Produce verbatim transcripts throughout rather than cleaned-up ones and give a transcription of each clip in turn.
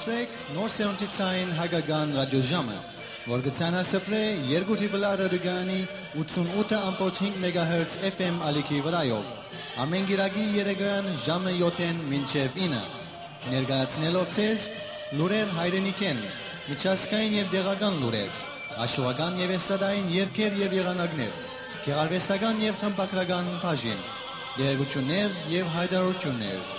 Սրեք Նոր Սերունդի Ցայն Հայկական Ռադիոժամը, որ կը ցանասփռէ երկու Տրիպլ Ա ռադիոկայանի ութսուն ութը ամբողջ հինգ մեգահերց F M ալիքի վրայով, ամէն կիրակի երեկոյան ժամը յոթ մինչեւ ինը, ներկայացնելով ձեզ լուրեր հայրենիքէն, միջազգային եւ տեղական լուրեր, աշուական եւ էստրադային երգեր եւ եղանակներ, գեղարուեստական եւ խմբագրական բաժին, տեղեկութիւններ եւ յայտարարութիւններ։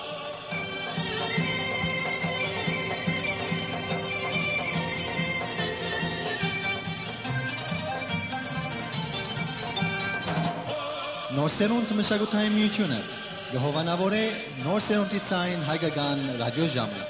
Նոր Սերունդ մշակութային միութիւնը կը հովանաւորէ Նոր Սերունդի Ցայն Հայկական Ռադիոժամը։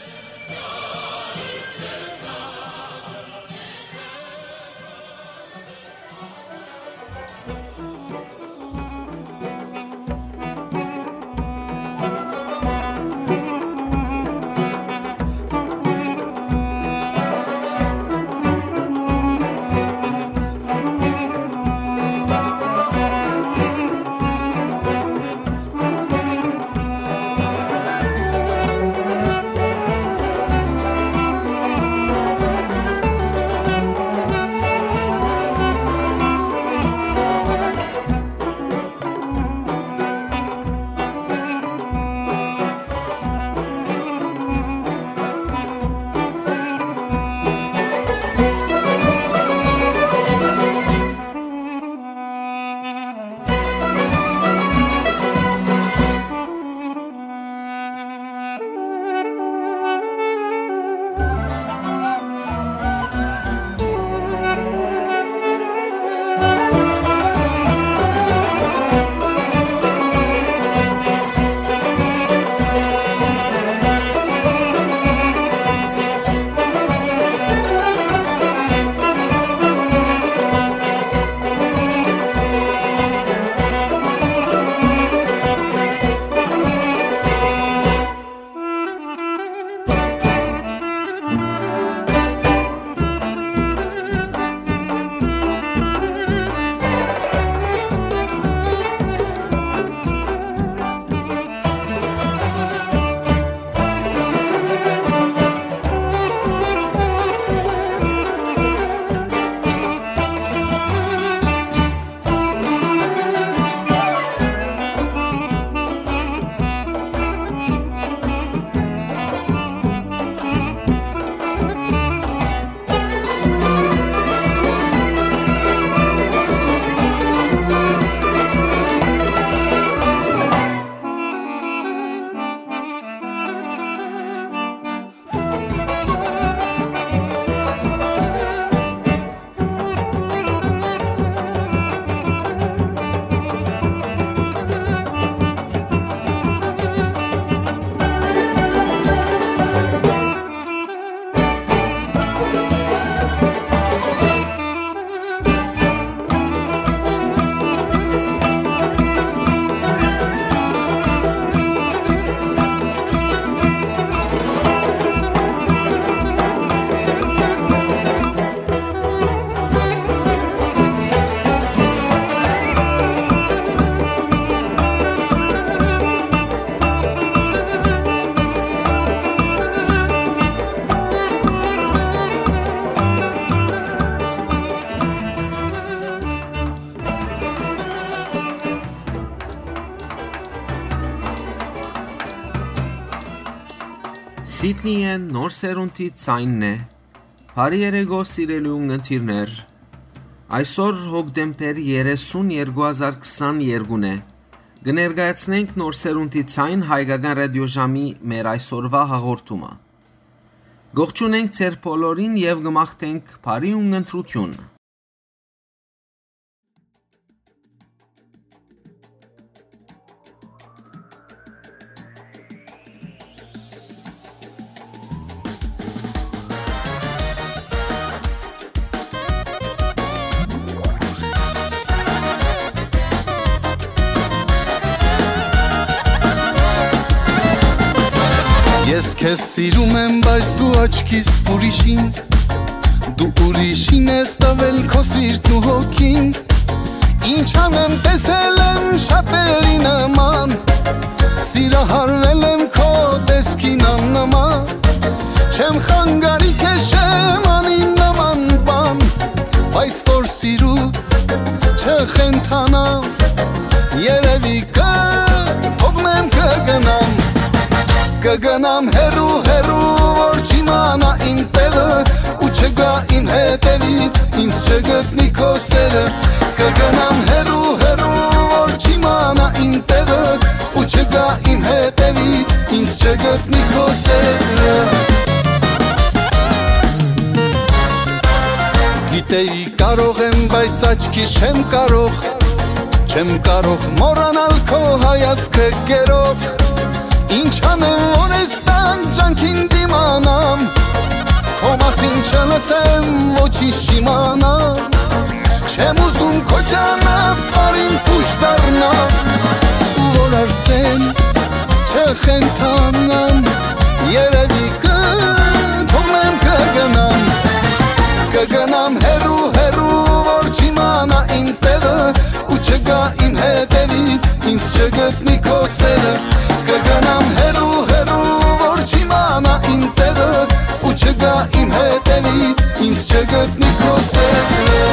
Սիդնիը Նոր Սերունդի Ցայնն է։ Բարի երեկո, սիրելի ունգընտիրներ։ Այսօր հոկտեմբեր երեսուն, երկու հազար քսաներկուն է։ Կը ներկայացնենք Նոր Սերունդի Ցայն Հայկական Ռադիոժամի մեր այսօրվա հաղորդումը։ Կողջունենք ձեր բոլորին եւ կը մաղթենք բարի ունգընտրութիւն։ Ես քեզ սիրում եմ, բայց դու աչքիս ուրիշին, դու ուրիշին ես տավել քո սիրտն ու հոգին։ Ինչ անեմ, տեսել եմ շատերի նման, սիրահարվել եմ քո տեսքին աննման։ Չեմ խանգարի քեզ, չեմ անի նման բան, բայց որ սիրուց չխենթանամ, երևի կը թողնեմ, կը գնամ, կը գնամ հեռու, հեռու, որ չիմանայ իմ տեղը ու չգայ իմ հետևից, ինձ չգտնի քո սերը, կը գնամ հեռու, հեռու, որ չիմանայ իմ տեղը ու չգայ իմ հետևից, ինձ չգտնի քո սերը։ Գիտեի կարող եմ, բայց աչքիս չեմ կարող, չեմ կարող մոռանալ քո հայացքը գերող։ Ինչ անեմ, որ այս տան ջանքին դիմանամ, քո մասին չլսեմ, ոչինչ չիմանամ, չեմ ուզում քո ճանապարհին փուշ դառնամ, ու որ արդեն չխենթանամ, երևի կը թողնեմ, կը գնամ, կը գնամ հեռու, հեռու, որ չիմանայ իմ տեղը ու չգայ իմ հետևից, ինձ չգտնի քո սերը, կը գնամ հեռու, հեռու, որ չիմանայ իմ տեղը ու չգայ իմ հետևից, ինձ չգտնի քո սերը։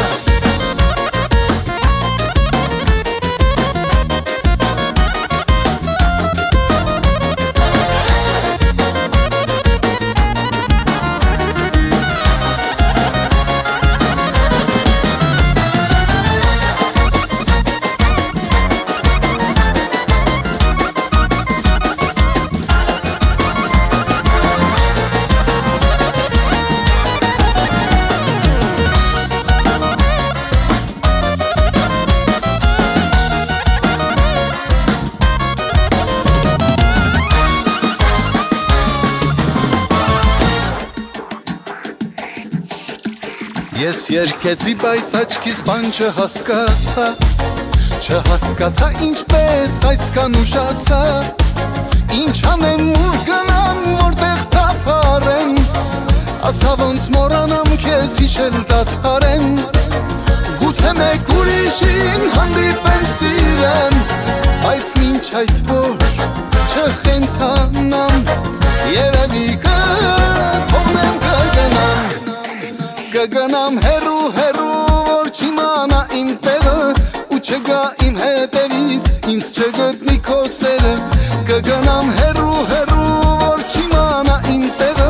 Ես երգեցի, բայց աչքիս բան չհասկացայ, չհասկացայ ինչպես այսքան ուշացայ, ինչ անեմ, ուր գնամ, որտեղ թափառեմ, ասա ոնց մոռանամ քեզ, հիշել դադարեմ, գուցե մեկ ուրիշին հանդիպեմ, սիրեմ, բայց մինչ այդ որ չխենթանամ, երևի կը թողնեմ, կը գնամ, կը գնամ հեռու, հեռու, որ չիմանայ իմ տեղը ու չգայ իմ հետևից, ինձ չգտնի քո սերը, կը գնամ հեռու, հեռու, որ չիմանայ իմ տեղը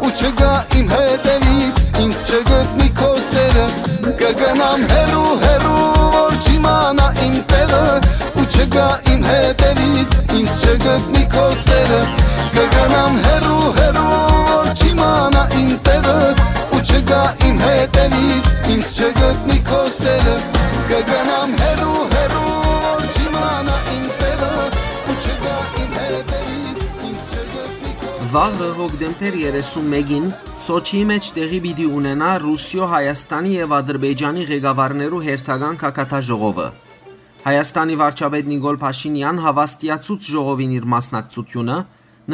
ու չգայ իմ հետևից, ինձ չգտնի քո սերը, կը գնամ հեռու, հեռու, որ չիմանայ իմ տեղը ու չգայ իմ հետևից, ինձ չգտնի քո սերը, կը գնամ հեռու, հեռու, որ չիմանայ իմ տեղը ու չգայ իմ հետևից, ինձ չգտնի քո սերը, կը գնամ հեռու, հեռու, որ չիմանայ իմ տեղը ու չգայ իմ հետևից, ինձ չգտնի քո սերը։ Վաղը, հոկտեմբեր երեսունմէկին, Սոչիի մէջ տեղի պիտի ունենայ Ռուսիոյ, Հայաստանի եւ Ադրբեջանի ղեկավարներու հերթական գագաթաժողովը։ Հայաստանի վարչապետ Նիկոլ Փաշինեան հաւաստիացուց ժողովին իր մասնակցությունը,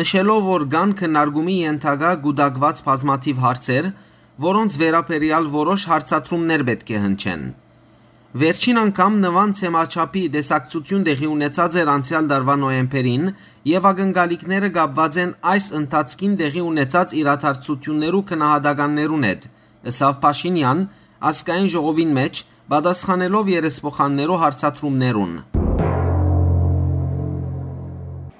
նշելով, որ կան քննարկումի ենթակայ կուտակուած բազմաթիւ հարցեր, որոնց վերաբերեալ որոշ հարցադրումներ պէտք է հնչեն։ Վերջին անգամ նման թեմաչափի տեսակցութիւն տեղի ունեցած էր անցեալ տարուայ նոյեմբերին եւ ակնկալիքները կապուած են այս ընթացքին տեղի ունեցած իրադարձութիւններու գնահատականներուն հետ, ըսաւ Փաշինեան Ազգային ժողովին մէջ, պատասխանելով երեսփոխաններու հարցադրումներուն։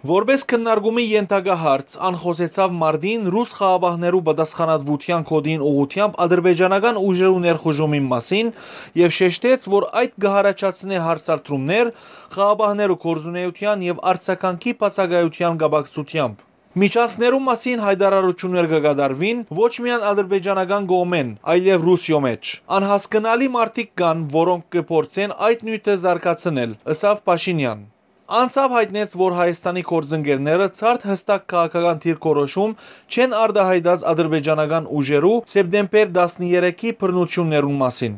Որպէս քննարկումի ենթակայ հարց, ան խօսեցաւ մարտին ռուս խաղաղապահներու պատասխանատվութեան գօտիին ուղղութեամբ ադրբեջանական ուժերու ներխուժումին մասին եւ շեշտեց, որ այդ կը յառաջացնէ հարցադրումներ խաղաղապահներու գործունէութեան եւ արձագանքի բացակայութեան կապակցութեամբ։ Միջանցքներու մասին յայտարարութիւններ կը կատարուին ոչ միայն ադրբեջանական կողմէն, այլեւ Ռուսիոյ մէջ։ Անհասկնալի մարդիկ կան, որոնք կը փորձեն այդ նիւթը զարգացնել, ըսաւ Փաշինեան։ Անցաւ յայտնեց, որ Հայաստանի գործընկերները ցարդ յստակ քաղաքական դիրքորոշում չեն արտահայտած ադրբեջանական ուժերու սեպտեմբեր տասներեքի բռնութիւններուն մասին։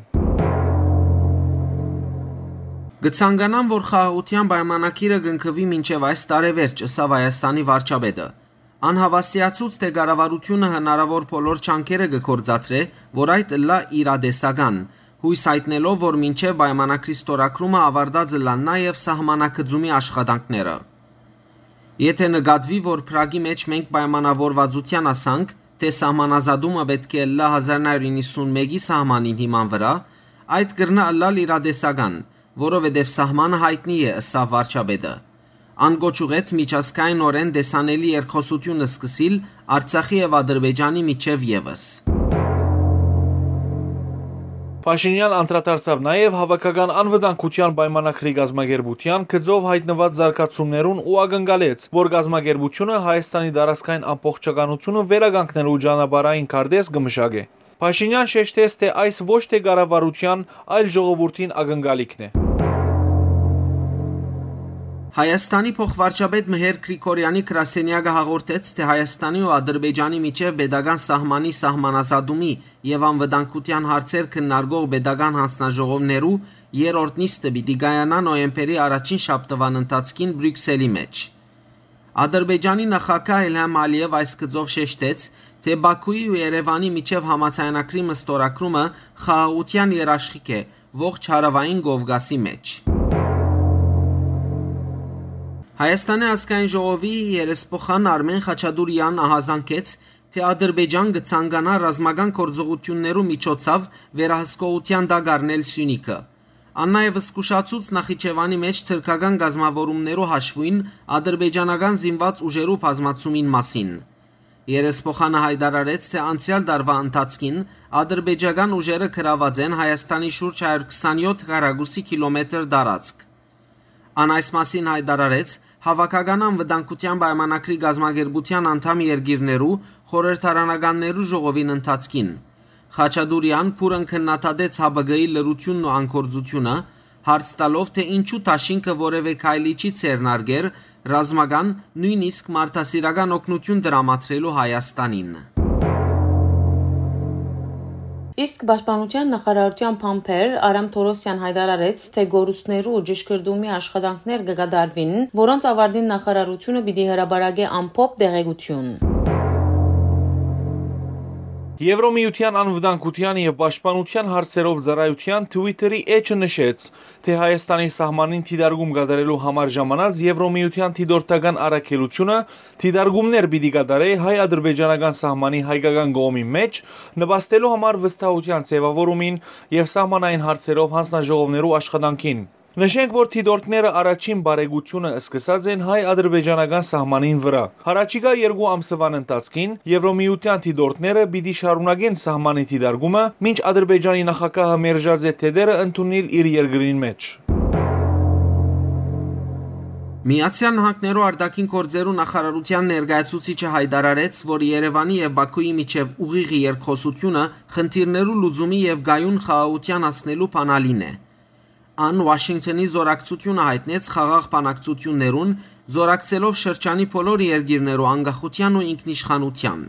Կը ցանկանամ, որ խաղաղութեան պայմանագիրը կնքուի մինչեւ այս տարեվերջ, ըսաւ Հայաստանի վարչապետը։ Ան հաւաստիացուց, թէ կառավարութիւնը հնարաւոր բոլոր ջանքերը կը գործադրէ, որ այդ ըլլայ իրատեսական, յոյս յայտնելով, որ մինչեւ պայմանագրի ստորագրումը աւարտած ըլլան նաեւ սահմանագծումի աշխատանքները։ Եթէ նկատուի, որ Փրագի մէջ մենք պայմանաւորուածութեան հասանք, Թէ սահմանազատումը պէտք է ըլլայ հազար նոյ հարիւր իննսունմէկի սահմանին հիման վրայ, այդ կրնայ ըլլալ իրատեսական, որովհետեւ սահմանը յայտնի է, ըսաւ վարչապետը։ Ան կոչ ուղղեց միջազգայինօրէն տեսանելի երկխօսութիւն սկսիլ Արցախի եւ Ադրբեջանի միջեւ եւս։ Փաշինեան անդրադարձաւ նաեւ հաւաքական անվտանգութեան պայմանագրի կազմակերպութեան գծով յայտնուած զարգացումներուն ու ակնկալեց, որ կազմակերպութիւնը Հայաստանի տարածքային ամբողջականութիւնը վերականգնելու ճանապարհային քարտէզ կը մշակէ։ Փաշինեան շեշտեց, թէ այս ոչ թէ կառավարութեան, այլ ժողովուրդին ակնկալիքն է։ Հայաստանի փոխվարչապետ Մհեր Գրիգորյանի գրասենեակը հաղորդեց, թէ Հայաստանի ու Ադրբեջանի միջեւ պետական սահմանի սահմանազատումի եւ անվտանգութեան հարցեր քննարկող պետական յանձնաժողովներու երրորդ նիստը պիտի կայանայ նոյեմբերի առաջին շաբթուան ընթացքին Բրիւքսելի մէջ։ Ադրբեջանի նախագահ Իլհամ Ալիեւ այս գծով շեշտեց, թէ Բաքուի ու Երեւանի միջեւ համաձայնագրի մստորագրումը խաղաղութեան երաշխիք է ողջ Հարաւային Կովկասի մէջ։ Հայաստանի ազգային ժողովի երեսփոխան Արմեն Խաչատուրեան ահազանգեց, թէ Ադրբեջան կը ցանկանայ ռազմական գործողութիւններու միջոցով վերահսկողութեան տակ առնել Սիւնիքը։ Ան նաեւ զգուշացուց Նախիջեւանի մէջ թրքական կազմաւորումներու հաշուոյն ադրբեջանական զինուած ուժերու բազմացումին մասին։ Երեսփոխանը յայտարարեց, թէ անցեալ տարուայ ընթացքին ադրբեջական ուժերը գրաւած են Հայաստանի շուրջ հարիւր քսանեօթ քառակուսի կիլոմետր տարածք։ Ան այս մասին յայտարարեց Հաւաքական անվտանգութեան պայմանագրի կազմակերպութեան անդամ երկիրներու խորհրդարանականներու ժողովին ընթացքին։ Խաչատուրեան բուռն քննադատեց Հ Բ Կ-ի լռութիւնն ու անգործութիւնը, հարց տալով, թէ ինչու դաշինքը որեւէ քայլի չի ձեռնարկեր ռազմական, նոյնիսկ մարդասիրական օգնութիւն տրամադրելու Հայաստանին։ Իսկ պաշտպանութեան նախարարութեան բանբեր Արամ Թորոսեան յայտարարեց, թէ կորուստներու ճշգրտումի աշխատանքներ կը կատարուին, որոնց աւարտին նախարարութիւնը պիտի հրապարակէ ամփոփ տեղեկութիւն։ Եվրոմիութեան անվտանգութեան եւ պաշտպանութեան հարցերով ծառայութեան Twitter-ի էջը նշեց, թէ Հայաստանի սահմանին դիտարկում կատարելու համար ժամանած Եվրոմիութեան դիտորդական առաքելութիւնը դիտարկումներ պիտի կատարէ հայ-ադրբեջանական սահմանի հայկական կողմի մէջ, նպաստելու համար վստահութեան ձեւաւորումին եւ սահմանային հարցերով յանձնաժողովներու աշխատանքին։ Նշենք, որ դիտորդները առաջին բարեկցութիւնը սկսած են հայ-ադրբեջանական սահմանին վրայ։ Յառաջիկայ երկու ամսուան ընթացքին Եվրոմիութեան դիտորդները պիտի շարունակեն սահմանի դիտարկումը, մինչ Ադրբեջանի նախագահը մերժած է թեթերը ընդունիլ իր երկրին մէջ։ Միացեալ Նահանգներու արտաքին գործերու նախարարութեան ներկայացուցիչը յայտարարեց, որ Երեւանի եւ Բաքուի միջեւ ուղիղ երկխօսութիւնը խնդիրներու լուծումի եւ կայուն խաղաղութեան հասնելու բանալին է։ Ան Ուաշինկթոնի զօրակցութիւնը յայտնեց խաղաղ բանակցութիւններուն, զօրակցելով շրջանի բոլոր երկիրներու անկախութեան ու ինքնիշխանութեան։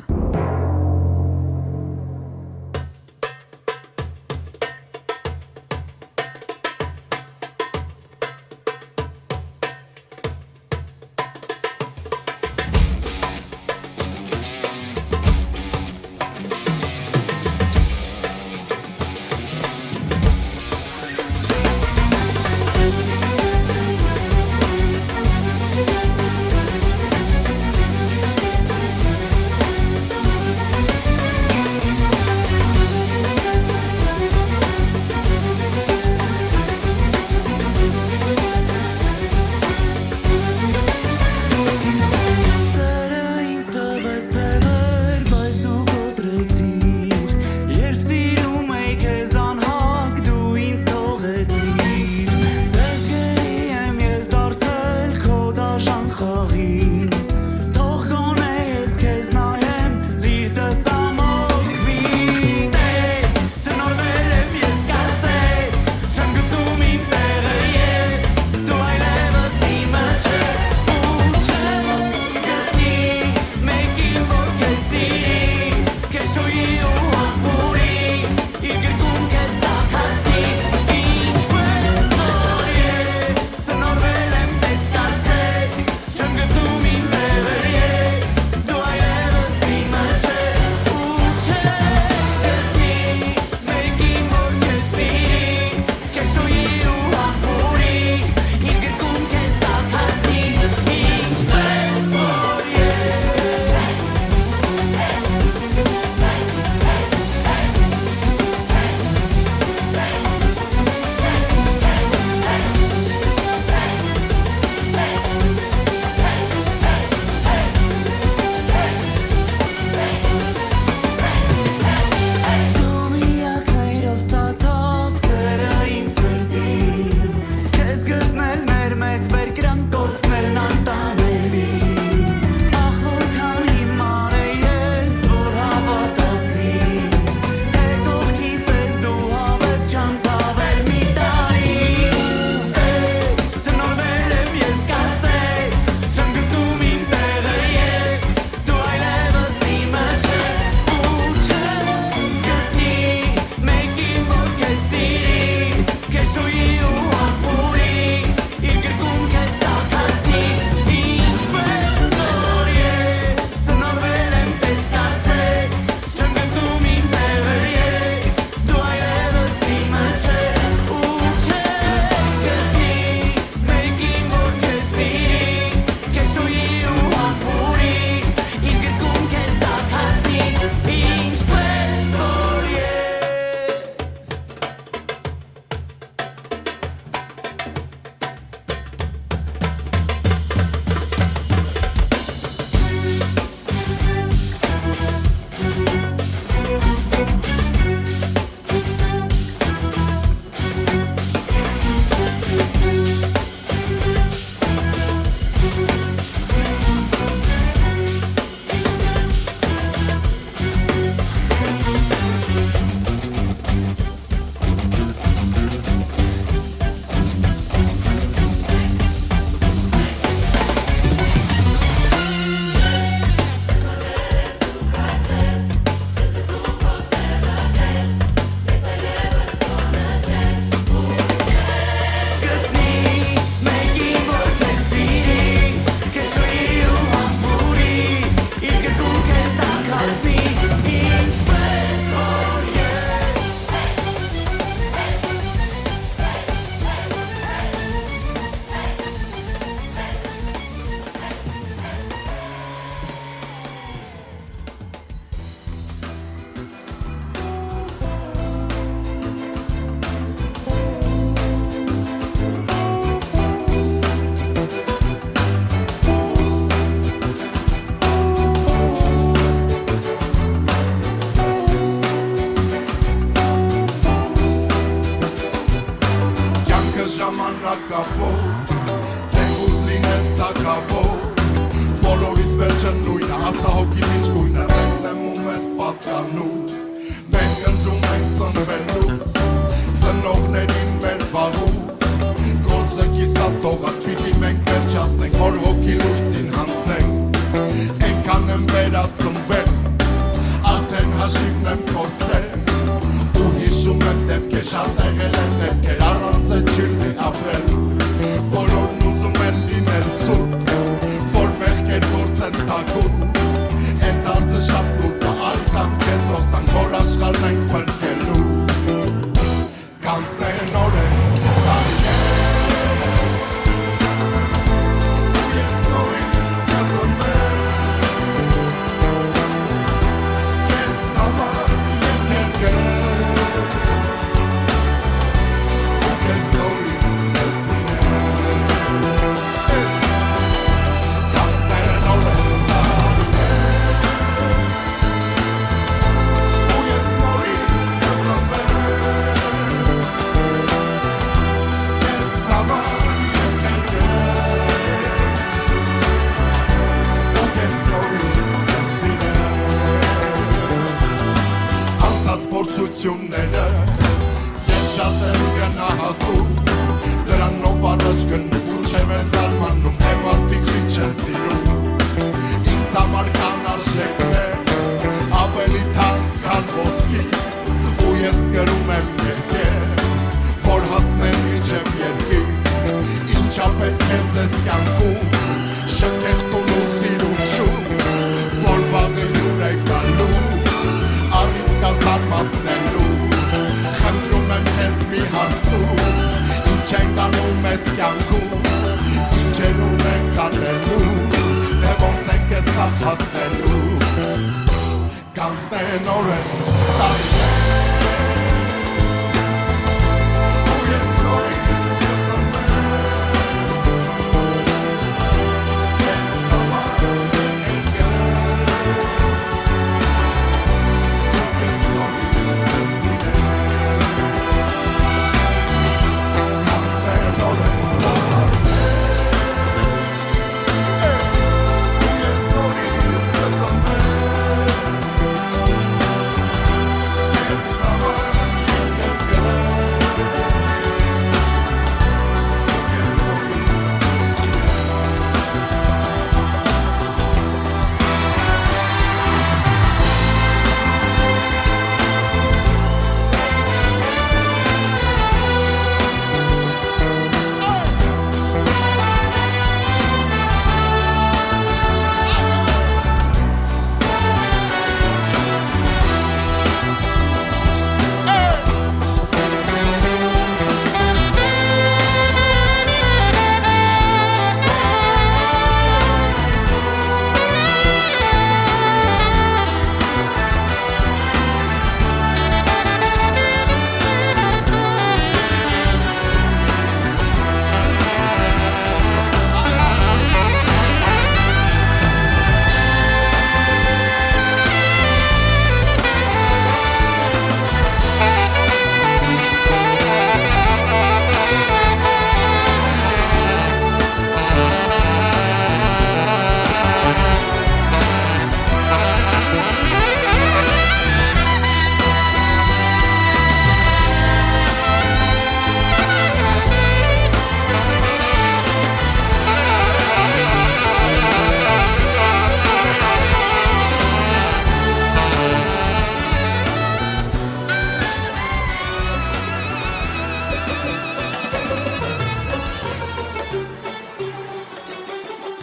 Ժամանակաւոր, թէ ուզ լինես թագաւոր, բոլորիս վերջը նոյնը, ասա հոգիդ ինչ գոյնը, տեսնեմ ու մեզ պատկանում։ Մենք ընտրում ենք ծնվելուց, ծնողներին մեր վաղուց, գործը կիսատ թողած, պիտի մենք վերջացնենք, որ հոգի լույսին հանձնենք։ Այնքան եմ վերածնվել, արդեն հաշիվն եմ կորցրել, ու հիշում եմ դեպքեր, շատ եղել են դեպքեր, առանց է չի լի ապրել։ Բոլորն ուզում են լինել սուրբ, որ մեղքեր գործեն թաքուն։ Այս հարցը շատ լուրջ է, այլ կամ քեզ հոսանք, որ աշխարհն ենք փրկելու։ Կանցնեն օրեր, տարիներ, ու ես նորից կծնվեմ քեզ համար երկրներ, ու քեզ նորից կզինեմ։ Կանցնեն օրեր, տարիներ, ու ես նորից կծնվեմ քեզ համար երկրներ, ու քեզ նորից կզինեմ։ Անցած փորձությունները ես շատ եմ գնահատում, դրանով առաջ գնում, մինչև էր զարմանում, թե մարդիկ քիչ են սիրում։ Ինձ համար կան արժեքներ, ավելի թանկ քան ոսկի, ու ես կրում եմ երկեր, որ հասնեն մինչև երկիր։ Ինչա պետք է զես կյանքում, շքեղտուն ու սիրուն շուն, որ վաղը հիւր է գալու, առիթ կա զարմացնելու։ Խնդրում եմ քեզ, մի հարց տուր, ինչ ենք անում այս կյանքում, ինչերուն ենք անելու, թե ոնց ենք այս սաղ հասնելու։ Կանցնեն օրեր, տարիներ, ու ես նորից կծնվեմ քեզ համար երկրներ, ու քեզ նորից կզինեմ։ Կանցնեն օրեր, տարիներ, ու ես նորից կծնվեմ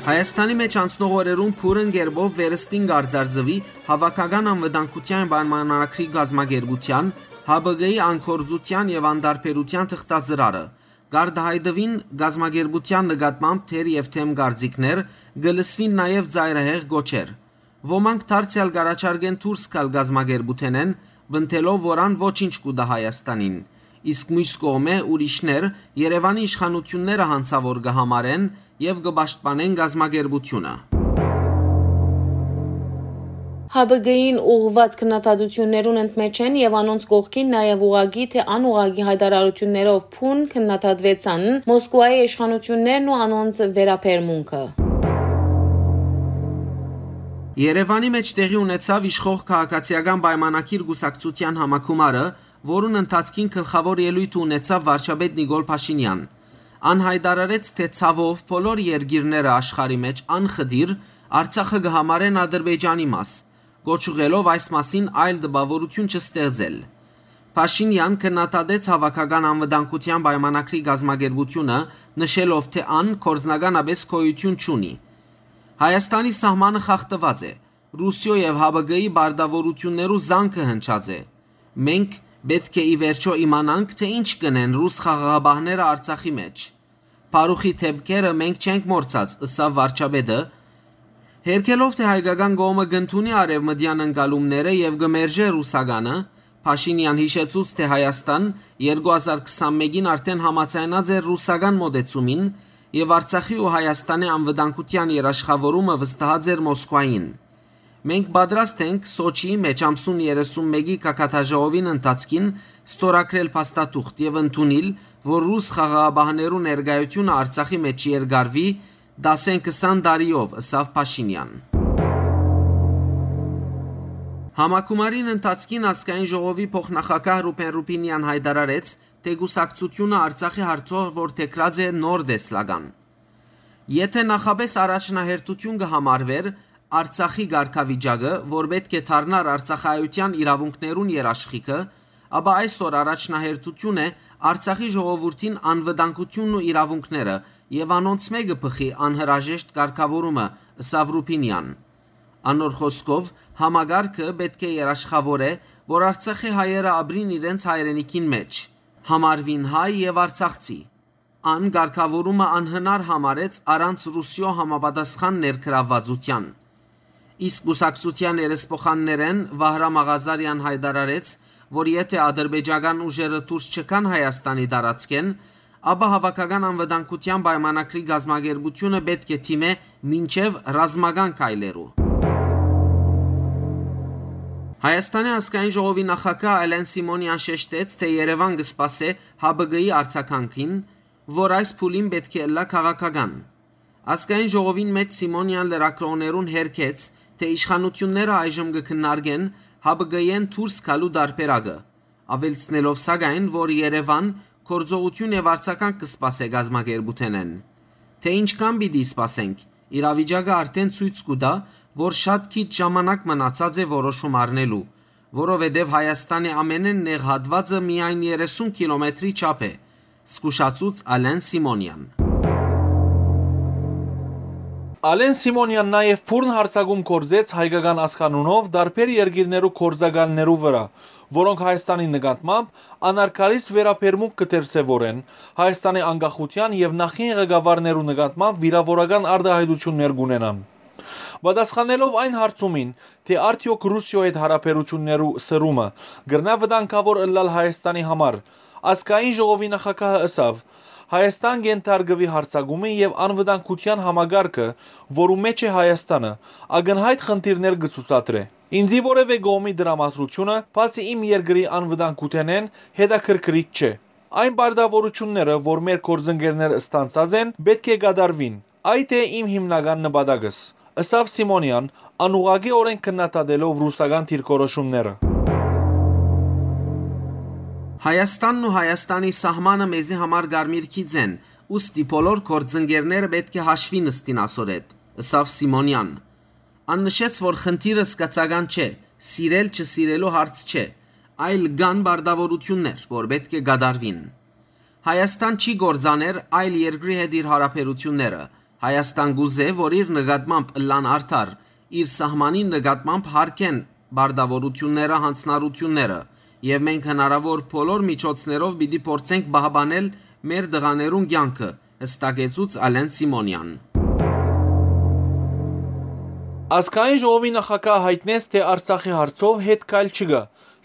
Հայաստանի մէջ անցնող օրերուն բուռն կերպով վերստին կ'արձարծուի Հաւաքական անվտանգութեան պայմանագրի կազմակերպութեան, Հ Բ Կ-ի անգործութեան եւ անտարբերութեան թղթածրարը։ Կ'արտայայտուին կազմակերպութեան նկատմամբ թեր եւ դեմ կարծիքներ, կը լսուին նաեւ ծայրահեղ կոչեր։ Ոմանք դարձեալ կ'առաջարկեն դուրս գալ կազմակերպութենէն, պնդելով որ ան ոչինչ կու տայ Հայաստանին, իսկ միւս կողմէ ուրիշներ Երեւանի իշխանութիւնները յանցաւոր կը համարեն եւ կը պաշտպանեն կազմակերպութիւնը։ Հապկին ուղղուած քննադատութիւններուն ընդմէջ են եւ անոնց կողքին նաեւ ուղղակի թէ անուղղակի յայտարարութիւններով բուն քննադատուեցան Մոսկուայի իշխանութիւններն ու անոնց վերաբերմունքը։ Երեւանի մէջ տեղի ունեցաւ իշխող քաղաքացիական պայմանագիր կուսակցութեան համագումարը, որուն ընթացքին գլխաւոր ելոյթը ունեցաւ վարչապետ Նիկոլ Փաշինեան։ Ան յայտարարեց, թէ ցաւով բոլոր երկիրները աշխարհի մէջ անխտիր Արցախը կը համարեն Ադրբեջանի մաս, կոչ ուղղելով այս մասին այլ տպաւորութիւն չստեղծել։ Փաշինեան քննադատեց Հաւաքական անվտանգութեան պայմանագրի կազմակերպութիւնը, նշելով, թէ ան գործնականապէս գոյութիւն չունի։ Հայաստանի սահմանը խախտուած է, Ռուսիոյ եւ Հապկի պարտաւորութիւններու զանգը հնչած է։ Մենք պէտք է ի վերջոյ իմանանք, թէ ինչ կ'ընեն ռուս խաղաղապահները Արցախի մէջ։ Փարուխի դէպքերը մենք չենք մոռցած, ըսաւ վարչապետը, հերքելով, թէ հայկական կողմը կ'ընդունի արեւմտեան ընկալումները եւ կը մերժէ ռուսականը։ Փաշինեան յիշեցուց, թէ Հայաստան երկու հազար քսանմէկին արդէն համաձայնած էր ռուսական մօտեցումին եւ Արցախի ու Հայաստանի անվտանգութեան երաշխաւորումը վստահած էր Մոսկուային։ Մենք պատրաստ ենք Սոչիի մէջ ամսուն երեսունմէկի գագաթաժողովին ընթացքին ստորագրել փաստաթուղթ եւ ընդունիլ, որ ռուս խաղաղապահներու ներկայութիւնը Արցախի մէջ երկարուի, դասեն քսան տարիով, ըսաւ Փաշինեան։ Համագումարին ընթացքին Ազգային ժողովի փոխնախագահ Ռուբեն Ռուբինեան յայտարարեց, թէ կուսակցութիւնը Արցախի հարցով որդեգրած է նոր տեսլական։ Եթէ նախապէս առաջնահերթութիւն կը համարուէր Արցախի կարգավիճակը, որ պէտք է դառնար արցախայութեան իրաւունքներուն երաշխիքը, ապա այսօր առաջնահերթութիւն է Արցախի ժողովուրդին անվտանգութիւնն ու իրաւունքները եւ անոնց մէկը բխի անհրաժեշտ կարգաւորումը, ըսաւ Ռուբինեան։ Անոր խօսքով, համակարգը պէտք է երաշխաւոր է, որ Արցախի հայերը ապրին իրենց հայրենիքին մէջ, համարուին հայ եւ արցախցի։ Ան կարգաւորումը անհնար համարեց առանց Ռուսիոյ համապատասխան ներգրաւվածութեան։ Իսկ կուսակցութեան երեսփոխաններէն Վահրամ Աղազարեան յայտարարեց, որ եթէ ադրբեջական ուժերը դուրս չգան Հայաստանի տարածքէն, ապա Հաւաքական անվտանգութեան պայմանագրի կազմակերպութիւնը պէտք է դիմէ մինչեւ ռազմական քայլերու։ Հայաստանի ազգային ժողովի նախագահ Ալեն Սիմոնեան շեշտեց, թէ Երեւան կը սպասէ Հապկի արձագանքին, որ այս փուլին պէտք է ըլլայ քաղաքական։ Ազգային ժողովին մէջ Սիմոնեան լրագրողներուն հերքեց, թէ իշխանութիւնները այժմ կը քննարկեն Հապկի-էն դուրս գալու տարբերակը, աւելցնելով սակայն, որ Երեւան գործողութիւն եւ արձագանք կը սպասէ կազմակերպութենէն։ Թէ ինչքան պիտի սպասենք, իրավիճակը արդէն ցոյց կու տայ, որ շատ քիչ ժամանակ մնացած է որոշում առնելու, որովհետեւ Հայաստանի ամենէն նեղ հատուածը միայն երեսուն կիլոմետրի չափ է, զգուշացուց Ալեն Սիմոնեան։ Ալեն Սիմոնեան նաեւ բուռն յարձակում գործեց հայկական ազգանունով տարբեր երկիրներու գործակալներու վրայ, որոնք Հայաստանի նկատմամբ անարգալից վերաբերմունք կը դրսեւորեն, Հայաստանի անկախութեան եւ նախկին ղեկավարներու նկատմամբ վիրաւորական արտահայտութիւններ կ'ունենան։ Պատասխանելով այն հարցումին, թէ արդեօք Ռուսիոյ հետ յարաբերութիւններու սրումը կրնայ վտանգաւոր ըլլալ Հայաստանի համար, ազգային ժողովի նախագահը ըսաւ. «Հայաստան կ'ենթարկուի յարձակումի եւ անվտանգութեան համակարգը, որու մէջ է Հայաստանը, ակնյայտ խնդիրներ կը ցուցադրէ։ Ինծի որեւէ կողմի տրամադրութիւնը, բացի իմ երկրի անվտանգութենէն, հետաքրքրիչ չէ։ Այն պարտաւորութիւնները, որ մեր գործընկերները ստանձած են, պէտք է կատարուին։ Այդ է իմ հիմնական նպատակս», ըսաւ Սիմոնեան, անուղղակիօրէն քննադատելով ռուսական դիրքորոշումները։ «Հայաստանն ու Հայաստանի սահմանը մեզի համար կարմիր գիծ են, ուստի բոլոր գործընկերները պէտք է հաշվի նստին ասոր հետ», ըսաւ Սիմոնեան։ Ան նշեց, որ խնդիրը զգացական չէ, սիրել-չսիրելու հարց չէ, այլ կան պարտաւորութիւններ, որ պէտք է կատարուին։ Հայաստան չի կործաներ այլ երկրի հետ իր յարաբերութիւնները։ Հայաստան կուզէ, որ իր նկատմամբ ըլլան արդար, իր սահմանին նկատմամբ հարգեն պարտաւորութիւնները, յանձնառութիւնները, եւ մենք հնարաւոր բոլոր միջոցներով պիտի փորձենք պահպանել մեր տղաներուն կեանքը, յստակեցուց Ալեն Սիմոնեան։ Ազգային ժողովի նախագահը յայտնեց, թէ Արցախի հարցով հետ քայլ չկայ,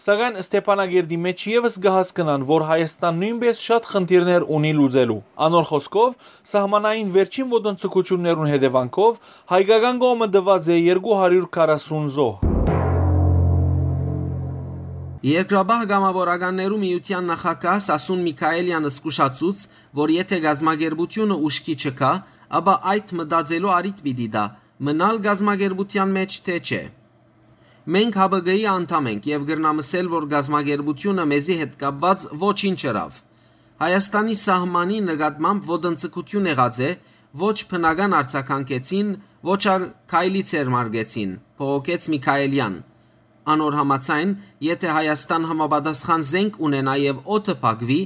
սակայն Ստեփանակերտի մէջ եւս կը հասկնան, որ Հայաստան նոյնպէս շատ խնդիրներ ունի լուծելու։ Անոր խօսքով, սահմանային վերջին ոտնձգութիւններուն հետեւանքով հայկական կողմը տուած է երկու հարիւր քառասուն զոհ։ Երկրաբահ կամաւորականներու միութեան նախագահ Սասուն Միքայելեան զգուշացուց, որ եթէ կազմակերպութիւնը ուշքի չգայ, ապա այդ մտածելու առիթ պիտի տայ, մնալ կազմակերպութեան մէջ թէ չէ։ «Մենք Յ Բ Կ-ի անդամ ենք եւ կրնամ ըսել, որ կազմակերպութիւնը մեզի հետ կապուած ոչինչ ըրաւ։ Հայաստանի սահմանի նկատմամբ ոտնձգութիւն եղած է, ոչ բնական արձագանքեցին, ոչ ալ քայլի ձեռնարկեցին», բողոքեց Միքայելեան։ Անոր համաձայն, եթէ Հայաստան համապատասխան զենք ունենայ եւ օդը փակուի,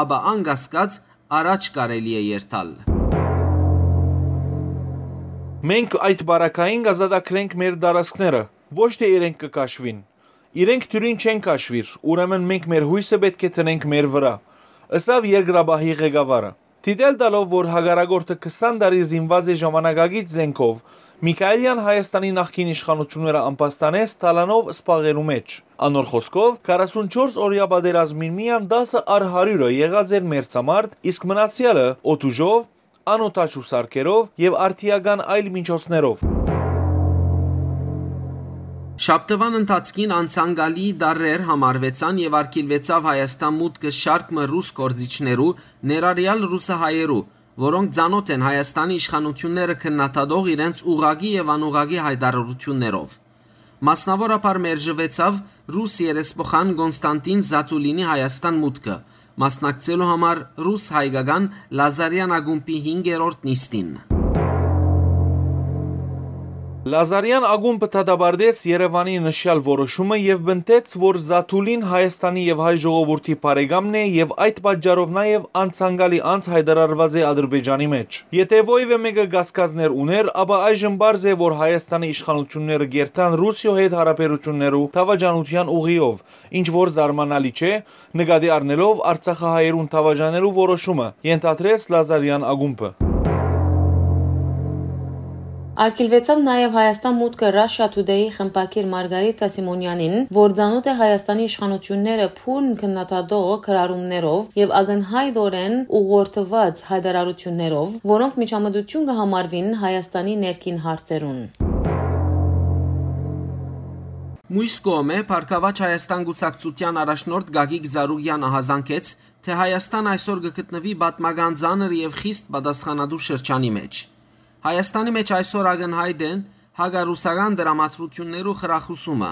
ապա անկասկած առաջ կարելի է երթալ։ «Մենք այդ պարագային կ'ազատագրենք մեր տարածքները, ոչ թէ իրենք կը քաշուին։ Իրենք դիւրին չեն քաշուիր, ուրեմն մենք մեր յոյսը պէտք է դնենք մեր վրայ», ըսաւ երկրաբահի ղեկավարը։ Դիտել տալով, որ հակառակորդը քսան տարի զինուած է ժամանակակից զենքով, Միքայելեան Հայաստանի նախկին իշխանութիւնները ամբաստանեց թալանով սպաղելու մէջ։ Անոր խօսքով, քառասունչորս օրեայ պատերազմին միայն տասը առ հարիւրը եղած էր մերձամարդ, իսկ մնացեալը՝ օդուժով, անօդաչու սարքերով եւ արդիական այլ միջոցներով։ Շաբթուան ընթացքին անցանկալի տարրեր համարուեցան եւ արգիլուեցաւ Հայաստան մուտքը շարք մը ռուս գործիչներու, ներառեալ ռուսահայերու, որոնք ծանօթ են Հայաստանի իշխանութիւնները քննադատող իրենց ուղղակի եւ անուղղակի յայտարարութիւններով։ Մասնաւորաբար մերժուեցաւ ռուս երեսփոխան Կոնստանտին Զաթուլինի Հայաստան մուտքը, մասնակցելու համար ռուս-հայկական Լազարեան ակումբի հինգերորդ նիստին։ Լազարեան ակումբը դատապարտեց Երեւանի նշեալ որոշումը եւ պնդեց, որ Զաթուլին Հայաստանի եւ հայ ժողովուրդի բարեկամն է եւ այդ պատճառով նաեւ անցանկալի անձ յայտարարուած է Ադրբեջանի մէջ։ Եթէ որեւէ մէկը կասկածներ ունէր, ապա այժմ պարզ է, որ Հայաստանի իշխանութիւնները կերթան Ռուսիոյ հետ յարաբերութիւններու դաւաճանութեան ուղիով, ինչ որ զարմանալի չէ, նկատի առնելով արցախահայերուն դաւաճանելու որոշումը, ենթադրեց Լազարեան ակումբը։ Արգիլուեցաւ նաեւ Հայաստան մուտքը Russia Today-ի խմբագիր Մարգարիթա Սիմոնեանին, որ ծանօթ է Հայաստանի իշխանութիւնները բուռն քննադատող գրառումներով եւ ակնյայտօրէն ուղղորդուած յայտարարութիւններով, որոնք միջամտութիւն կը համարուին Հայաստանի ներքին հարցերուն։ Մյուս կողմէ, Բարգաւաճ Հայաստան կուսակցութեան առաջնորդ Գագիկ Ծառուկեան ահազանգեց, թէ Հայաստան այսօր կը գտնուի պատմական ծանր եւ խիստ պատասխանատու շրջանի մէջ։ Հայաստանի մէջ այսօր ակնյայտ են հակառուսական դրամատրութիւններու խրախուսումը։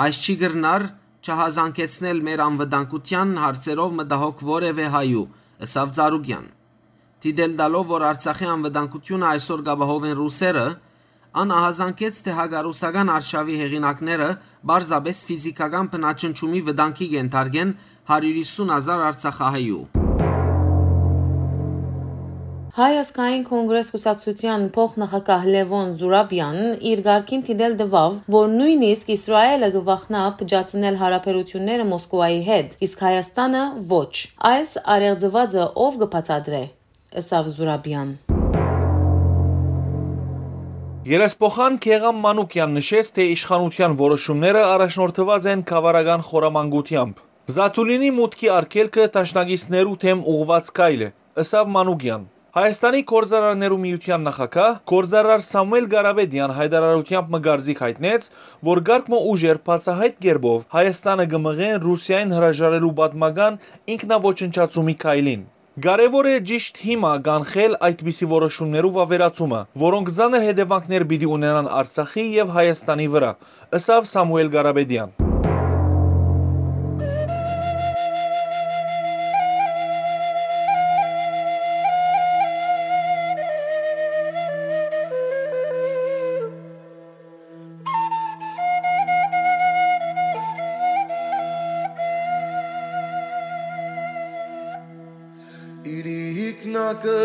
Այս չի կրնար չհազանգեցնել մեր անվտանգութեան հարցերով մտահոգ որեւէ հայու, ըսաւ Ծառուկեան։ Դիտել տալով, որ Արցախի անվտանգութիւնը այսօր կ'ապահովեն ռուսերը, ան ահազանգեց, թէ հակառուսական արշաւի հեղինակները պարզապէս ֆիզիքական բնաջնջումի վտանգի կ'ենթարկեն հարիւր յիսուն հազար արցախահայու։ Հայ ազգային կոնգրես կուսակցութեան փոխնախագահ Լեւոն Զուրաբեան իր կարգին դիտել տուաւ, որ նոյնիսկ Իսրայէլը կը վախնայ փճացնել յարաբերութիւնները Մոսկուայի հետ, իսկ Հայաստանը՝ ոչ։ Այս առեղծուածը ո՞վ կը բացատրէ, ըսաւ Զուրաբեան։ Երեսփոխան Գեղամ Մանուկեան նշեց, թէ իշխանութեան որոշումները առաջնորդուած են գավառական խորամանկութեամբ։ Զաթուլինի մուտքի արգելքը դաշնակիցներու դէմ ուղղուած քայլ է, ըսաւ Մանուկեան։ Հայաստանի գործարարներու միութեան նախագահ, գործարար Սամուել Կարապետեան յայտարարութեամբ մը կարծիք յայտնեց, որ կարգ մը ուժեր բացահայտ կերպով Հայաստանը կը մղեն Ռուսիային հրաժարելու պատմական ինքնաոչնչացումի քայլին։ Կարեւոր է ճիշտ հիմա կանխել այդպիսի որոշումներու վաւերացումը, որոնք ծանր հետեւանքներ պիտի ունենան Արցախի եւ Հայաստանի վրայ, ըսաւ Սամուել Կարապետեան։ Իրիկնակը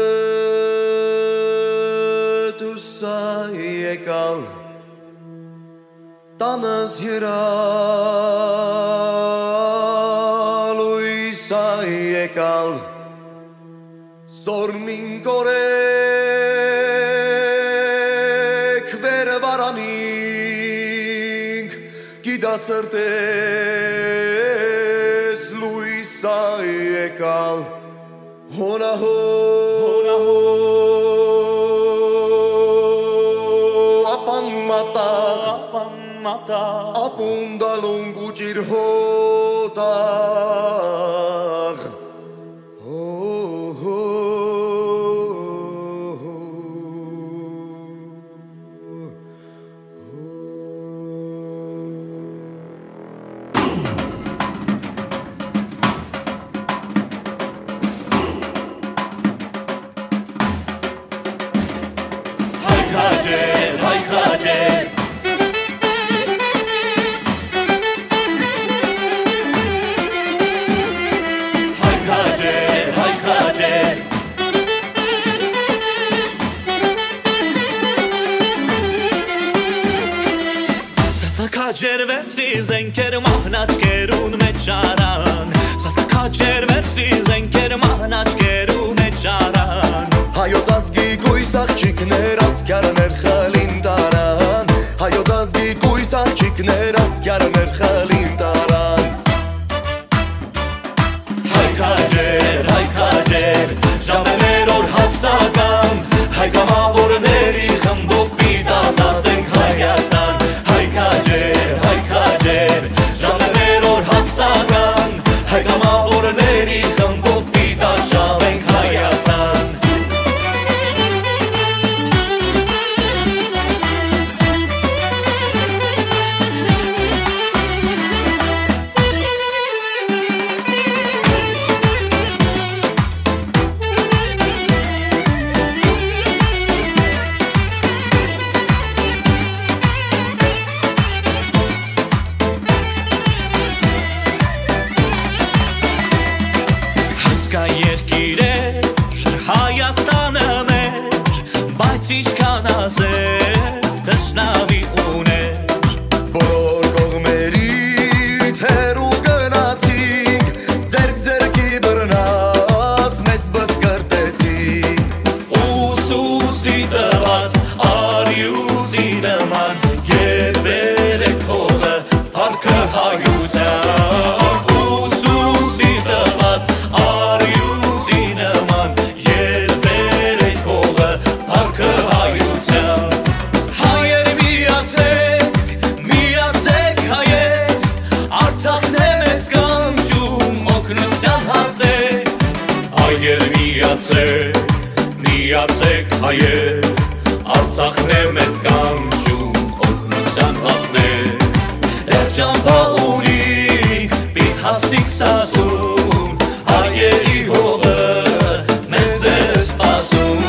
դուսա եկալ, տանս երա լույսա եկալ, զորմին կորեք վեր վարանինք, գիտասրտես լույսա եկալ, հոնահո, հոնահո, ապան մատաղ, ապան մատաղ, ապուն դալուն գուճիր հո Վերցրի զենքեր մահնաճկերուն մէջ առան, սասքաճեր վերցրի զենքեր մահնաճկերու մէջ առան։ Հայոց ազգի կոյս աղջիկներ, ասկիարներ խլին տարան, հայոց ազգի կոյս աղջիկներ, ասկիարներ խլին տարան։ Հայ քաջեր, հայ քաջեր, ժամեր օր հասական, հայ կամավորների խմբով պիտի ազատենք Հայաստան։ Հայ քաջեր, հայ քաջեր, ժամեր օր հասական, հայ կամավորների խմբով պիտի արշաւենք Հայաստան։ Հասկայ երկիրեր, Հայաստանը մեր, բայց ինչքան ասես, թշնամի ուներ։ Բոլոր կողմերից հեռու գնացինք, ձեռք ձեռքի բռնած մեզ բսկրտեցին։ Ուսուսի տված արիուսի նման, երբեր է փողը, փառքը հայության։ Ուսուսի տված արիուսի նման, երբեր է փողը, փառքը հայության։ Հայեր միացեք, միացեք հայեր, Արցախն է մեզ կանչում, օգնության հասեք։ Հայեր միացեք, միացեք հայեր, Արցախն է մեզ կանչում, օգնության հասնեք։ Դեռ ճամփա ունինք, պիտի հասնենք Սասուն, հայերի հողը մեզ է սպասում։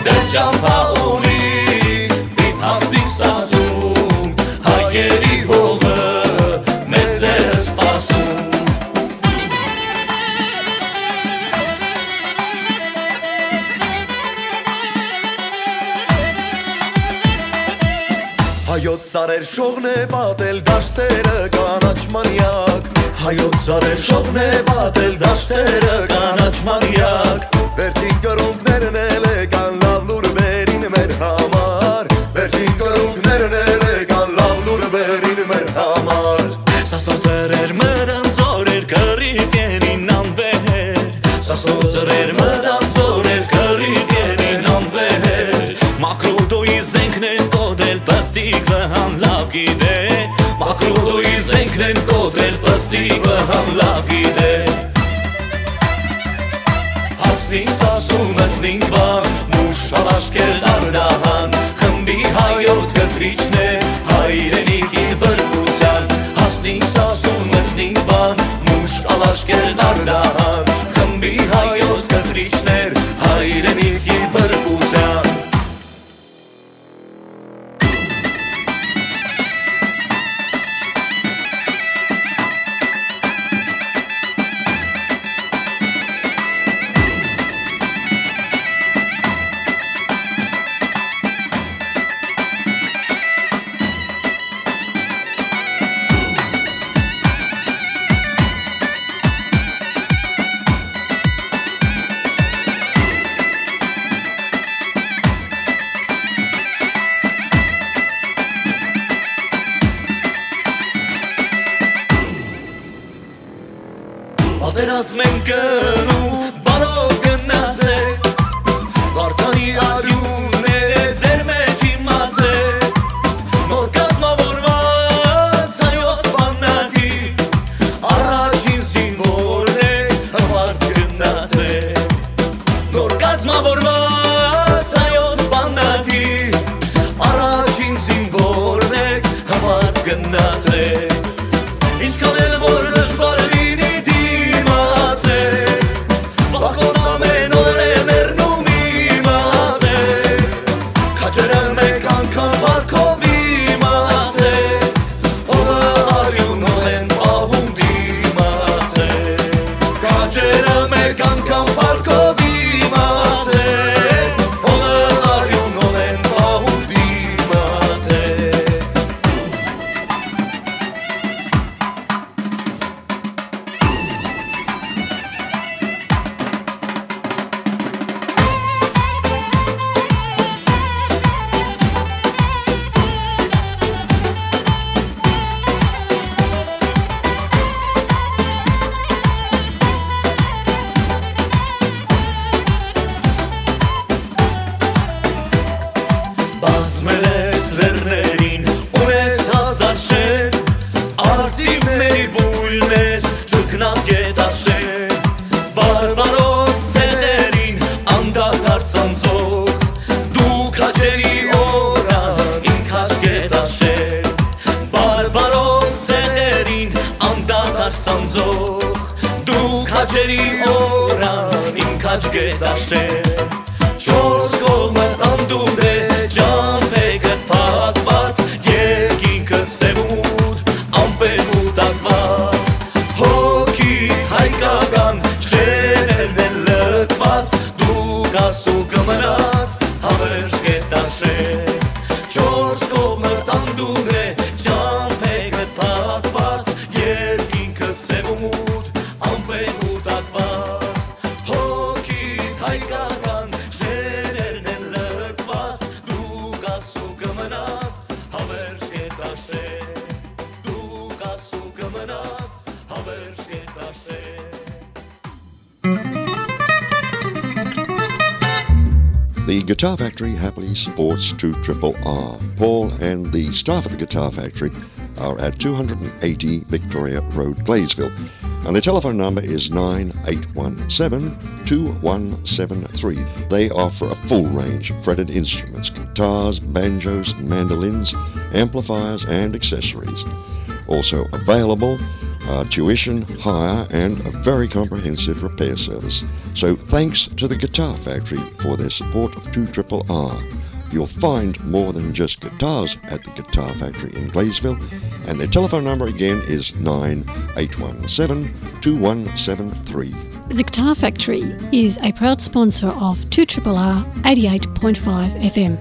Դեռ ճամփա ունինք, պիտի հասնենք Սասուն, հայերի հողը մեզ է սպասում։ Հայոց սարեր շողն է պատել դաշտերը կանաչ մանյակ։ Հայոց սարեր շողն է պատել դաշտերը կանաչ մանյակ։ Վերջին կռունկներն էլ եկան լաւ լուրբերին մեր համար։ Վերջին կռունկներն էլ եկան լաւ լուրբերին մեր համար։ Սասնոց սրեր մրան զորեր կռիվ կենին անվեհեր։ Սասնոց սրեր մրան զորեր կռիվ կենին անվեհեր։ Մակրուդոյի զենքն են կոտրել պստիկ վհան լաւ գիտե։ Մակրուդոյի զենքն են կոտրել պստիկ վհան լաւ գիտե։ Հասնին Սասուն մտնին Վան, մուշ ալաշկեր Նարդահան, խմբի հայոց կտրիչն է հայրենիքի բրկության։ Հասնին Սասուն մտնին Վան, մուշ ալաշկեր Նարդահան, խմբի հայոց կտրիչներ հայրենիքի բրկության։ Օրան իմ քաջ կը տաշէ, չորս կողմը անդունդ է, ճամբեքդ փակված, երկինքդ սեւ ու մութ, ամպեր կուտակված, հոգիդ հայկական շերերն են լքված, դու կաս ու կմնաս, հավերժ կը տաշէ, չորս կողմը անդունդ է, ճամբեքդ փակված, երկինքդ սեւ ու մութ, ամպեր կուտակված, հոգիդ հայկական շերերն են լքված, դու կաս ու կմնաս, հավերժ կը տաշէ, դու կաս ու կմնաս, հավերժ կը տաշէ։ The Guitar Factory happily supports two triple R. Paul and the staff at the Guitar Factory are at two hundred and eighty Victoria Road, Gladesville. And the telephone number is nine eight one seven, two one seven three. They offer a full range of fretted instruments, guitars, banjos, mandolins, amplifiers, and accessories. Also available are tuition, hire, and a very comprehensive repair service. So thanks to the Guitar Factory for their support of two triple R. You'll find more than just guitars at the Guitar Factory in Gladesville, and their telephone number again is nine eight one seven, two one seven three. The Guitar Factory is a proud sponsor of two triple R eighty-eight point five F M.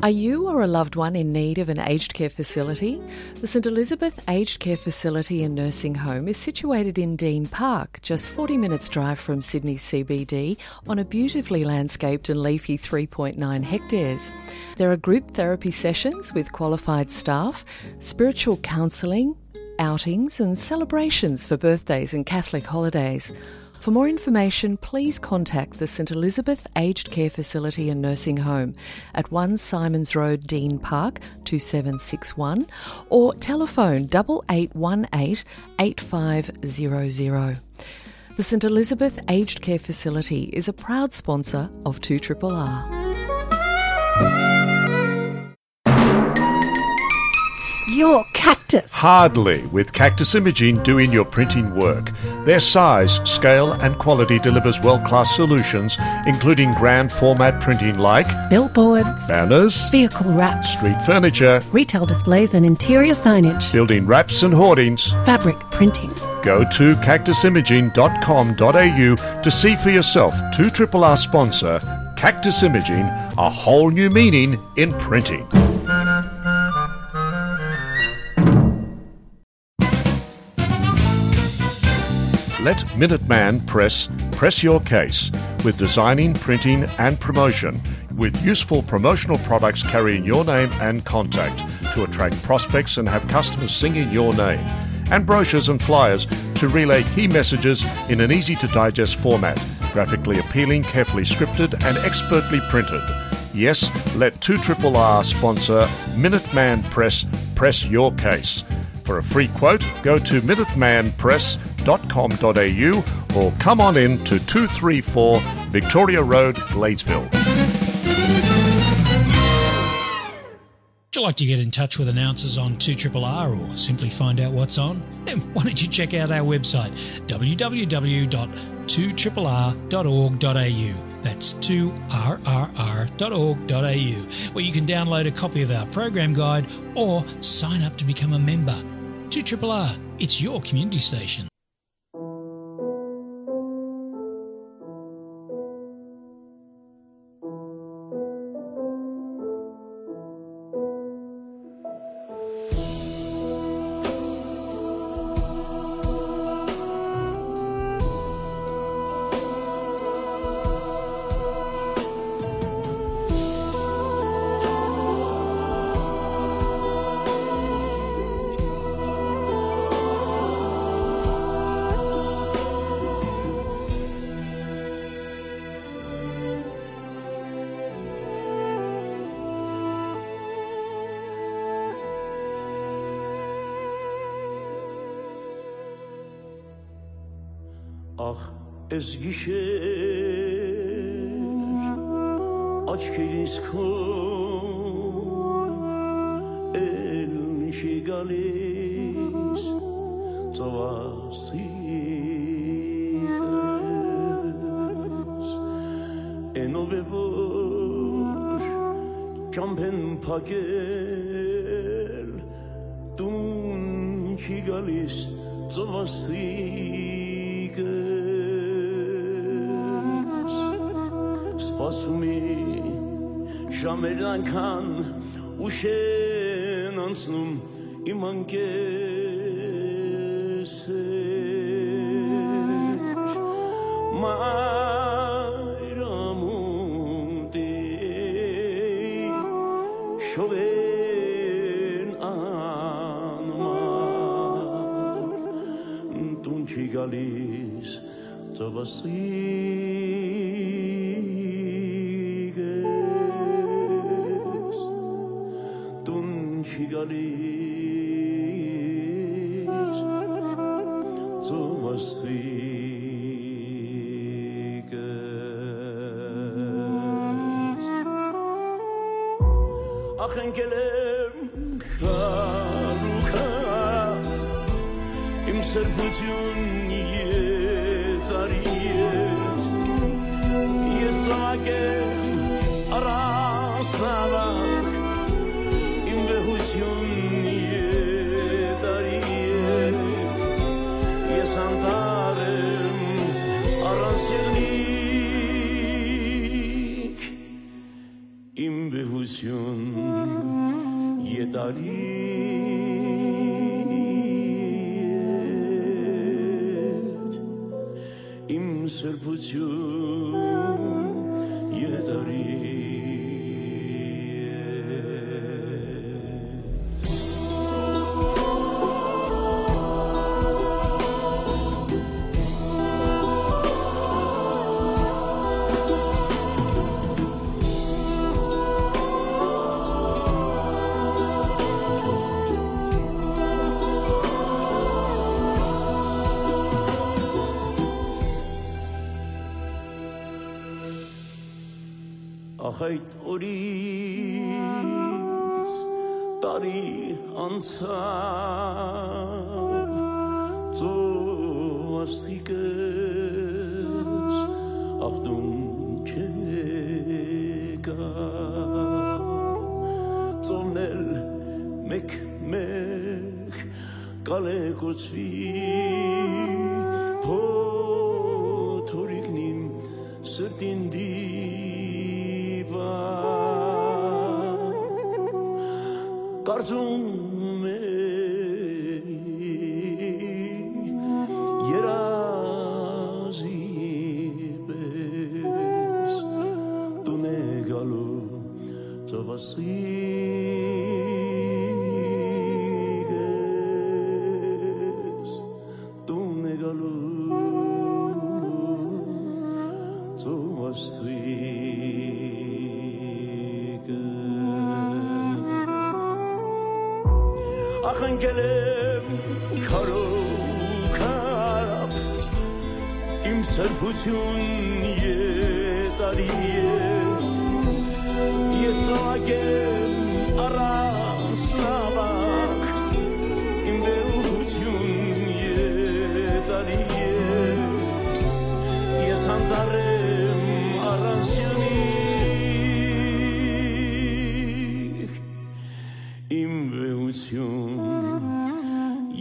Are you or a loved one in need of an aged care facility? The St Elizabeth Aged Care Facility and Nursing Home is situated in Dean Park, just forty minutes drive from Sydney C B D, on a beautifully landscaped and leafy three point nine hectares. There are group therapy sessions with qualified staff, spiritual counselling, outings and celebrations for birthdays and Catholic holidays. For more information, please contact the St Elizabeth Aged Care Facility and Nursing Home at one Simons Road, Dean Park, two seven six one, or telephone double eight one eight, eight five zero zero. The St Elizabeth Aged Care Facility is a proud sponsor of two triple R. Your Cactus. Hardly, with Cactus Imaging doing your printing work. Their size, scale, and quality delivers world-class solutions, including grand format printing like billboards, banners, vehicle wraps, street furniture, retail displays and interior signage, building wraps and hoardings, fabric printing. Go to cactus imaging dot com dot a u to see for yourself two triple R sponsor Cactus Imaging, a whole new meaning in printing. Let Minuteman Press press your case with designing, printing, and promotion, with useful promotional products carrying your name and contact to attract prospects and have customers singing your name, and brochures and flyers to relay key messages in an easy to digest format, graphically appealing, carefully scripted, and expertly printed. Yes, let two triple R sponsor Minuteman Press press your case. For a free quote, go to minuteman press dot com dot a u or come on in to two three four Victoria Road, Gladesville. Would you like to get in touch with announcers on two triple R or simply find out what's on? Then why don't you check out our website, w w w dot two triple r dot org dot a u. That's two r r r dot org dot a u, where you can download a copy of our program guide or sign up to become a member. two triple R, it's your community station. Ախ, էս գիշեր աչքերիս քո էլ Չի գալիս ծովասիկս, էնով է որ ճամբեն փակել, տուն չի գալիս ծովասիկս։ Սպասում է ժամերն անկան, ուշ են անցնում իմ անկէս էր, մայրամուտի շողերն անմար, տուն չի գալիս ծովասիկս, տուն չի գալիս ծովասիկս։ Ախ, ընկել եմ քարուքա, իմ սրբություն եթարի է, ես զաւակ եմ առանց նավակ, իմ վեհություն եթարի է, ես անտառ եմ առանց եղնիկ, իմ վեհություն եթարի է, իմ սրբություն եթարի է։ Ախ, այդ օրից տարի անցաւ, ծովասիկս ախտուն չեկա, ծովն էլ մեկ-մեկ կալեկուցուի փոթորիկն իմ սրտին դիպա։ Կարծում է երազի պես տուն է գալու ծովասիկս, տուն է գալու ծովասիկս։ Ախ, ընկել եմ քարով քարապ, իմ սրբություն եթարի է, ես զաւակ եմ առանց նաւակ, իմ վեհություն եթարի է, ես անտառ եմ առանց եղնիկ, իմ վեհություն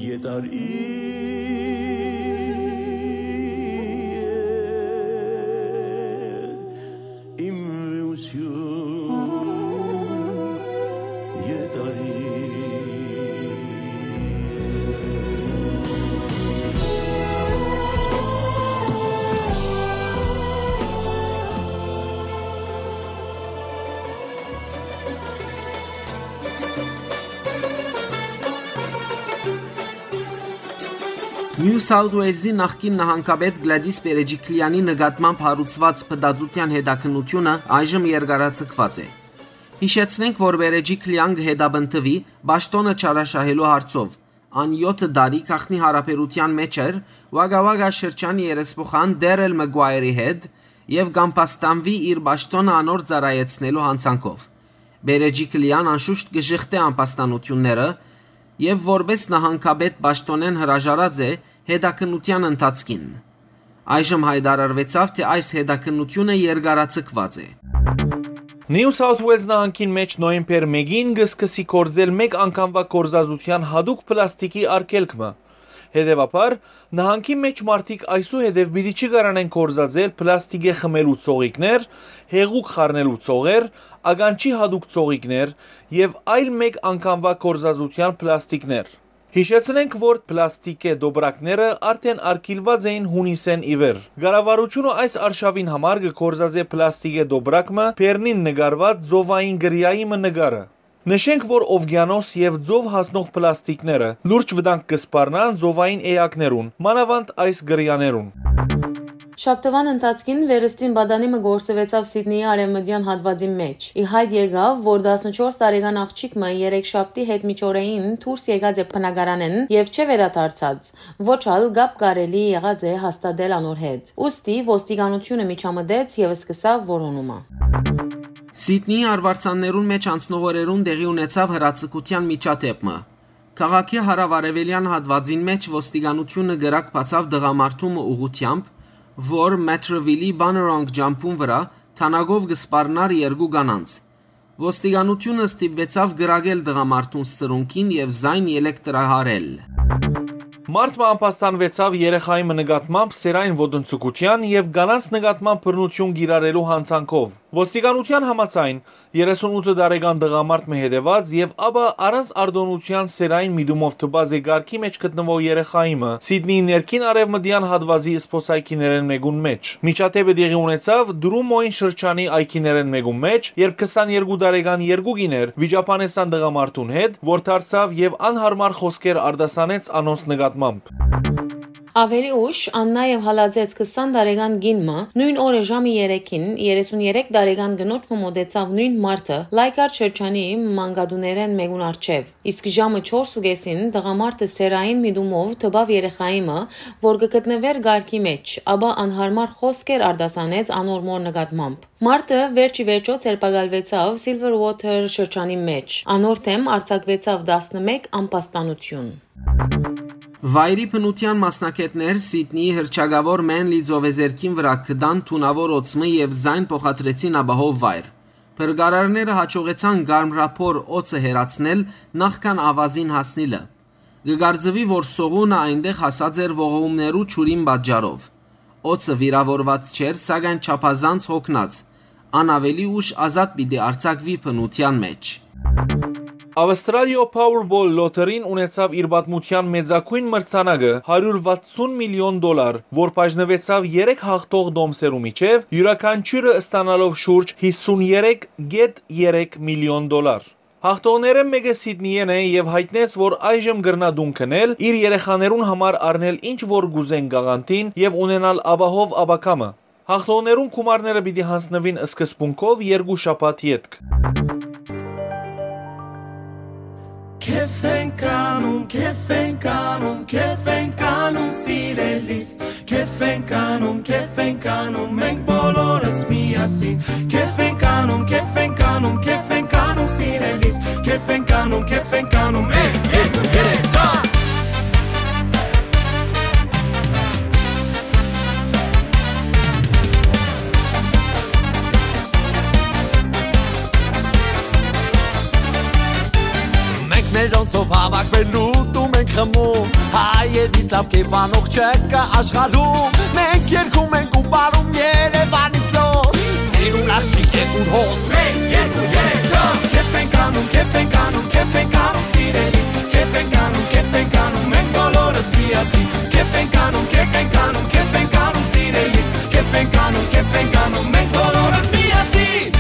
եթարի է, իմ վեհություն եթարի է։ Նիու Սաութ Ուէյլզի նախկին նահանգապետ Գլադիս Պերեջիքլեանի նկատմամբ հարուցուած փտածութեան հետաքննութիւնը այժմ երկարաձգուած է։ Յիշեցնենք, որ Պերեջիքլեան կը հետապնդուի պաշտօնը չարաշահելու հարցով։ Ան եօթը տարի գաղտնի յարաբերութեան մէջ էր Ուագա Ուագա շրջանի երեսփոխան Դերել Մագուայերի հետ եւ կ'ամբաստանուի իր պաշտօնը անոր ծառայեցնելու յանցանքով։ Պերեջիքլեան անշուշտ կը ժխտէ ամբաստանութիւնները, եւ որպէս նահանգապետ պաշտօնէն հրաժարած է հետաքննութեան ընթացքին։ Այժմ յայտարարուեցաւ, թէ այս հետաքննութիւնը երկարաձգուած է։ Նիու Սաութ Ուելզ նահանգին մէջ նոյեմբեր մէկին կը սկսի գործել մէկ անգամուայ գործածութեան յատուկ պլաստիկի արգելք մը։ Հետեւաբար, նահանգի մէջ մարդիկ այսուհետեւ պիտի չի կարանեն գործածել պլաստիկէ խմելու ծողիկներ, հեղուկ խառնելու ծողեր, ականջի յատուկ ծողիկներ եւ այլ մէկ անգամուայ գործածութեան պլաստիկներ։ Յիշեցնենք, որ պլաստիկէ տոպրակները արդէն արգիլուած էին յունիսէն ի վեր։ Կառավարութիւնը այս արշաւին համար կը գործածէ պլաստիկէ տոպրակ մը բերնին նկարուած ծովային կրիայի մը նկարը։ Նշենք, որ ովկիանոս եւ ծով հասնող պլաստիկները լուրջ վտանգ կը սպառնան ծովային էակներուն, մանաւանդ այս կրիաներուն։ Շաբթուան ընթացքին վերստին պատանի մը գործուեցաւ Սիդնիի արեւմտեան հատուածին մէջ։ Ի յայտ եկաւ, որ տասնչորս տարեկան աղջիկ մը երեքշաբթի հետմիջօրեին դուրս եկած է բնակարանէն եւ չէ վերադարձած, ոչ ալ կապ կարելի եղած է հաստատել անոր հետ։ Ուստի ոստիկանութիւնը միջամտեց եւ սկսաւ որոնումը։ Սիդնիի արուարձաններուն մէջ անցնող օրերուն տեղի ունեցաւ հրաձգութեան միջադէպ մը։ Քաղաքի հարաւարեւելեան հատուածին մէջ ոստիկանութիւնը կրակ բացաւ տղամարդու մը ուղղութեամբ, որ Մեթրվիլի Բաներոնկ ճամբուն վրայ թանագով կը սպառնար երկու կանանց։ Ոստիկանութիւնը ստիպուեցաւ կրակել տղամարդուն սրունքին եւ զայն ելեկտրահարել։ Մարդ մը ամբաստանուեցաւ երեխայի մը նկատմամբ սերային ոտնձգութեան եւ կանանց նկատմամբ բռնութիւն կիրառելու յանցանքով։ Ոստիկանութեան համաձայն, երեսունութ տարեկան տղամարդ մը հետեւած եւ ապա առանց արտօնութեան սերային միտումով դպած է կարգի մէջ գտնուող երեխայի մը Սիդնիի ներքին արեւմտեան հատուածի սփոսայգիներէն մէկուն մէջ։ Միջադէպը տեղի ունեցաւ Դրումոյն շրջանի այգիներէն մէկուն մէջ, երբ քսաներկու տարեկան երկու կիներ վիճաբանեցան տղամարդուն հետ, որ դարձաւ եւ անհարմար խօսքեր արտասանեց անոնց նկատմամբ։ Աւելի ուշ, ան նաեւ հալածեց քսան տարեկան կին մը, նոյն օրը ժամը երեքին, երեսուն երեք տարեկան կնոջ մը մօտեցաւ նոյն մարդը Լայկար շրջանի մանկատուներէն մէկուն առջեւ, իսկ ժամը չորս ու կէսին տղամարդը սերային միտումով դպաւ երեխայի մը, որ կը գտնուէր կարգի մէջ, ապա անհարմար խօսքեր արտասանեց անոր մօր նկատմամբ։ Մարդը վերջ ի վերջոյ ձերբակալուեցաւ Սիլվեր Ուոթեր շրջանի մէջ, անոր դէմ արձակուեցաւ տասնմէկ ամբաստանութիւն։ Վայրի բնութեան մասնագէտներ Սիդնիի հռչակաւոր Մենլի ծովեզերքին վրայ գտան թունաւոր օձ մը եւ զայն փոխադրեցին ապահով վայր։ Փրկարարները յաջողեցան կարմրափոր օձը հեռացնել նախքան ավազին հասնիլը։ Կը կարծուի, որ սողունը այնտեղ հասած էր ողողումներու ջուրին պատճառով։ Օձը վիրաւորուած չէր, սակայն չափազանց յոգնած։ Ան աւելի ուշ ազատ պիտի արձակուի բնութեան մէջ։ Ավստրալիոյ Powerball Lottery-ն ունեցաւ իր պատմութեան մեծագոյն մրցանակը՝ հարիւր վաթսուն միլիոն դոլար, որ բաժնուեցաւ երեք յաղթող տոմսերու միջեւ, իւրաքանչիւրը ստանալով շուրջ հիսուներեք կետ երեք միլիոն դոլար։ Յաղթողներէն մէկը Սիդնիէն է եւ յայտնեց, որ այժմ կրնայ տուն գնել, իր երեխաներուն համար առնել ինչ որ կ'ուզեն կաղանտին եւ ունենալ ապահով ապագայ մը։ Յաղթողներուն գումարները պիտի յանձնուին սկզբունքով երկու շաբաթ ետք։ Քեֆ ենք անում, քեֆ ենք անում, քեֆ ենք անում, սիրելիս։ Քեֆ ենք անում, քեֆ ենք անում, մենք բոլորս միասին։ Քեֆ ենք անում, քեֆ ենք անում, քեֆ ենք անում, սիրելիս։ Քեֆ ենք անում, քեֆ ենք անում, մեկ, երկու, երեք, չորս։ Մենք մերոնցով հավաքվելու դու մենք խմում, հայերից լավ կերպանող չկա աշխարհում։ Մենք երգում ենք ու պարում Երևանից լոս, սիրուն աղջիկ է ուր հոս։ Մեկ, երկու, երեք, չորս։ Քեֆ ենք անում, քեֆ ենք անում, քեֆ ենք անում, սիրելիս։ Քեֆ ենք անում, քեֆ ենք անում, մենք բոլորս միասին։ Քեֆ ենք անում, քեֆ ենք անում, քեֆ ենք անում, սիրելիս։ Քեֆ ենք անում, քեֆ ենք անում, մենք բոլորս միասին։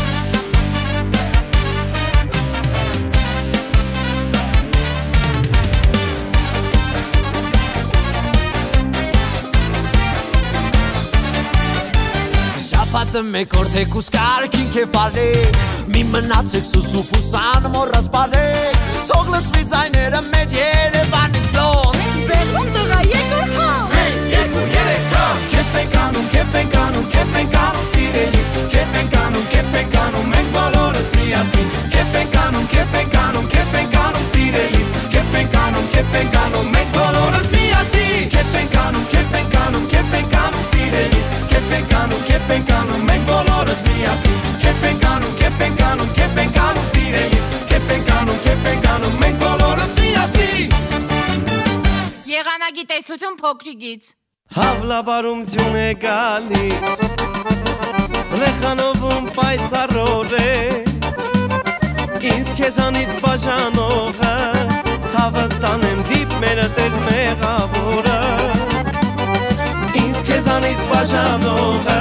Շաբաթը մեկ օր թեկուզ կարգին քեֆ արեք, մի մնացեք սուսուփ ու սան մոռաս պարեք, թող լսվի ձայները մեր Երևանից լոս։ Բեղուն տղա, եկուր հա։ Մեկ, երկու, երեք, չորս։ Քեֆ ենք անում, քեֆ ենք անում, քեֆ ենք անում, սիրելիս։ Քեֆ ենք անում, քեֆ ենք անում, մենք բոլորս միասին։ Քեֆ ենք անում, քեֆ ենք անում, քեֆ ենք անում, սիրելիս։ Քեֆ ենք անում, Գիտեսություն փոքրիկից։ Հաւլավարում ձիուն է գալիս, լեխանովում պայծառոր է, ինձ քեզանից բաժանողը, ցաւը տանեմ դիպ մերը տեր մեղավորը, ինձ քեզանից բաժանողը,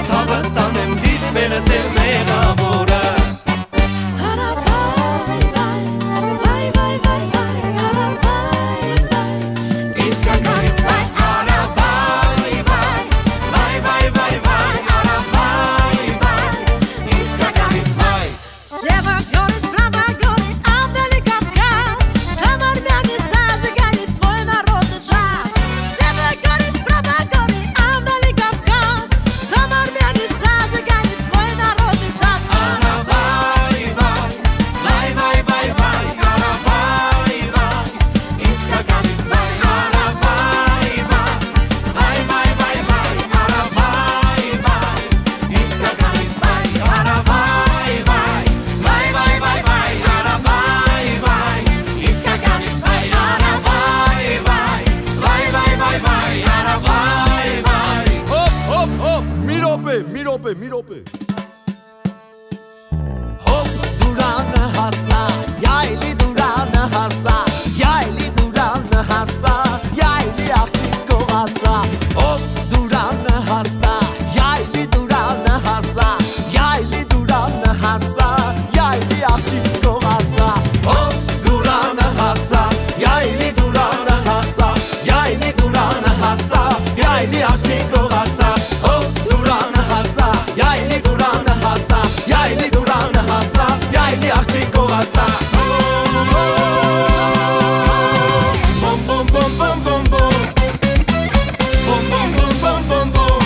ցաւը տանեմ դիպ մերը տեր մեղավորը։ Հարավայ, վայ, վայ, վայ, վայ, հարավայ, վայ, իսկականից վայ, հարավայ, վայ, վայ, վայ, վայ, վայ, հարավայ, վայ, իսկականից վայ։ Слева горы, справа горы, а вдали Кавказ. Там армяне зажигали свой народный джаз. Слева горы, справа горы, а вдали Кавказ. Там армяне зажигали свой народный джаз. Аравай, вай, вай, вай, вай, вай, аравай, вай. Իսկականից վայ, աravay, վայ, վայ, վայ, վայ, վայ, aravay, վայ, իսկականից վայ, aravay, վայ, վայ, վայ, վայ, վայ, aravay, վայ, իսկականից վայ, aravay, վայ, վայ, վայ, վայ, վայ, aravay, վայ։ Հոպ, հոպ, հոպ, մի րոպե, մի րոպե, մի րոպե։ Հոպ, դուրանը հասա, յայլի դուրանը հասա, յայլի դուրանը հասա, յայլի աղջիկ կողացա։ Հոպ, դուրանը հասա, յայլի դուրանը հասա, յայլի դուրանը հասա, յայլի աղջիկ կողացա։ Հոպ, դուրանը հասա, յայլի դուրանը հասա, յայլի դուրանը հասա, յայլի աղջիկ կողացա։ Հոպ, դուրանը հասա, յայլի դուրանը հասա, յայլի դուրանը հասա, յայլի աղջիկ կողացա։ Բոմ, բոմ, բոմ, բոմ, բոմ, բոմ։ Բոմ, բոմ, բոմ, բոմ, բոմ, բոմ։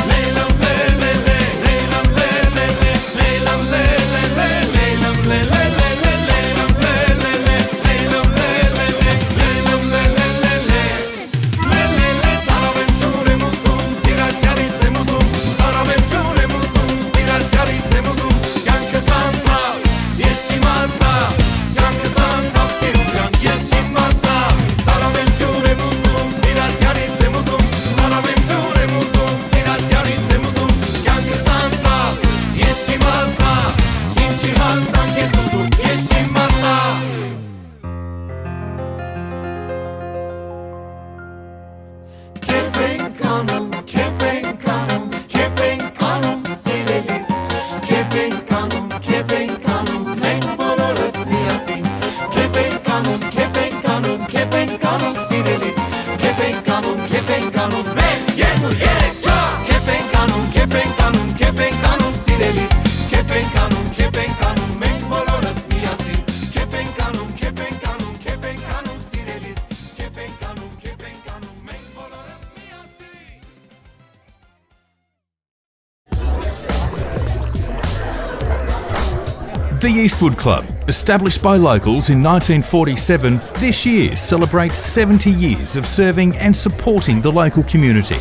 Լեյլամ, լե, լե, լե, լեյլամ, լե, լե, լե, լեյլամ, լե, լե, լե, լեյլամ, լե, լե, լե, լեյլամ, լե, լե, լե, լեյլամ, լե, լե, լե, լեյլամ, լե, լե, լե, լե։ Լե, լե, լե, ծարաւ եմ, ջուր եմ ուզում, սիրած յարիս եմ ուզում, ծարաւ եմ, ջուր եմ ուզում, սիրած յարիս եմ ուզում, կյանքս անցա, ես չիմացայ, կյանքս անցաւ, սիրուն կյանք, ես չիմացայ, ծարաւ եմ, ջուր եմ ուզում, սիրած յարիս եմ ուզում, ծարաւ եմ, ջուր եմ ուզում, սիրած յարիս եմ ուզում, կյանքս անցաւ, ես չիմացայ, ինչի հասանք ես ուզում, ես չիմացայ։ Քեֆ ենք անում, քեֆ ենք անում, քեֆ ենք անում, սիրելիս։ Քեֆ ենք անում, քեֆ ենք անում, մենք բոլորս միասին։ Քեֆ ենք անում, քեֆ ենք անում, քեֆ ենք անում, սիրելիս։ Քեֆ ենք անում, քեֆ ենք անում, մեկ, երկու, երեք, չորս։ Քեֆ ենք անում, քեֆ ենք անում, քեֆ ենք անում, սիրելիս։ Քեֆ ենք անում, քեֆ ենք անում, մենք բոլորս միասին։ Քեֆ ենք անում, քեֆ ենք անում, քեֆ ենք անում, սիրելիս։ Քեֆ ենք անում, քեֆ ենք անում, մենք բոլորս միասին։ The Eastwood Club, established by locals in nineteen forty-seven, this year celebrates seventy years of serving and supporting the local community.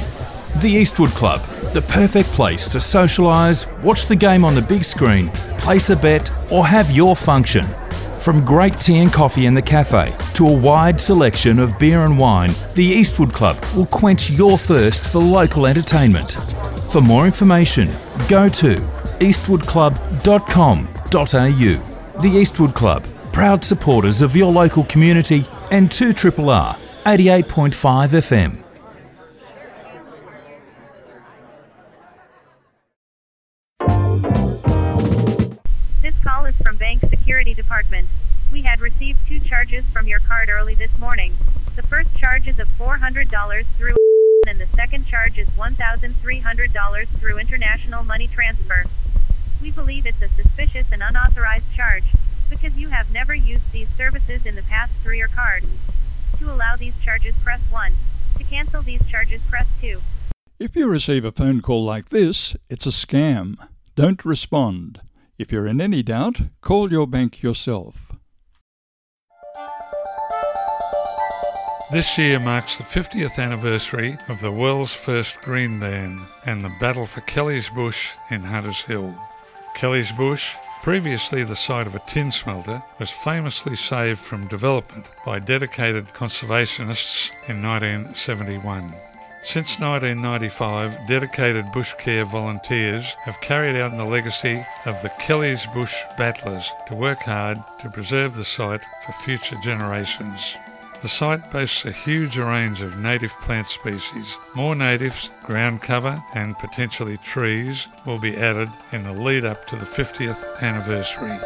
The Eastwood Club, the perfect place to socialise, watch the game on the big screen, place a bet, or have your function. From great tea and coffee in the cafe to a wide selection of beer and wine, the Eastwood Club will quench your thirst for local entertainment. For more information, go to eastwood club dot com dot a u. The Eastwood Club, proud supporters of your local community and two triple R, eighty-eight point five F M. This call is from Bank Security Department. We had received two charges from your card early this morning. The first charge is of four hundred dollars through and the second charge is one thousand three hundred dollars through international money transfer. We believe it's a suspicious and unauthorized charge because you have never used these services in the past through your card. To allow these charges, press one. To cancel these charges, press two. If you receive a phone call like this, it's a scam. Don't respond. If you're in any doubt, call your bank yourself. This year marks the fiftieth anniversary of the world's first green van and the battle for Kelly's Bush in Hatters Hill. Kelly's Bush Previously the site of a tin smelter, was famously saved from development by dedicated conservationists in nineteen seventy-one. Since nineteen ninety-five, dedicated bush care volunteers have carried out the legacy of the Kelly's Bush Battlers to work hard to preserve the site for future generations. The site boasts a huge range of native plant species. More natives, ground cover, and potentially trees will be added in the lead up to the fiftieth anniversary.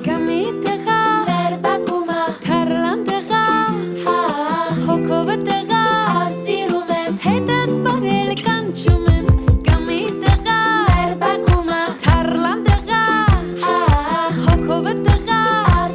Կամի տղա, մեր բակումը, թարլան տղա, հա, հոգովը տղա, սիրում եմ, հետս բարել կանչում եմ, կամի տղա, մեր բակումը, թարլան տղա, հա, հոգովը տղա,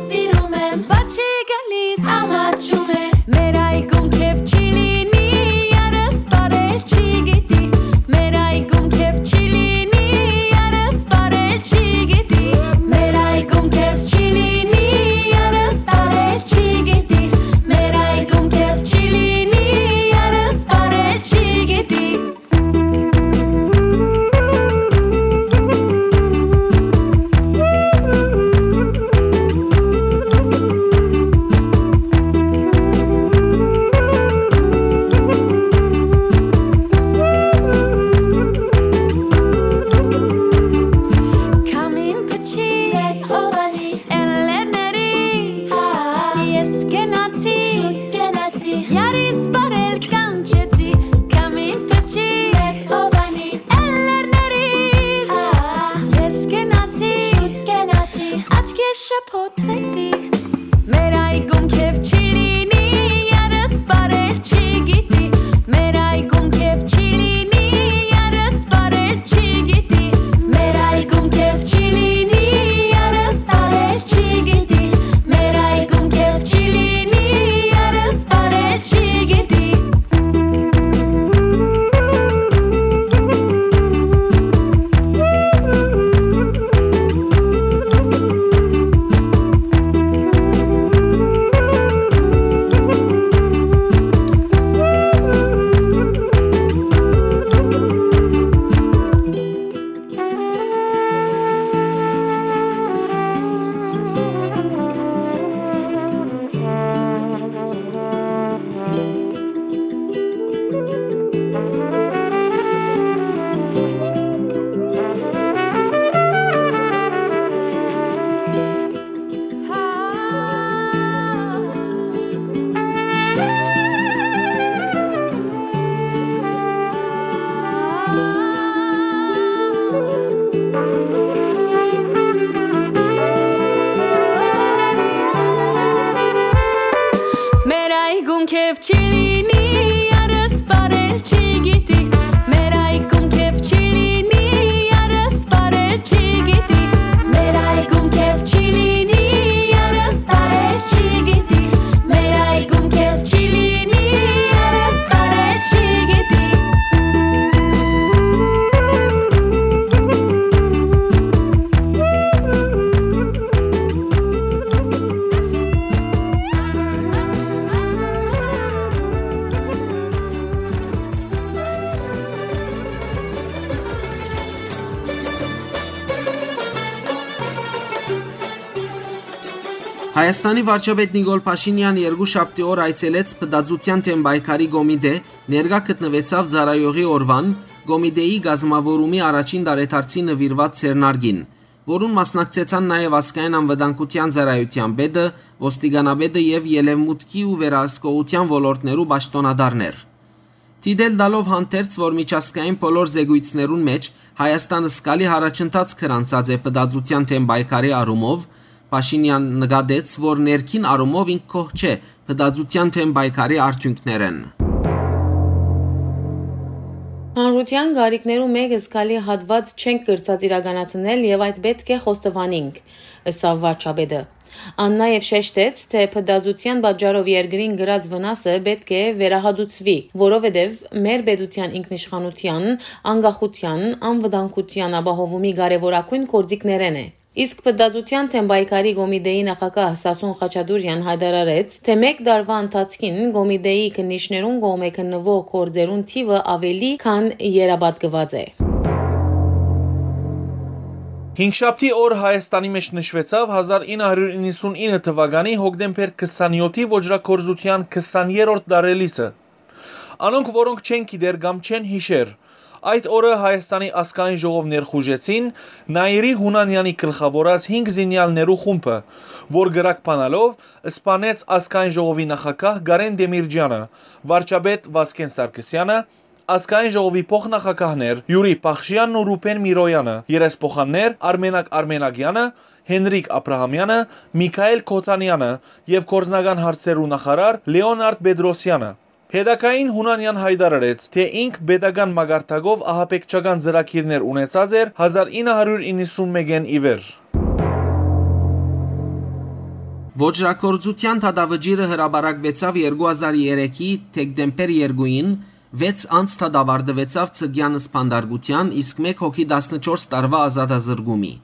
սիրում եմ, բաչի գալիս, ամաչում է, մեր այգում քեվ չի լինի, երս բարել չի գիտի, մեր այգում քեվ չի լինի, երս բարել չի գիտի, մեր այգում քեվ չի լինի, երս բարել չի գիտի, մեր այգում քեվ չի լինի, երս բարել չի գիտի։ Քամին փչի, ես հովանի, էլլերների, հա, ես կենացի, շուտ կենացի, յարիս բարել կանչեցի, քամին փչի, ես հովանի, էլլերների, հա, ես կենացի, շուտ կենացի, աչքե շփոթվեցի, մեր այգում քեվ չի լինի, երս բարել չի գիտի, մեր այգում քեվ չի լինի, երս բարել չի գիտի, մեր այգում քեվ չի լինի, երս բարել չի գիտի, մեր այգում քեվ չի լինի, երս բարել չի գիտի։ Մեր այգում քեվ չի լինի, երս բարել չի գիտի, մեր այգում քեվ չի լինի, երս բարել չի գիտի, մեր այգում քեվ չի լինի, երս բարել չի գիտի, մեր այգում քեվ չի լինի, երս բարել չի գիտի։ Հայաստանի վարչապետ Նիկոլ Փաշինեան երկուշաբթի օր այցելեց Փտածութեան դէմ պայքարի կոմիտէ, ներկայ գտնուեցաւ ծառայողի օրուան, կոմիտէի կազմաւորումի առաջին տարեդարձին նուիրուած ձեռնարկին, որուն մասնակցեցան նաեւ ազգային անվտանգութեան ծառայութեան պետը, ոստիկանապետը եւ ելեւմուտքի ու վերահսկողութեան ոլորտներու պաշտօնատարներ։ Դիտել տալով հանդերձ, որ միջազգային բոլոր զեկույցներուն մէջ Հայաստան զգալի յառաջընթաց գրանցած է փտածութեան դէմ պայքարի առումով, Փաշինեան նկատեց, որ ներքին առումով ինք գոհ չէ փտածութեան դէմ պայքարի արդիւնքներէն։ Հանրութեան կարիքներու մէկ զգալի հատուած չենք կրցած իրականացնել եւ այդ պէտք է խոստովանինք, ըսաւ վարչապետը։ Ան նաեւ շեշտեց, թէ փտածութեան պատճառով երկրին կրած վնասը պէտք է վերահատուցուի, որովհետեւ մեր պետութեան ինքնիշխանութեան, անկախութեան, անվտանգութեան ապահովումի կարեւորագոյն գործիքներէն է։ Իսկ Փտածութեան դէմ պայքարի կոմիտէի նախագահ Սասուն Խաչատուրեան յայտարարեց, թէ մէկ տարուայ ընթացքին կոմիտէի քննիչներուն կողմէ քննուող գործերուն թիւը աւելի քան երապատկուած է։ Հինգշաբթի օր Հայաստանի մէջ նշուեցաւ հազար ինը հարիւր իննսուն ինը թուականի հոկտեմբեր քսանյոթի ոճրագործութեան քսաներորդ տարելիցը։ Անոնք, որոնք չեն գիտեր կամ չեն յիշեր, այդ օրը Հայաստանի ազգային ժողով ներխուժեցին Նայիրի Յունանեանի գլխաւորած հինգ զինեալներու խումբը, որ կրակ բանալով սպանեց ազգային ժողովի նախագահ Կարեն Տեմիրճեանը, վարչապետ Վազգեն Սարգսեանը, ազգային ժողովի փոխնախագահներ Յուրի Փախշեանն ու Ռուբեն Միրոյանը, երեսփոխաններ Արմենակ Արմենակեանը, Հենրիկ Աբրահամեանը, Միքայել Քոթանեանը եւ գործնական հարցերու նախարար Լեոնարդ Պետրոսյանը։ Հետագային Յունանեան յայտարարեց, թէ ինք պետական մակարդակով ահաբեկչական ծրագիրներ ունեցած էր հազար ինը հարիւր իննսուն մէկէն ի վեր։ Ոճրագործութեան դատավճիռը հրապարակուեցաւ երկու հազար երեքի դեկտեմբեր երկուին, վեց անց դատավարտուեցաւ Ցկեան սպանդարկութեան, իսկ մէկ հոգի տասնչորս տարուայ ազատազրկումի։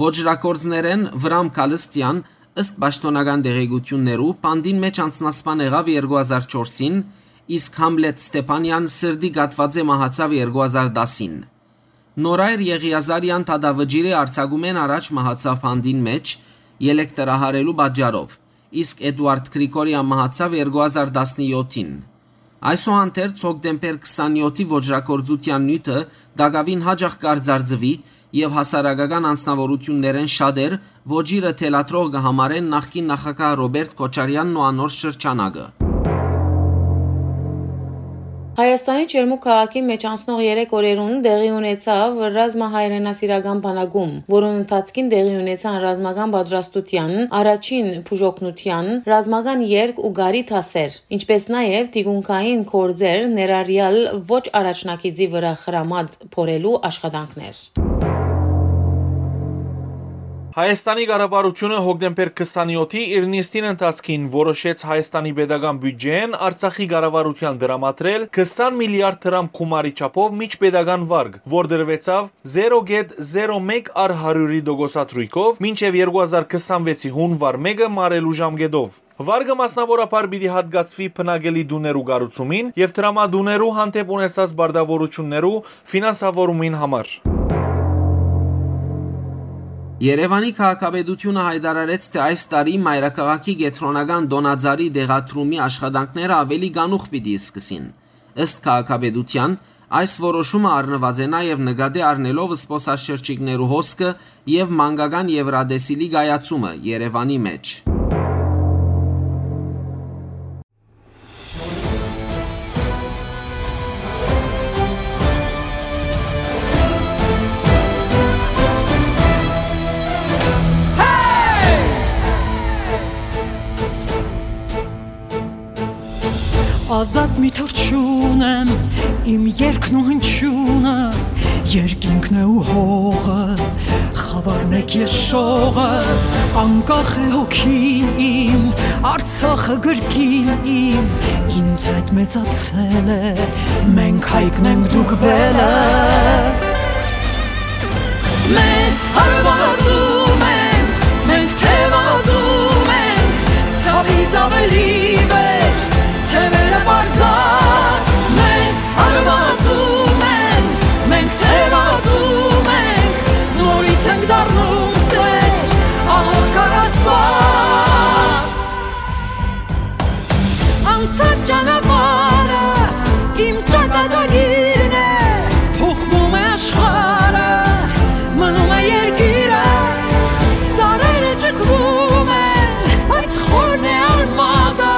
Ոճրագործներէն Վրամ Քալստեան, ըստ պաշտօնական տեղեկութիւններու, բանտին մէջ անձնասպան եղաւ երկու հազար չորսին, իսկ Համլետ Ստեփանեան սրտի կաթուածէ մահացաւ երկու հազար տասին։ Նորայր Եղիազարեան դատավճիռի արձակումէն առաջ մահացաւ բանտին մէջ, ելեք տրահարելու պատճառով, իսկ Էդուարդ Գրիգորեան մահացաւ երկու հազար տասնեթին։ Այսուհանդերձ, հոկտեմբեր քսանեթի ոճրագործութեան նիւթը տակաւին յաճախ կարծարծուի եւ հասարակական անձնաւորութիւններէն շատեր ոճիրը թելադրող կը համարեն նախկին նախագահ Ռոբերտ Քոչարեանն ու անոր շրջանակը։ Հայաստանի Ջերմուկ քաղաքի մէջ անցնող երեք օրերուն տեղի ունեցաւ ռազմահայրենասիրական բանակում, որուն ընթացքին տեղի ունեցան ռազմական պատրաստութեան, առաջին բուժօգնութեան, ռազմական երգ ու կարի դասեր, ինչպէս նաեւ թիկունքային գործեր, ներառեալ ոչ առաջնագիծի վրայ խրամատ փորելու աշխատանքներ։ Հայաստանի կառավարութիւնը հոկտեմբեր քսանեթի իր նիստին ընթացքին որոշեց Հայաստանի պետական բիւտճէն Արցախի կառավարութեան տրամադրել քսան միլիարդ դրամ գումարի չափով միջպետական վարկ, որ տրուեցաւ զերո կետ զերո մէկ առ հարիւրի տոկոսադրոյքով մինչեւ երկու հազար քսանվեցի յունուար մէկը մարելու ժամկէտով։ Վարկը մասնաւորաբար պիտի յատկացուի բնակելի տուներու կառուցումին եւ տրամատուներու հանդէպ ունեցած պարտաւորութիւններու ֆինանսավորումին համար։ Երեւանի քաղաքապետութիւնը յայտարարեց, թէ այս տարի մայրաքաղաքի կեդրոնական տօնածառի տեղադրումի աշխատանքները աւելի կանուխ պիտի սկսին։ Ըստ քաղաքապետութեան, այս որոշումը առնուած է նաեւ նկատի առնելով զբօսաշրջիկներու հոսքը եւ մանկական Եւրատեսիլի կայացումը Երեւանի մէջ։ Ազատ մի թռչուն եմ, իմ երգն ու հնչյունը, երկինքն է ու հողը, խավարն եք ես շողը, անկախ է հոգին իմ, Արցախը գրկին իմ, ինձ հետ մեծացել է, մենք հայկն ենք, դուք բելը։ Մեզ հարվածում են, մենք թևածում ենք, ցավից ավելի վեր, թևերը պարզած մեզ հարվածում են, մենք թևածում ենք, նորից ենք դառնում սեր, աղոթք առ Աստված։ Անցած ճանապարհս իմ ճակատագիրն է, փոխվում է աշխարհը, մնում է երկիրը, ծառերը ճկվում են, բայց խորն է արմատը,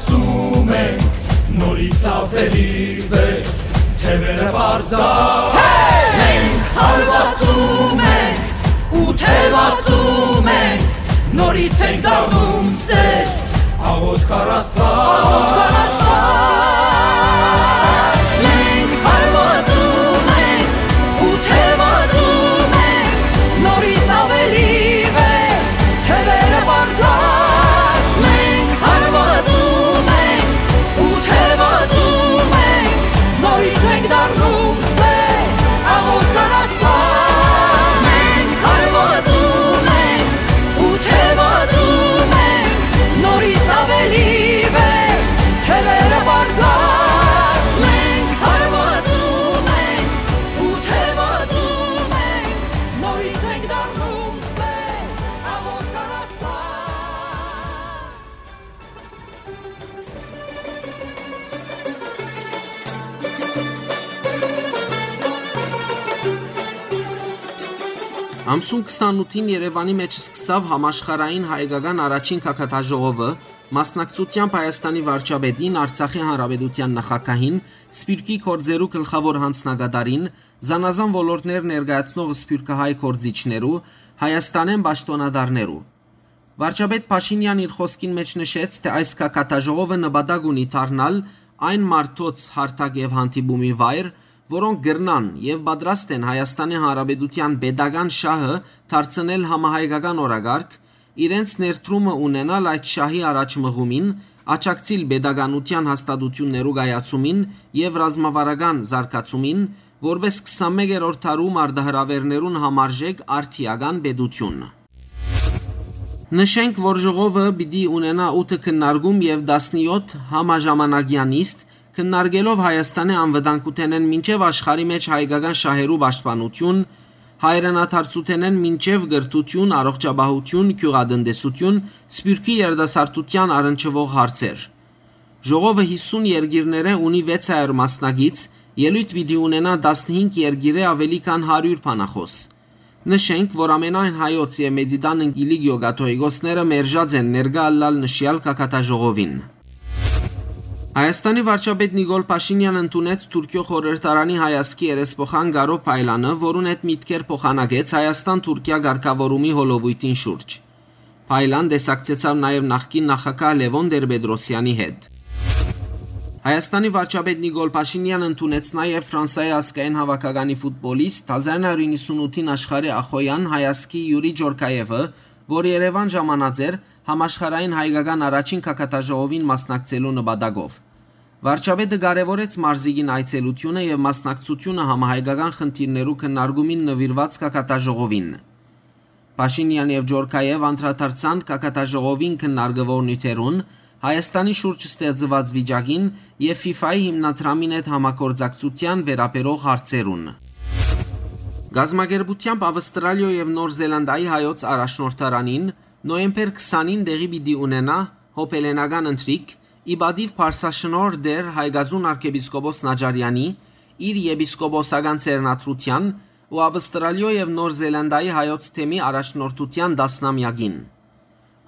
Զում ենք նորից աւելի վեր, թեւերը պարզա։ Մենք հարվածում ենք ու թևածում ենք, նորից ենք դառնում սեր, աղոթք առ Աստուած։ Աղոթք առ Աստուած։ Մենք հարվածում ենք ու թևածում ենք, նորից աւելի վեր, թեւերը պարզած, մենք հարվածում ենք ու թևածում ենք, նորից ենք դառնում սեր, աղոթք առ Աստուած։ Մենք հարվածում ենք ու թևածում ենք, նորից աւելի վեր, թեւերը պարզած, մենք հարվածում ենք ու թևածում ենք, նորից ենք դառնում սեր, աղոթք առ Աստուած։ Ամսուն քսանութին Երեւանի մէջ սկսաւ համաշխարհային հայկական առաջին գագաթաժողովը, մասնակցությամբ Հայաստանի վարչապետին, Արցախի Հանրապետութեան նախագահին, Սփիւռքի գործերու գլխաւոր յանձնակատարին, զանազան ոլորտներ ներկայացնող սփիւռքահայ գործիչներու, Հայաստանէն պաշտօնատարներու։ Վարչապետ Փաշինեան իր խօսքին մէջ նշեց, թէ այս գագաթաժողովը նպատակ ունի դառնալ այն մարդոց հարթակ եւ հանդիպումի վայր, որոնք կրնան եւ պատրաստ են Հայաստանի Հանրապետութեան պետական շահը դարձնել համահայկական օրակարգ, իրենց ներդրումը ունենալ այդ շահի առաջ մղումին, աջակցիլ պետականութեան հաստատութիւններու կայացումին եւ ռազմավարական զարգացումին, որպէս քսանմեկերորդ դարու մարտահրաւէրներուն համարժեք արդիական պետութիւն։ Նշենք, որ ժողովը պիտի ունենայ ութը քննարկում եւ տասնեօթ համաժամանակեան նիստ, քննարկելով Հայաստանի անվտանգութենէն մինչեւ աշխարհի մէջ հայկական շահերու պաշտպանութիւն, հայրենադարձութենէն մինչեւ կրթութիւն, առողջապահութիւն, գիւղատնտեսութիւն, սփիւռքի երիտասարդութեան առնչուող հարցեր։ Ժողովը յիսուն երկիրներէ ունի վեց հարիւր մասնակից, ելոյթ պիտի ունենայ տասնհինգ երկիրէ աւելի քան հարիւր բանախօս։ Նշենք, որ ամենայն հայոց եւ Մեծիտան Կիլիկիոյ կաթողիկոսները մերժած են ներկայ ըլլալ նշեալ գագաթաժողովին։ Հայաստանի վարչապետ Նիկոլ Փաշինեան ընդունեց Թուրքիոյ խորհրդարանի հայազգի երեսփոխան Կարօ Փայլանը, որուն հետ միտքեր փոխանակեց Հայաստան-Թուրքիա կարգաւորումի հոլովոյթին շուրջ։ Փայլան տեսակցեցաւ նաեւ նախկին նախագահ Լեւոն Տեր-Պետրոսեանի հետ։ Հայաստանի վարչապետ Նիկոլ Փաշինեան ընդունեց նաեւ Ֆրանսայի ազգային հաւաքականի ֆուտբոլիստ, հազար նոյ հարիւր իննսունութին աշխարհի ախոյեան հայազգի Յուրի Ջորքաեւը, որ Երեւան ժամանած էր համաշխարհային հայկական առաջին գագաթաժողովին մասնակցելու նպատակով։ Վարչապետը կարեւորեց մարզիկին այցելութիւնը եւ մասնակցութիւնը համահայկական խնդիրներու քննարկումին նուիրուած գագաթաժողովին։ Փաշինեան եւ Ջորքաեւ անդրադարձան գագաթաժողովին քննարկուող նիւթերուն, Հայաստանի շուրջ ստեղծուած վիճակին եւ ֆիֆայի հիմնադրամին հետ համագործակցութեան վերաբերող հարցերուն։ Կազմակերպութեամբ Ավստրալիոյ եւ Նոր Զելանդիայի հայոց առաջնորդարանին նոյեմբեր քսանին տեղի պիտի ունենայ հոբելենական ընթրիք, ի պատիւ Փարսաշնորհ Տեր Հայկազուն արքեպիսկոպոս Նաճարեանի, իր եպիսկոպոսական ձեռնադրութեան ու Ավստրալիոյ եւ Նոր Զելանդիայի հայոց թեմի առաջնորդութեան տասնամեակին։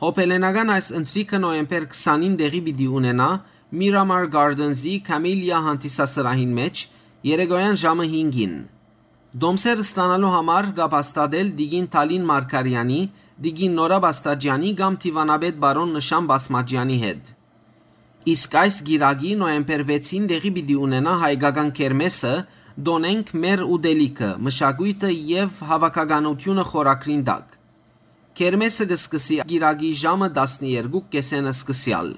Հոբելենական այս ընթրիքը նոյեմբեր քսանին տեղի պիտի ունենայ Miramar Gardens-ի Camellia հանդիսասրահին մէջ, երեկոյան ժամը հինգին։ Տոմսեր ստանալու համար կապ հաստատել տիկին Թալին Մարգարեանի, տիկին Նորա Բաստաճեանի կամ դիվանապետ պարոն Նշան Բասմաճեանի հետ։ Իսկ այս կիրակի, նոյեմբեր վեցին, տեղի պիտի ունենայ հայկական քերմեսը «Տօնենք մեր ուտելիքը, մշակոյթը եւ հաւաքականութիւնը» խորագրին տակ։ Քերմեսը կը սկսի կիրակի ժամը տասներկու կէսէն սկսեալ։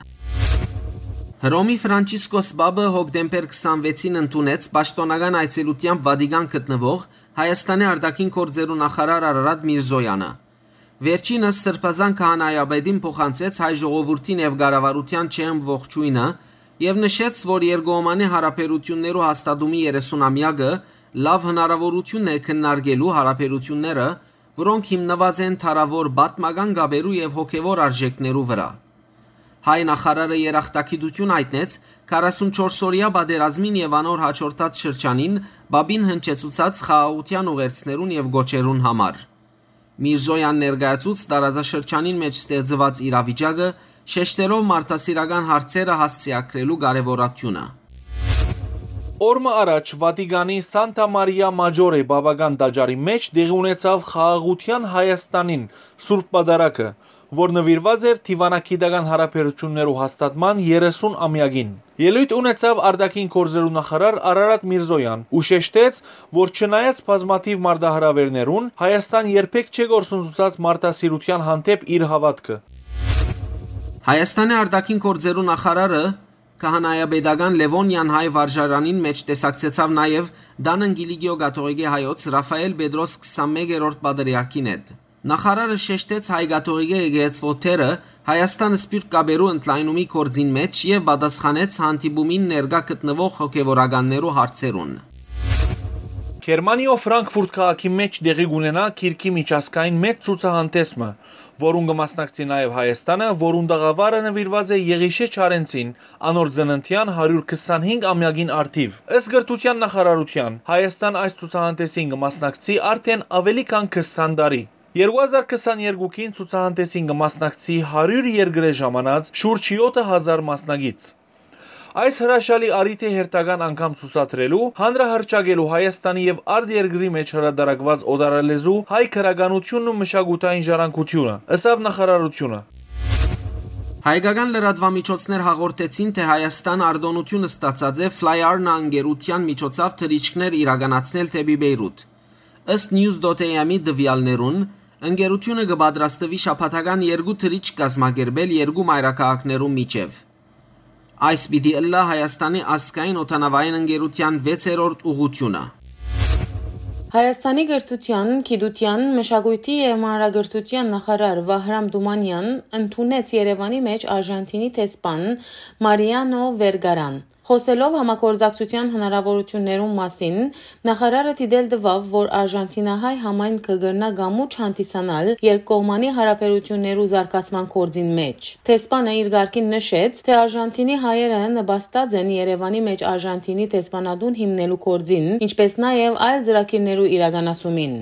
Հռոմի Ֆրանչիսկոս Պապը հոկտեմբեր քսանվեցին ընդունեց պաշտօնական այցելութեամբ Վատիկան գտնուող Հայաստանի արտաքին գործերու նախարար Արարատ Միրզոյանը։ Վերջինս Սրբազան քահանայապետին փոխանցեց հայ ժողովուրդին եւ կառավարութեան ջերմ ողջոյնը եւ նշեց, որ երկկողմանի յարաբերութիւններու հաստատումի երեսունամեակը լաւ հնարաւորութիւն է քննարկելու յարաբերութիւնները, որոնք հիմնուած են դարաւոր պատմական կապերու եւ հոգեւոր արժէքներու վրայ։ Հայ նախարարը երախտագիտութիւն յայտնեց քառասունչորս օրեայ պատերազմին եւ անոր յաջորդած շրջանին Պապին հնչեցուցած խաղաղութեան ուղերձներուն եւ կոչերուն համար։ Միրզոյան ներկայացուց տարածաշրջանին մէջ ստեղծուած իրավիճակը, շեշտելով մարդասիրական հարցերը հասցեագրելու կարեւորատիւնը։ Օր մը առաջ Վատիկանի Սանտա Մարիա Մաճորե պապական տաճարի մէջ տեղի ունեցաւ Խաղաղութեան Հայաստանին Սուրբ Պատարագը, որ նուիրուած էր դիւանագիտական յարաբերութիւններու հաստատման երեսուն ամեակին։ Ելոյթ ունեցաւ արտաքին գործերու նախարար Արարատ Միրզոյան ու շեշտեց, որ չնայած բազմաթիւ մարտահրաւէրներուն, Հայաստան երբեք չէ կորսնցուցած մարդասիրութեան հանդէպ իր հաւատքը։ Հայաստանի արտաքին գործերու նախարարը քահանայապետական Լեւոնյան հայ վարժարանին մէջ տեսակցեցաւ նաեւ Դանն Կիլիկիո կաթողիկէ հայոց Ռաֆայել Պետրոս քսանմեկերորդ պատրիարքին հետ։ Նախարարը շեշտեց հայ կաթողիկէ եկեղեցւոյ դերը Հայաստան սփիւռք կապերու ընդլայնումի գործին մէջ եւ պատասխանեց հանդիպումին ներկայ գտնուող հոգեւորականներու հարցերուն։ Գերմանիոյ Ֆրանկֆուրտ քաղաքի մէջ տեղի կունենայ գիրքի միջազգային մեծ ցուցահանդէս մը, որուն կը մասնակցի նաեւ Հայաստանը, որուն տաղաւարը նուիրուած է Եղիշէ Չարենցին, անոր ծննդեան հարիւր քսանհինգ ամեակին առթիւ։ Ըստ կրթութեան նախարարութեան, Հայաստան այս ցուցահանդէսին կը մասնակցի արդէն աւելի քան քսան տարի։ Երկու հազար քսաներկուին ցուցահանդէսին կը մասնակցի հարիւր երկրէ ժամանած շուրջ եօթը հազար մասնակից։ Այս հրաշալի առիթը հերթական անգամ ցուցադրելու, հանրահռչակելու Հայաստանի եւ արտերկրի մէջ հրատարակուած օտարալեզու հայ գրականութիւնն ու մշակութային ժառանգութիւնը, ըսաւ նախարարութիւնը։ Հայկական լրատուամիջոցներ հաղորդեցին, թէ Հայաստան արտօնութիւն ստացած է Fly Arna ընկերութեան միջոցաւ թռիչքներ իրականացնել դէպի Պէյրութ։ Ըստ News dot A M-ի տուեալներուն, ընկերութիւնը կը պատրաստուի շաբաթական երկու թռիչք կազմակերպել երկու մայրաքաղաքներու միջեւ։ Այս պիտի ըլլայ Հայաստանի ազգային օդանաւային ընկերութեան վեցերորդ ուղղութիւնը։ Հայաստանի կրթութեան, գիտութեան, մշակոյթի եւ մանրակրթութեան նախարար Վահրամ Թումանեան ընդունեց Երեւանի մէջ Արժանթինի դեսպան Մարիանո Վերգարան։ Խօսելով համագործակցութեան հնարաւորութիւններուն մասին, նախարարը դիտել տուաւ, որ արժանթինահայ համայնքը կրնայ կամուրջ հանդիսանալ երկկողմանի յարաբերութիւններու զարգացման գործին մէջ։ Դեսպանը իր կարգին նշեց, թէ Արժանթինի հայերը նպաստած են Երեւանի մէջ Արժանթինի դեսպանատուն հիմնելու գործին, ինչպէս նաեւ այլ ծրագիրներու իրականացումին։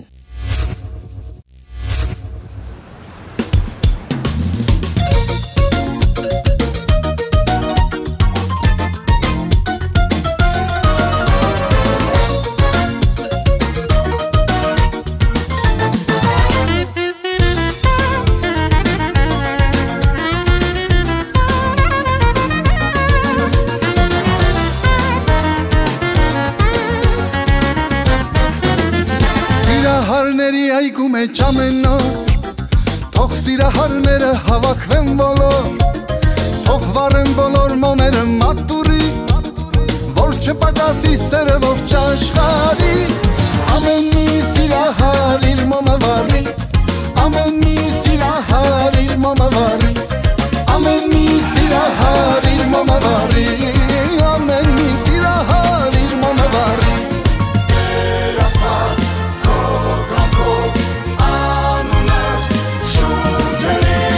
Սիրահարների այգու մէջ ամեն օր, թող սիրահարները հավաքվեն բոլոր, թող վառեն բոլոր մոմերը մատուռի, որ չպակասի սերը ողջ աշխարհի։ Ամեն մի սիրահար իր մոմը վառի, ամեն մի սիրահար իր մոմը վառի, ամեն մի սիրահար իր մոմը վառի, ամեն մի սիրահար իր մոմը վառի։ Տեր Աստված, քո կամքով անունդ շուրջ գերի։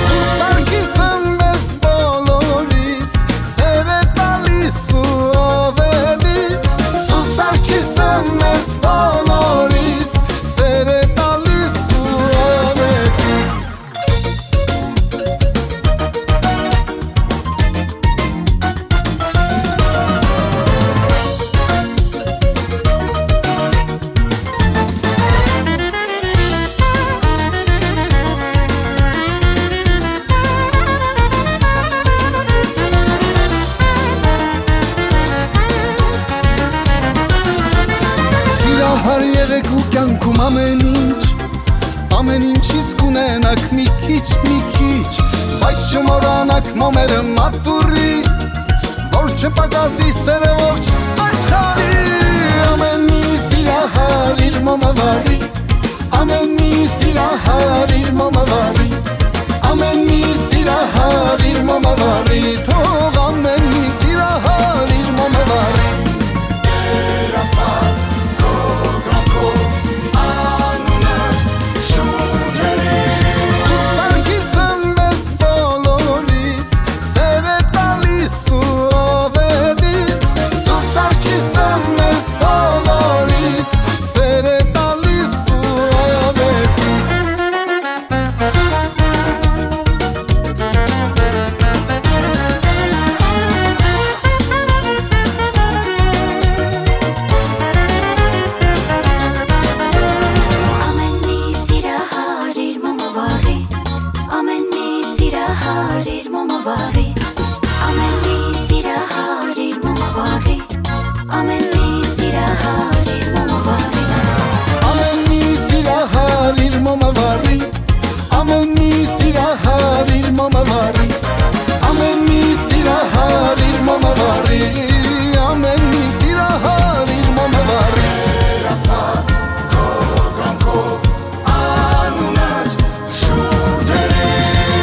Սուրբ Սարգիսը մեզ բոլորիս սեր է տալիս ու ով է դից։ Սուրբ Սարգիսը մեզ բոլորիս սեր է տալիս ու ով է դից։ Սիրահար եղեք ու կյանքում ամեն ինչ, ամեն ինչից կունենաք մի քիչ, մի քիչ, բայց չմոռանաք մոմերը մատուռի, որ չպակասի սերը ողջ աշխարհի։ Ամեն մի սիրահար իր մոմը վառի, ամեն մի սիրահար իր մոմը վառի, ամեն մի սիրահար իր մոմը վառի, թող ամեն մի սիրահար իր մոմը վառի։ Տեր Աստված, քո կամքով անունը շուրջ գերի։ Սուրբ Սարգիսը մեզ բոլորիս սեր է տալիս ու ով է դից։ Սուրբ Սարգիսը մեզ բոլորիս սեր է տալիս ու ով է դից։ Սիրահարիր մոմավարի, ամեն մի սիրահարիր մոմավարի, ամեն մի սիրահարիր մոմավարի, ամեն մի սիրահարիր մոմավարի, ամեն մի սիրահարիր մոմավարի, ամեն մի սիրահարիր մոմավարի, ամեն մի սիրահարիր մոմավարի։ Աստված, քո կամքով անունդ շուրջ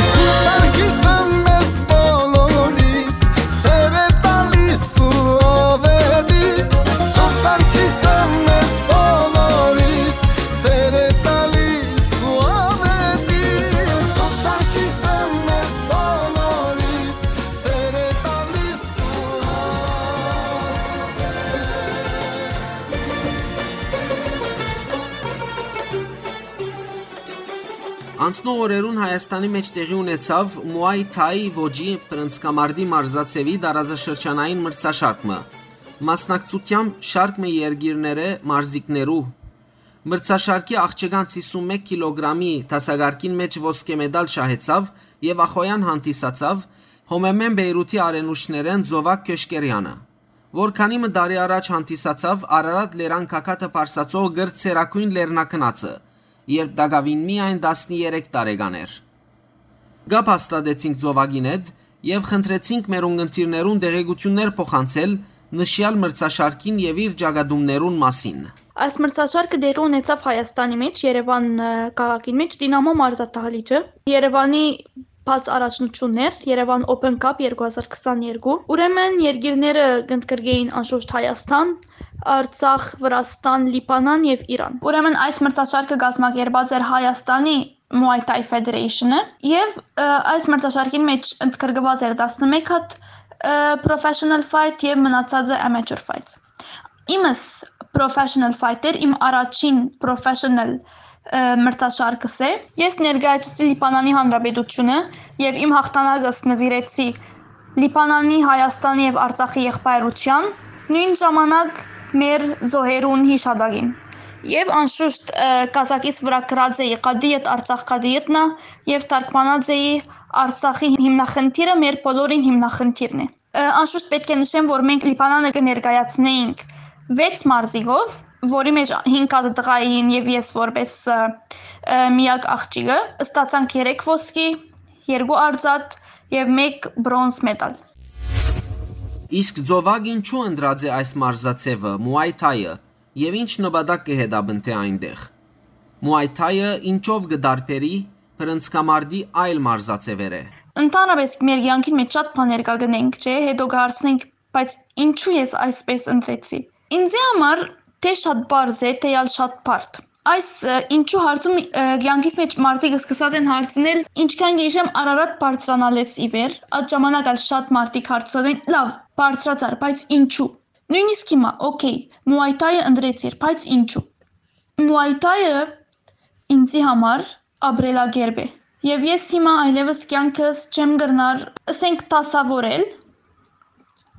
Սուրբ Սարգիսը մեզ բոլորիս սեր է տալիս ու ով է դից։ Սուրբ Սարգիսը մեզ բոլորիս սեր է տալիս ու ով է դից։ Սուրբ Սարգիսը մեզ բոլորիս սեր է տալիս ու ով է դից։ Անցնող օրերուն Հայաստանի մէջ տեղի ունեցաւ Մուայ Թայի ոճի բռնցքամարտի մարզաձեւի տարածաշրջանային մրցաշարք մը, մասնակցությամբ շարք մը երկիրներէ մարզիկներու։ Մրցաշարքի աղջկանց հիսուն մէկ կիլոգրամի դասակարգին մէջ ոսկէ մեդալ շահեցաւ եւ ախոյեան հանդիսացաւ Հոմեմեն Բեյրութի արենուշներէն Զովակ Քյոշկերեանը, որ քանի մը տարի առաջ հանդիսացաւ Արարատ լերան գագաթը պարսացող կրտսերագոյն լեռնագնացը, երբ տակաւին միայն տասներեք տարեկան էր։ Կապ հաստատեցինք Զովակին հետ եւ խնդրեցինք մեր ունգընտիրներուն տեղեկութիւններ փոխանցել նշեալ մրցաշարքին եւ իր ճակատումներուն մասին։ Այս մրցաշարքը տեղի ունեցաւ Հայաստանի մէջ, Երեւան, ը, քաղաքին մէջ, Դինամո մարզադահլիճը, Երեւանի բաց առաջնություններ, Երեւան Open Cup երկու հազար քսաներկու։ Ուրեմն երկիրները կընդգրկէին անշուշտ Հայաստան, Արցախ, Վրաստան, Լիբանան եւ Իրան։ Ուրեմն այս մրցաշարքը կազմակերպած էր Հայաստանի Muay Thai Federation-ը եւ, ը, այս մրցաշարքին մէջ ընդգրկված էր տասնմէկ հատ, ը, professional fight եւ մնացածը amateur fights։ Իմս professional fighter, իմ առաջին professional, ը, մրցաշարքս է։ Ես ներկայացուցի Լիբանանի Հանրապետությունը եւ իմ հաղթանակս նուիրեցի Լիբանանի, Հայաստանի եւ Արցախի եղբայրության, նոյն ժամանակ մեր զոհերուն յիշատակին։ Եւ անշուշտ, ը, կազակիս վրայ գրած էի «Կադիետ Արցախ, կադիետնա» եւ թարգմանած էի «Արցախի հիմնախնդիրը մեր բոլորին հիմնախնդիրն է»։ Ը, անշուշտ պէտք է նշեմ, որ մենք Լիբանանը կը ներկայացնէինք վեց մարզիկով, որի մէջ հինգ հատ տղայ էին եւ ես որպես, ը, ը, միակ աղջիկը, ստացանք երեք ոսկի, երկու արծաթ եւ մէկ բրոնզ մեդալ։ Իսկ Զովակ ինչու ընտրած է այս մարզաձեւը, Muay Thai-ը, եւ ինչ նպատակ կը հետապնդէ այնտեղ։ Muay Thai-ը ինչով կը տարբերի բռնցքամարտի այլ մարզաձեւերէ։ Ընդհանրապես մեր կեանքին մէջ շատ բաներ կա կնենք, չէ՞, հետո կը հարցնենք, բայց ինչու ես այսպես ընտրեցի։ Ինձի համար թէ շատ պարզ է, թէ ալ շատ բարդ։ Այս, ը, ինչու հարցում, ը, կեանքիս մէջ մարդիկ սկսած են հարցնել, ինչքան կը հիշեմ, Արարատ բարձրանալէս ի վեր, այդ ժամանակ ալ շատ մարդիկ հարցուցած են, լավ, բարձրացար, բայց ինչու։ Նոյնիսկ հիմա, օքեյ, Muay Thai-ը ընտրեցիր, բայց ինչու։ Muay Thai-ը ինձի համար ապրելակերպ է։ Եւ ես հիմա այլեւս կեանքս չեմ կրնար, ըսենք, դասաւորել,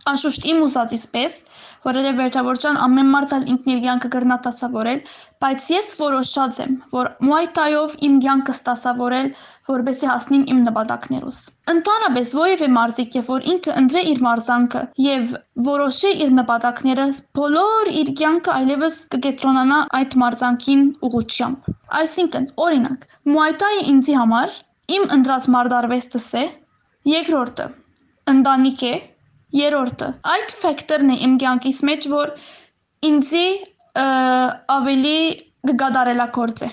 անշուշտ իմ ուզածիս պէս, որովհետեւ վերջավորության ամեն մարդ ալ ինքն իր կեանքը կրնայ դասաւորել, բայց ես որոշած եմ, որ Muay Thai-ով իմ կեանքս դասաւորել, որպեսզի հասնիմ իմ նպատակներուս։ Ընդհանրապես, որեւէ մարզիկ է, որ ինքը ընտրէ իր մարզանքը եւ որոշէ իր նպատակները, բոլոր իր կեանքը այլեւս կը կեդրոնանայ այդ մարզանքին ուղղությամբ։ Այսինքն, օրինակ, Muay Thai-ը ինձի համար իմ ընտրած մարտարվեստս է, երկրորդը ընտանիք է, երրորդը այդ ֆէկտորն է իմ կեանքիս մէջ, որ ինձի, ը, ավելի կը կատարելագործէ։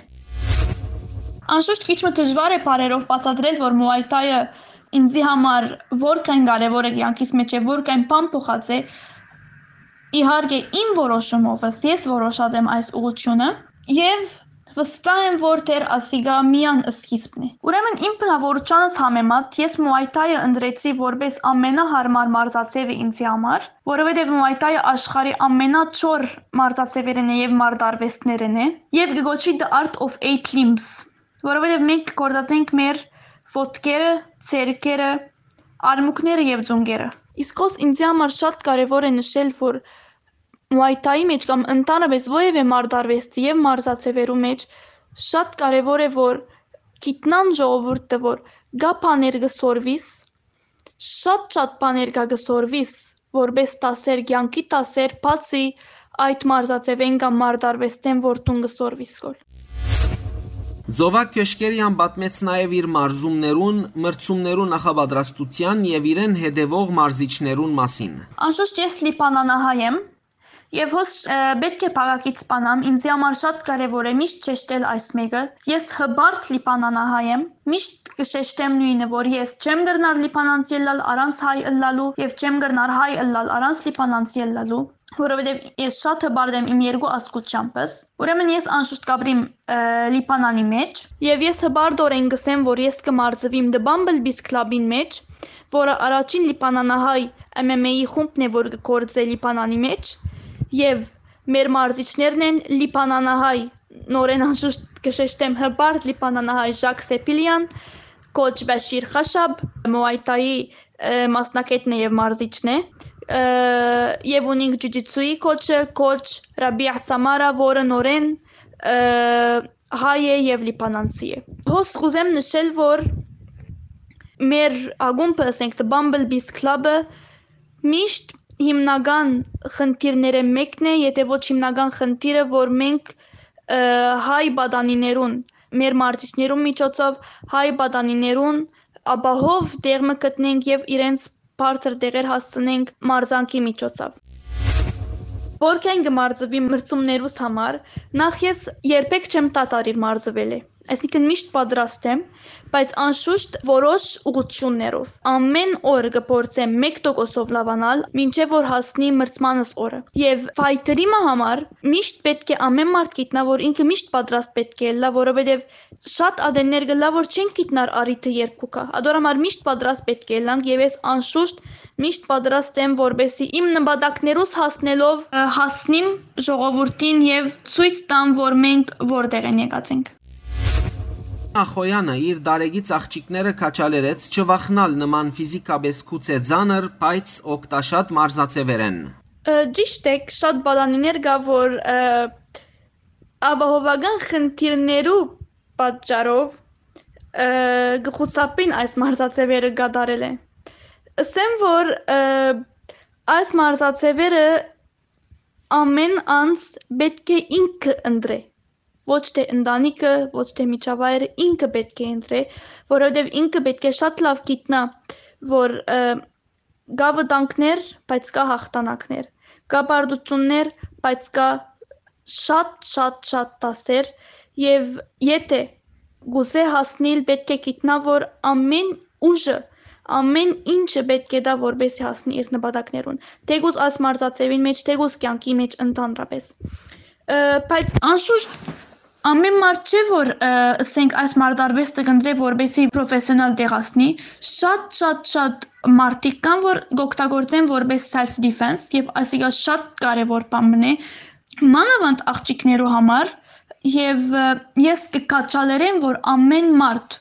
Անշուշտ քիչ մը դժուար է բառերով բացատրել, որ Muay Thai-ը ինձի համար որքան կարեւոր է կեանքիս մէջ եւ որքան բան փոխած է, իհարկե իմ որոշումովս, ես որոշած եմ այս ուղղությունը եւ վստահ եմ, որ դեռ ասիկա միան սկիզբն է։ Ուրեմն իմ բնաւորությանս համեմատ ես Muay Thai-ը ընտրեցի որպես ամենահարմար մարզաձեւը ինձի համար, որովհետեւ Muay Thai-ը աշխարհի ամենաչոր մարզաձեւերէն է եւ մարտարվեստներէն է, եւ կը կոչուի The Art of Eight Limbs, որովհետեւ մենք գործած ենք մեր ոտքերը, ձեռքերը, արմունկները եւ ծունկերը։ Իսկ հոս ինձի համար շատ կարեւոր է նշել, որ Muay Thai-ի մէջ կամ ընդհանրապես որեւէ մարտարվեստի եւ մարզաձեւերու մէջ շատ կարեւոր է, որ գիտնան ժողովուրդը, որ կա բաներ կը սորվիս, շատ շատ բաներ կա կը սորվիս, որպէս դասեր, կեանքի դասեր, բացի այդ մարզաձեւէն կամ մարտարուեստէն, որ դուն կը սորվիս կոր։ Զովակ Քեշքերեան պատմեց նաեւ իր մարզումներուն, մրցումներու նախապատրաստութեան եւ իրեն հետեւող մարզիչներուն մասին։ Անշուշտ ես լիբանանահայ եմ, եւ հոս, ը, պէտք է փակագիծ բանամ, ինձի համար շատ կարեւոր է միշտ շեշտել այս մէկը։ Ես հպարտ լիբանանահայ եմ, միշտ կը շեշտեմ նոյնը, որ ես չեմ կրնար լիբանանցի ըլլալ առանց հայ ըլլալու եւ չեմ կրնար հայ ըլլալ առանց լիբանանցի ըլլալու, որովհետեւ ես շատ հպարտ եմ իմ երկու ազգութեամբս։ Ուրեմն ես անշուշտ կապրիմ, ը, Լիբանանի մէջ, եւ ես հպարտօրէն կսեմ, որ ես կը մարզուիմ The Bumblebees Club-ին մէջ, որը առաջին լիբանանահայ M M A-ի խումբն է, որ կը գործէ Լիբանանի մէջ, եւ մեր մարզիչներն են լիբանանահայ, նորէն անշուշտ կը շեշտեմ, հպարտ լիբանանահայ Ժակ Սեփիլեան, կոչ Բաշիր Խաշաբ, Muay Thai-ի, ը, մասնակէտն է եւ մարզիչն է, ը, եւ ունինք ջուջիցուի կոչը, կոչ Ռաբիա Սամարա, որը նորէն, ը, հայ է եւ լիբանանցի է։ Հոս կուզեմ նշել, որ մեր ակումբը, ասենք, The Bumblebees Club-ը միշտ հիմնական խնդիրներէն մէկն է, եթե ոչ հիմնական խնդիրը, որ մենք, ը, հայ պատանիներուն, մեր մարզիչներուն միջոցով հայ պատանիներուն ապահով տեղ մը գտնենք եւ իրենց բարձր տեղեր հասցնենք մարզանքի միջոցով։ Որքան կը մարզուի մրցումներուս համար, նախ ես երբեք չեմ դադարիր մարզուելէ, այսինքն միշտ պատրաստ եմ, բայց անշուշտ որոշ ուղղություններով։ Ամեն օր կը փորձեմ մեկ տոկոսով լաւանալ, մինչեւ որ հասնի մրցմանս օրը։ Եւ fighter-ի մը համար միշտ պէտք է ամեն մարդ գիտնայ, որ ինքը միշտ պատրաստ պէտք է ըլլայ, որովհետեւ շատ ատեններ կ'ըլլայ, որ չեն գիտնար առիթը երբ կու գայ։ Ադոր համար միշտ պատրաստ պէտք է ըլլանք եւ ես անշուշտ միշտ պատրաստ եմ, որպեսզի իմ նպատակներուս հասնելով, ը, հասնիմ ժողովուրդին եւ ցոյց տամ, որ մենք որտեղ են եկած ենք։ Ախոյանը իր դարեգից աղջիկները քաչալերեց չվախնալ նման ֆիզիկապես գուցէ ծանր, բայց օգտաշատ մարզաձեւերէն։ Ը, ճիշդ է, շատ պատանիներ կայ, որ, ը, ապահովական խնդիրներու պատճառով, ը, կը խուսափին այս մարզաձեւերը կատարելէ։ Ըսեմ, որ, ը, այս մարզաձեւերը ամէն անձ պէտք է ինքը ընտրէ, ոչ թէ ընտանիքը, ոչ թէ միջավայրը, ինքը պէտք է ընտրէ, որովհետեւ ինքը պէտք է շատ լաւ գիտնայ, որ, ը, կայ վտանգներ, բայց կայ յաղթանակներ, կայ պարտութիւններ, բայց կայ շատ, շատ, շատ դասեր, եւ եթէ կ'ուզէ հասնիլ, պէտք է գիտնայ, որ ամէն ուժը, ամէն ինչը պէտք է տայ, որպեսզի հասնի իր նպատակներուն, թէկուզ այս մարզաձեւին մէջ, թէկուզ կեանքի մէջ ընդհանրապես։ Ը, բայց անշուշտ ամէն մարդ չէ, որ, ը, ըսենք, այս մարտարուեստը կ'ընտրէ, որպեսզի պրոֆեսիոնալ տեղ հասնի։ Շատ, շատ, շատ մարդիկ կան, որ կ'օգտագործեն որպես self defense, եւ այսինքն շատ կարեւոր բան մնէ, մանաւանդ աղջիկներու համար, եւ, ը, ես կը քաչալերեմ, որ ամէն մարդ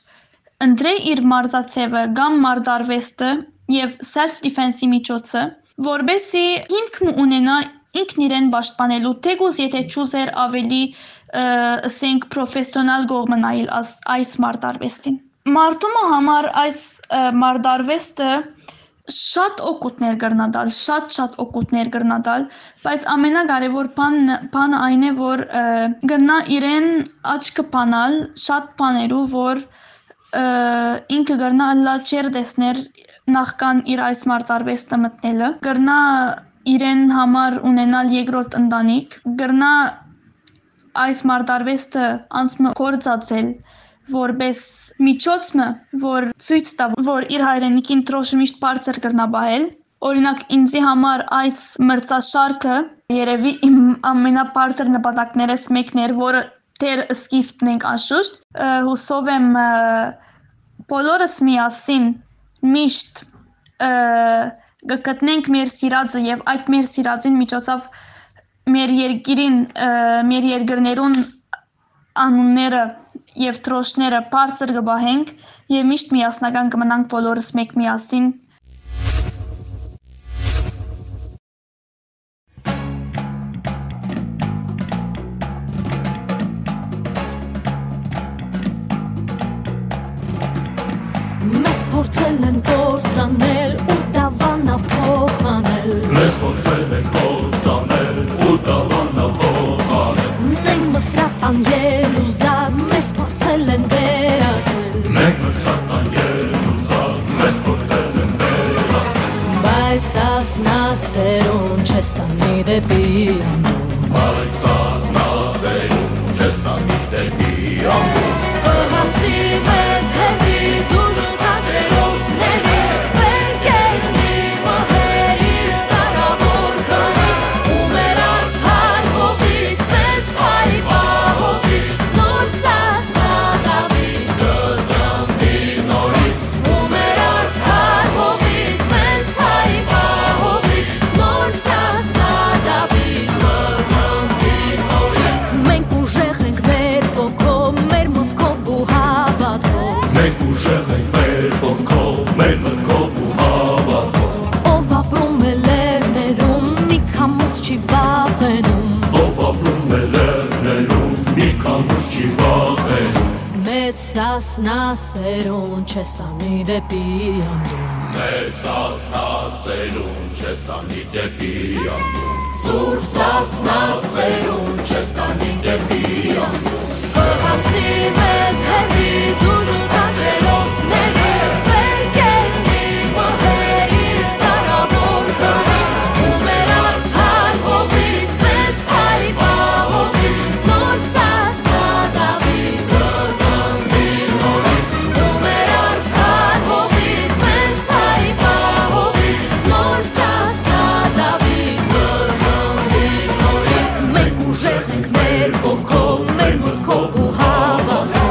ընտրէ իր մարզաձեւը կամ մարտարուեստը եւ self defense-ի միջոցը, որպեսզի հիմք մը ունենայ ինքն իրեն պաշտպանելու, թէկուզ եթէ չուզեր ավելի, ը, ըսենք, պրոֆեսիոնալ կողմը նայել աս-, այս մարտարուեստին։ Մարդու մը համար այս, ը, մարտարուեստը շատ օգուտներ կրնա տալ, շատ, շատ օգուտներ կրնա տալ, բայց ամենակարեւոր բան-, բանը այն է, որ, ը, կրնա իրեն աչքը բանալ շատ բաներու, որ, ը, ինքը կրնա ըլլալ չեր տեսներ նախքան իր այս մարտարուեստը մտնելը, կրնա իրեն համար ունենալ երկրորդ ընտանիք, կրնա այս մարտարուեստը անց մը կործածել որպես միջոց մը, որ ցոյց տայ, որ իր հայրենիքին դրոշը միշտ բարձր կրնա պահել։ Օրինակ, ինձի համար այս մրցաշարքը երևի իմ ամենաբարձր նպատակներս մեկն էր, որը դեռ սկիզբն ենք անշուշտ։ Ը, հուսով եմ, ը, բոլորս միասին միշտ, ը, կգտնենք մեր սիրածը եւ այդ մեր սիրածին միջոցով մեր երկիրին, ը, մեր երկրներուն անունները եւ դրոշները բարձր կպահենք եւ միշտ միասնական կմնանք բոլորս մեկ միասին։ փորձել են կործանել ու դավանափոխանել։ Մեզ փորձել են կործանել ու դավանափոխանել։ Մենք Մսրատան ելուզակ, մեզ փորձել են վերածել։ Մենք Մսրատան ելուզակ, մեզ փորձել են վերածել։ Բայց Սասնա սերուն չես տանի դեպի անդուն։ Բայց Սասնա սերուն չես տանի դեպի անդուն։ Կհասնի մեզ հեռվից ուժը քաջերոսների, վեր կեննի մհերի կարաւոր քարից, ու մեր արդար հողից մեզ հայ պահողից նոր Սասնա Դաւիթ կծնվի նորից, ու մեր արդար հողից մեզ հայ պահողից նոր Սասնա Դաւիթ կծնվի նորից։ Մենք ուժեղ ենք մեր ոգով, մեր մտքով ու հավատքով։ Մենք ուժեղ ենք մեր ոգով, մեր մտքով ու հավատքով։ Ով ապրում է լեռներում, մի քամուց չի վախենում։ Ով ապրում է լեռներում, մի քամուց չի վախենում։ Մեծ Սասնա սերուն չես տանի դեպի անդուն։ Մեծ Սասնա սերուն չես տանի դեպի անդուն։ Զուր Սասնա սերուն չես տանի դեպի անդուն։ Կհասնի մեզ հեռվից ուժը քաջերոսների, վեր կեննի մհերի կարաւոր քարից, ու մեր արդար հողից մեզ հայ պահողից նոր Սասնա Դաւիթ կծնվի նորից, ու մեր արդար հողից մեզ հայ պահողից նոր Սասնա Դաւիթ կծնվի նորից։ Մենք ուժեղ ենք մեր ոգով, մեր մտքով ու հավատքով։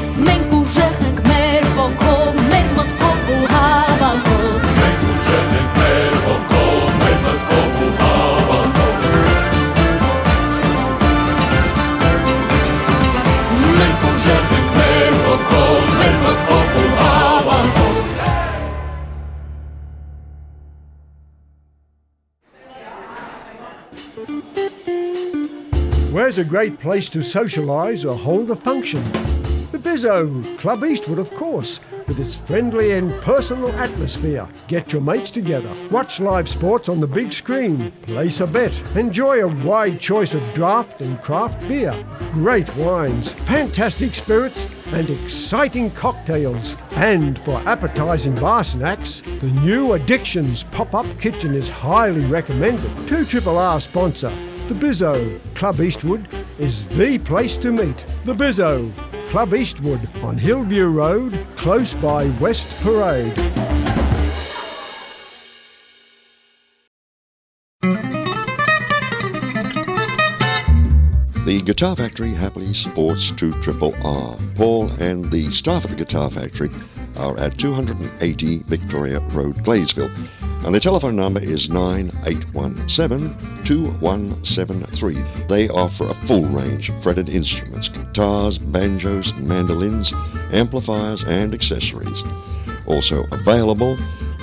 Մենք ուժեղ ենք մեր ոգով, մեր մտքով ու հավատքով։ Մենք ուժեղ ենք մեր ոգով, մեր մտքով ու հավատքով։ Մենք ուժեղ ենք մեր ոգով, մեր մտքով ու հավատքով։ Where's a great place to socialise or hold a function? The Bizzo, Club Eastwood, of course, with its friendly and personal atmosphere. Get your mates together, watch live sports on the big screen, place a bet, enjoy a wide choice of draft and craft beer, great wines, fantastic spirits, and exciting cocktails. And for appetising bar snacks, the new Addictions pop-up kitchen is highly recommended. Two Triple R sponsor, The Bizzo, Club Eastwood, is the place to meet. The Bizzo, Club Eastwood on Hillview Road, close by West Parade. The Guitar Factory happily supports two triple R. Paul and the staff at the Guitar Factory are at two hundred and eighty Victoria Road, Gladesville, and the telephone number is nine eight one seven, two one seven three. They offer a full range of fretted instruments, guitars, banjos, mandolins, amplifiers, and accessories. Also available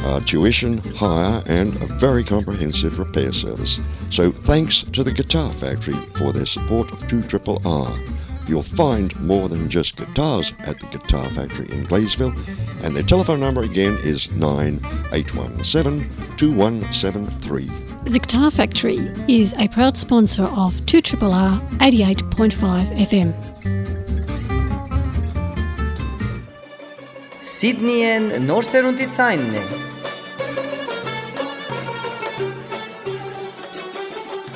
are tuition, hire, and a very comprehensive repair service. So thanks to the Guitar Factory for their support of two triple R. You'll find more than just guitars at the Guitar Factory in Gladesville, and their telephone number again is nine eight one seven, two one seven three. The Guitar Factory is a proud sponsor of two triple R eighty-eight point five F M. Սիդնիեն նոր սերունդի ցայնն է։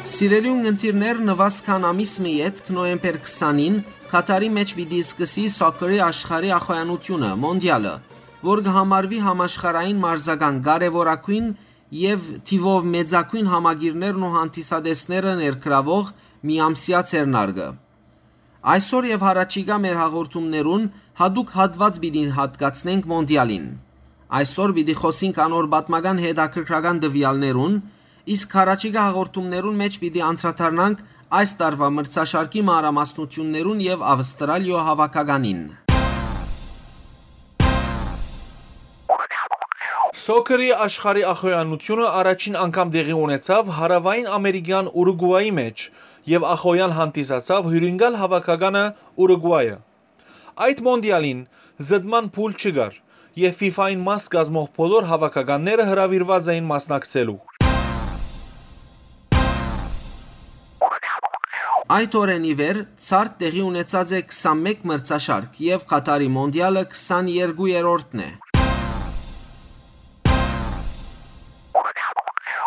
Սիրելի ունգընտիրներ, նուազ քան ամիս մը ետք, նոյեմբեր քսանին, Քաթարի մէջ պիտի սկսի սոքերի աշխարհի ախոյանութիւնը, մոնդիալը, որ կը համարուի համաշխարհային մարզական կարեւորագոյն եւ թիւով մեծագոյն համակիրներն ու հանդիսատեսները ներգրաւող միամսեայ ձեռնարկը։ Այսօր եւ յառաջիկայ մեր հաղորդումներուն յատուկ հատուած պիտի յատկացնենք մոնդիալին։ Այսօր պիտի խօսենք անոր պատմական հետաքրքրական տուեալներուն, իսկ յառաջիկայ հաղորդումներուն մէջ պիտի անդրադառնանք այս տարուայ մրցաշարքի մանրամասնութիւններուն եւ Ավստրալիոյ հաւաքականին։ Սոքերի աշխարհի ախոյանութիւնը առաջին անգամ տեղի ունեցաւ Հարաւային Ամերիկեան Ուրուգուայի մէջ եւ ախոյան հանդիսացաւ հիւրընկալ հաւաքականը Ուրուգուայը։ Այդ մոնդիալին զտման փուլ չկար եւ ֆիֆային մաս կազմող բոլոր հաւաքականները հրաւիրուած էին մասնակցելու։ Այդ օրէն ի վեր ցարդ տեղի ունեցած է քսանմէկ մրցաշարք եւ Քաթարի մոնդիալը քսաներկուերորդն է։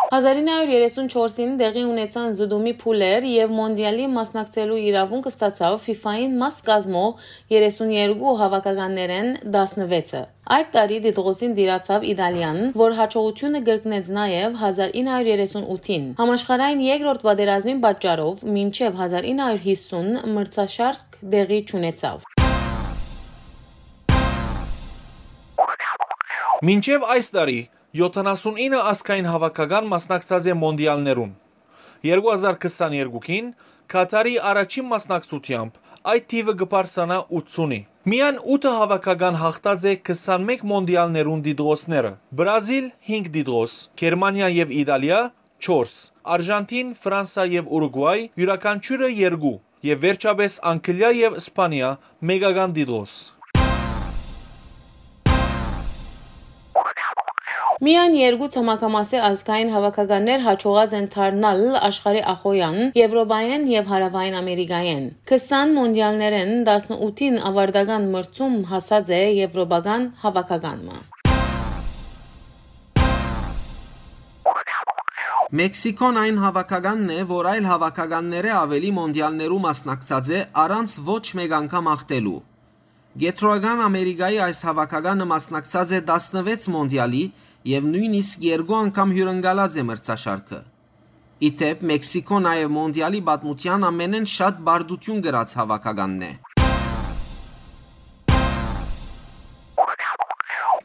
Հազար ինը հարիւր երեսուն չորսին տեղի ունեցան զտումի փուլեր եւ մոնդիալի մասնակցելու իրաւունք ստացաւ ֆիֆային մաս կազմող երեսուն երկու հաւաքականներէն տասնվեցը։ Այդ տարի Տիտղոսին տիրացաւ Իտալիան, որ յաջողութիւնը կրկնեց նաեւ հազար ինը հարիւր երեսուն ութին։ Համաշխարհային երկրորդ պատերազմին պատճառով մինչեւ հազար ինը հարիւր յիսուն մրցաշարք տեղի չունեցաւ։ Մինչեւ այս տարի յոթանասունինը ազգային հաւաքական մասնակցած է մոնդիալներուն։ Երկու հազար քսաներկուին Քաթարի առաջին մասնակցութեամբ այդ թիւը կը բարձրանայ ութսունի։ Միայն ութը հաւաքական յաղթած է քսանմէկ մոնդիալներուն տիտղոսները։ Բրազիլ՝ հինգ տիտղոս, Գերմանիա եւ Իտալիա՝ չորս, Արժանթին, Ֆրանսա եւ Ուրուգուայ՝ իւրաքանչիւրը երկու, եւ վերջապէս Անգլիա եւ Սպանիա՝ մէկական տիտղոս։ Միայն երկու ցամաքամասի ազգային հաւաքականներ յաջողած են դառնալ աշխարհի ախոյեան, Եւրոպայէն եւ Հարաւային Ամերիկայէն։ Քսան մոնդիալներէն տասնութին աւարտական մրցում հասած է եւրոպական հաւաքական մը։ Մեքսիքոն այն հաւաքականն է, որ այլ հաւաքականներէ աւելի մոնդիալներու մասնակցած է առանց ոչ մէկ անգամ յաղթելու։ Կեդրոական Ամերիկայի այս հաւաքականը մասնակցած է տասնվեց մոնդիալի եւ նոյնիսկ երկու անգամ հիւրընկալած է մրցաշարքը։ Ի դէպ, Մեքսիքոն նաեւ մոնդիալի պատմութեան ամենէն շատ պարտութիւն կրած հաւաքականն է։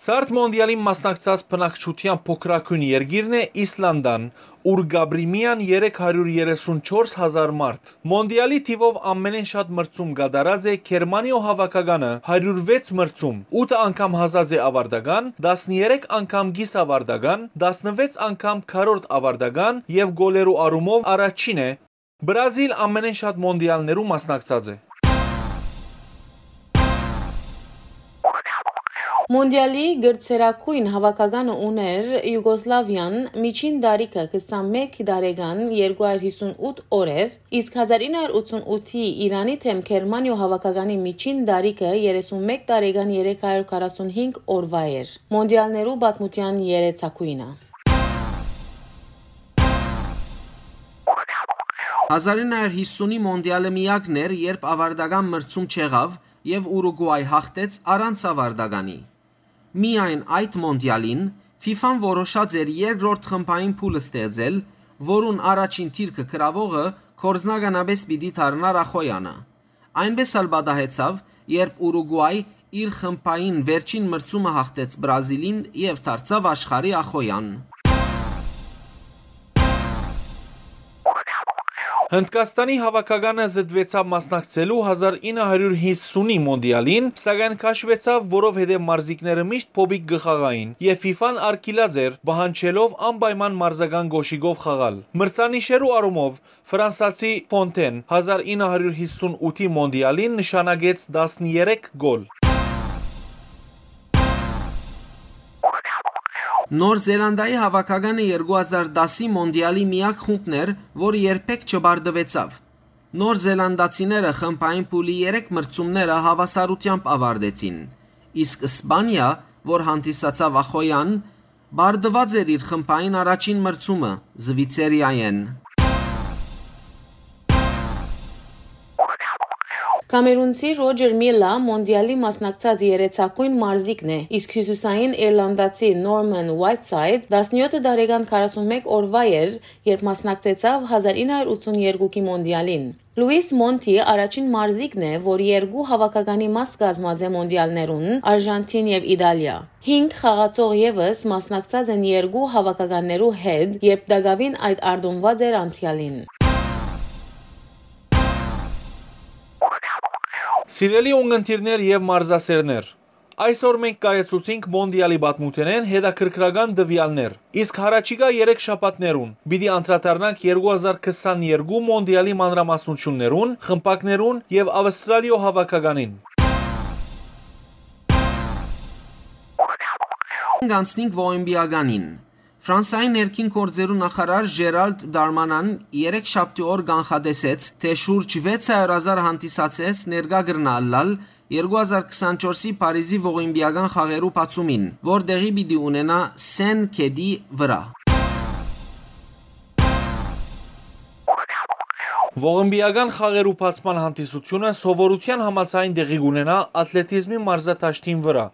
Ցարդ մոնդիալին մասնակցած բնակչութեան փոքրագոյն երկիրն է Իսլանդան, ուր կ'ապրի միայն երեք հարիւր երեսուն չորս հազար մարդ։ Մոնդիալի թիւով ամենէն շատ մրցում կատարած է Գերմանիոյ հաւաքականը՝ հարիւր վեց մրցում, ութ անգամ հասած է աւարտական, տասներեք անգամ կիսաւարտական, տասնվեց անգամ քառորդ աւարտական եւ գոլերու առումով առաջին է։ Բրազիլ ամենէն շատ մոնդիալներու մասնակցած է։ Մոնդիալի գրցերագոյն հաւաքականը ունէր Յուգոսլավիան, միջին տարիքը քսանմէկ տարեկան, երկու հարիւր յիսուն ութ օրեր, իսկ հազար ինը հարիւր ութսուն ութի Իրանի դէմ Գերմանիոյ հաւաքականի միջին տարիքը երեսուն մէկ տարեկան, երեք հարիւր քառասուն հինգ օրուայ էր։ Մոնդիալներու պատմութեան երեցագոյնը։ Հազար ինը հարիւր յիսունի մոնդիալը միակն էր, երբ աւարտական մրցում չեղաւ եւ Ուրուգուայ յաղթեց առանց աւարտականի։ Միայն այդ մոնդիալին ֆիֆան որոշած էր երկրորդ խմբային փուլ ստեղծել, որուն առաջին դիրքը գրաւողը գործնականապէս պիտի դառնար ախոյանը։ Այնպէս ալ պատահեցաւ, երբ Ուրուգուայ իր խմբային վերջին մրցումը յաղթեց Բրազիլին եւ դարձաւ աշխարհի ախոյան։ Հնդկաստանի հաւաքականը զտուեցաւ մասնակցելու հազար ինը հարիւր յիսունի մոնդիալին, սակայն քաշուեցաւ, որովհետեւ մարզիկները միշտ փոփիկ կը խաղային, եւ ֆիֆան արգիլած էր, պահանջելով անպայման մարզական կոշիկով խաղալ։ Մրցանիշերու առումով Ֆրանսացի Ֆոնթեն հազար ինը հարիւր յիսուն ութի մոնդիալին նշանակեց տասներեք գոլ։ Նոր Զելանդայի հաւաքականը երկու հազար տասի մոնդիալի միակ խումբն էր, որ երբեք չպարտուեցաւ։ Նոր Զելանդացիները խմբային փուլի երեք մրցումները հաւասարութեամբ աւարտեցին, իսկ Սպանիա, որ հանդիսացաւ ախոյան, պարտուած էր իր խմբային առաջին մրցումը Զվիցերիայէն։ Կամերունցի Ռոջեր Միլլա մոնդիալի մասնակցած երեցակոյն մարզիկն է, իսկ հիւսիսային իռլանդացի Նորման Ուայթսայդ տասնեօթ տարեկան քառասունմէկ օրուայ էր, երբ մասնակցեցաւ հազար ինը հարիւր ութսունեթի մոնդիալին։ Լուիս Մոնթի առաջին մարզիկն է, որ երկու հաւաքականի մաս կազմած է մոնդիալներուն՝ Արժանթին եւ Իտալիա։ Հինգ խաղացող եւս մասնակցած են երկու հաւաքականներու հետ, երբ տակաւին այդ արտոնուած էր անցեալին։ Սիրելի ունգընտիրներ եւ մարզասերներ, այսօր մենք կայացուցինք մոնդիալի պատմութենէն հետաքրքրական տուեալներ, իսկ յառաջիկայ երեք շաբաթներուն պիտի անդրադառնանք երկու հազար քսաներկու մոնդիալի մանրամասնութիւններուն, խմբակներուն եւ Աւստրալիոյ հաւաքականին։ Անցնենք Ողիմպիականին։ Ֆրանսայի ներքին գործերու նախարար Ժերալդ Դարմանան երեքշաբթի օր կանխատեսեց, թէ շուրջ վեց հարիւր հազար հանդիսատես ներկայ կրնայ ըլլալ երկու հազար քսանչորսի Փարիզի Ողիմպիական խաղերու բացումին, որ տեղի պիտի ունենայ Սեն գետի վրայ։ Ողիմպիական խաղերու բացման հանդիսութիւնը սովորութեան համաձայն տեղի կունենայ աթլետիզմի մարզադաշտին վրայ,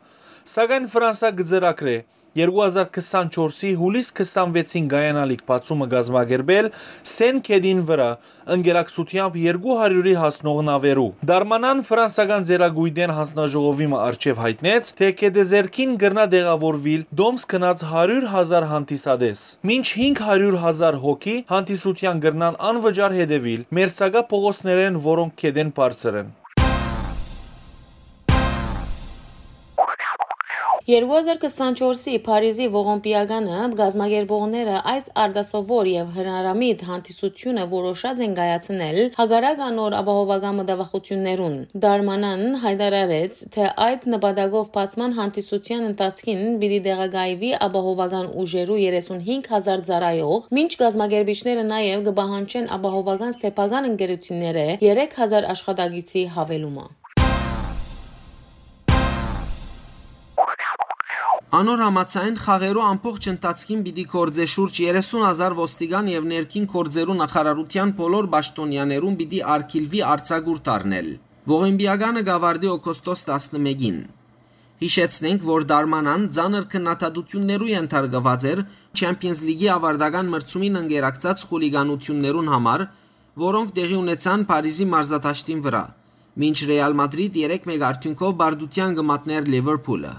սակայն Ֆրանսա կը ծրագրէ երկու հազար քսանչորսի յուլիս քսանվեցին կայանալիք բացումը կազմակերպել Սեն գետին վրայ, ընկերակցութեամբ երկու հարիւրի հասնող նաւերու։ Դարմանան ֆրանսական ծերակոյտէն հանձնաժողովի մը առջեւ յայտնեց, թէ գետեզերքին կրնայ տեղաւորուիլ տոմս գնած հարիւր հազար հանդիսատես, մինչ հինգ հարիւր հազար հոգի հանդիսութեան կրնան անվճար հետեւիլ մերձակայ փողոցներէն, որոնք գետէն բարձր են։ Երկու հազար քսանչորսի Փարիզի Ողիմպիականը կազմակերպողները այս արտասովոր եւ հնարամիտ հանդիսութիւնը որոշած են կայացնել հակառակ անոր ապահովական մտավախութիւններուն։ Դարմանան յայտարարեց, թէ այդ նպատակով բացման հանդիսութեան ընթացքին պիտի տեղակայուի ապահովական ուժերու երեսունհինգ հազար ծառայող, մինչ կազմակերպիչները նաեւ կը պահանջեն ապահովական սեփական ընկերութիւններէ երեք հազար աշխատակիցի յաւելումը։ Անոր համաձայն, խաղերու ամբողջ ընթացքին պիտի գործէ շուրջ երեսուն հազար ոստիկան եւ ներքին գործերու նախարարութեան բոլոր պաշտօնեաներուն պիտի արգիլուի արձակուրդ առնել։ Ողիմպիականը կ'աւարտի օգոստոս տասնմէկին։ Յիշեցնենք, որ Դարմանան ծանր քննադատութիւններու ենթարկուած էր Չեմփիոնզ Լիգի աւարտական մրցումին ընկերակցած խուլիգանութիւններուն համար, որոնք տեղի ունեցան Փարիզի մարզադաշտին վրայ, մինչ Ռեալ Մադրիդ երեք մէկ արդիւնքով պարտութեան կը մատնէր Լիվերփուլը։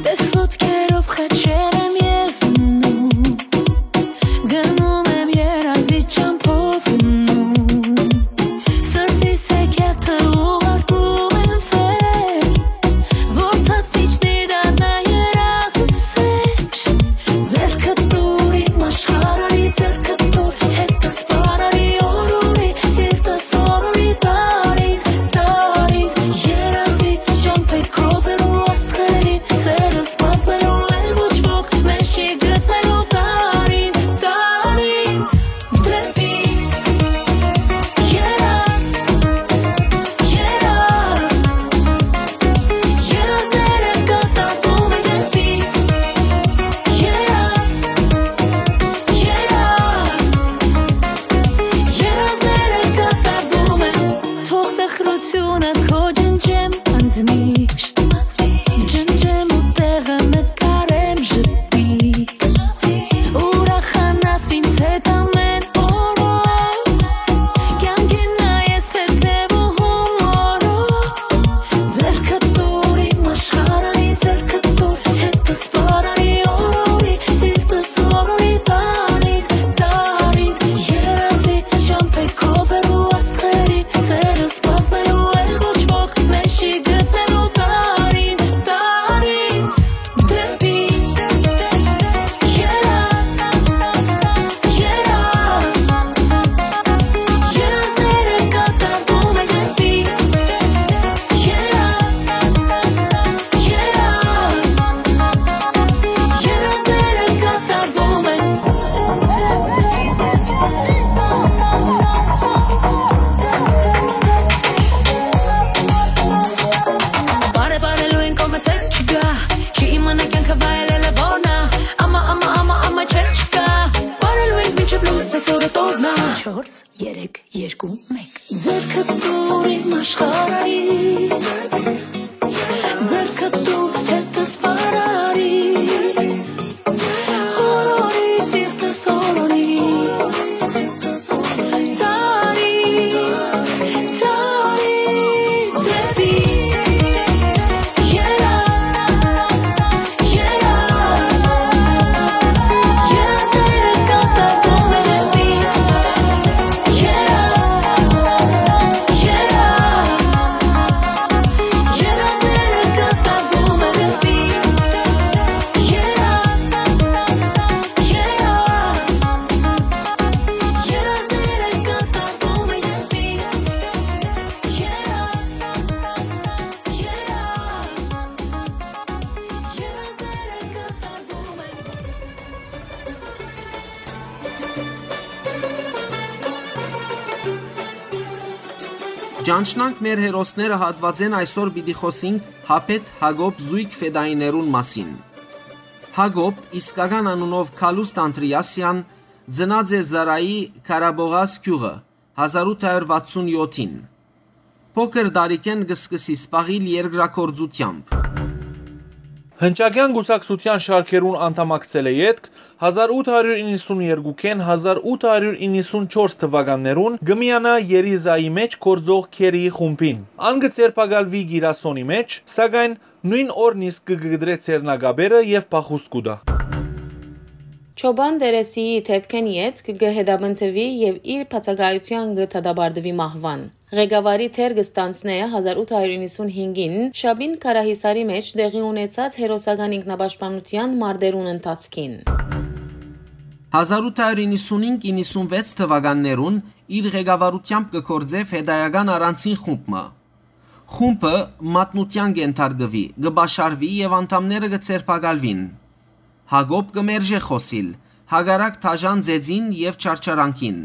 Տես ոտքերով խաչեր եմ ես դնում, գնում եմ երազի ճամփով գնում, սրտիս հեքիաթը ուղարկում եմ վեր, որ ցած իջնի դառնա երազի ծեր, ձեռքը տուր իմ աշխարհի, ձեռքը տուր հետս պարարի օրորի, սիրտս օրորի դարից, դարից, երազի ճամփեքով հեռու աստղերի, սերս պատմելու էլ ոչ ոք մեզ չի գտնելու դարից, դարից, դեպի երազ, երազ, երազները կատարվում են դեպի երազ, երազ, երազները կատարվում են, թող տխրությունը քո ջնջեմ ընդմիշտ, ջնջեմ ու տեղը նկարեմ ժպիտ, ուրախանաս ինձ հետ ամեն օրով, կյանքին նայես հետևում օրով, ձեռքը տուր իմ աշխարհի, ձեռքը տուր հետս պարարի օրորի, սիրտս օրորի դարից, դարից, երազի ճամփեքով հեռու աստղերի, սերս պատմելու էլ ոչ Ձեռքը տուր իմ աշխարհի, ձեռքը տուր հետս վարարի, օրորի սիրտս օրորի, տարի, տարի դեպի երազ, երազ, երազները կատարում է դեպի երազ, երազ, երազները կատարում է դեպի երազ, երազ, երազները կատարում է դեպի երազ, երազ, երազները կատարում է Ճանչնանք մեր հերոսները հատուածէն այսօր պիտի խօսինք Հապետ Հակոբ զոյգ ֆետայիներուն մասին։ Հակոբ, իսկական անունով Քալուստ Անդրեասեան, ծնած է Զարայի Քարաբողաս գիւղը հազար ութ հարյուր վաթսուն յոթին։ Փոքր տարիքէն կը սկսի զբաղիլ երկրագործութեամբ։ Հնչակեան կուսակցութեան շարքերուն անդամակցելէ ետք, հազար ութ հարիւր իննսուն երկուքէն հազար ութ հարիւր իննսուն չորս թուականներուն կը միանայ Երիզայի մէջ գործող Քերիի խումբին։ Ան կը ձերբակալուի Կիրասոնի մէջ, սակայն նոյն օրն իսկ կը կտրէ ձեռնակապերը եւ փախուստ կու տայ։ Չոբան Տերեսիի դէպքէն ետք կը հետապնդուի եւ իր բացակայութեան կը դատապարտուի մահուան։ Ղեկավարի դեր կը ստանձնէ հազար ութ հարիւր իննսուն հինգին Շաբին Քարահիսարի մէջ տեղի ունեցած հերոսական ինքնապաշտպանութեան մարտերուն ընթացքին։ Հազար ութ հարիւր իննսուն հինգ իննսուն վեց թուականներուն իր ղեկավարութեամբ կը գործէ ֆետայական առանձին խումբ մը։ Խումբը մատնութեան կ'ենթարկուի, կը պաշարուի եւ անդամները կը ձերբակալուին։ Հակոբ կը մերժէ խօսիլ, հակառակ դաժան ծեծին եւ չարչարանքին։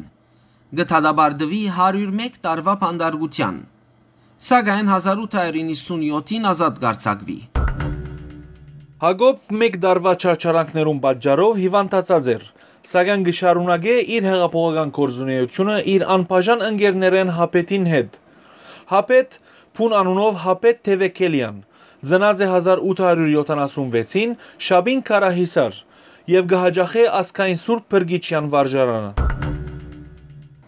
Կը դատապարտուի հարիւր մէկ տարուայ բանտարկութեան, սակայն հազար ութ հարիւր իննսուն յոթին ազատ կ'արձակուի։ Հակոբ մէկ տարուայ չարչարանքներուն պատճառով հիւանդացած էր, սակայն կը շարունակէ իր հեղափոխական գործունէութիւնը իր անբաժան ընկերներէն Հապետին հետ։ Հապետ, բուն անունով Հապետ Թեվեքելեան, ծնած է հազար ութ հարիւր յոթանասուն վեցին Շաբին Քարահիսար եւ կը յաճախէ Ազգային Սուրբ Փրկիչեան վարժարանը։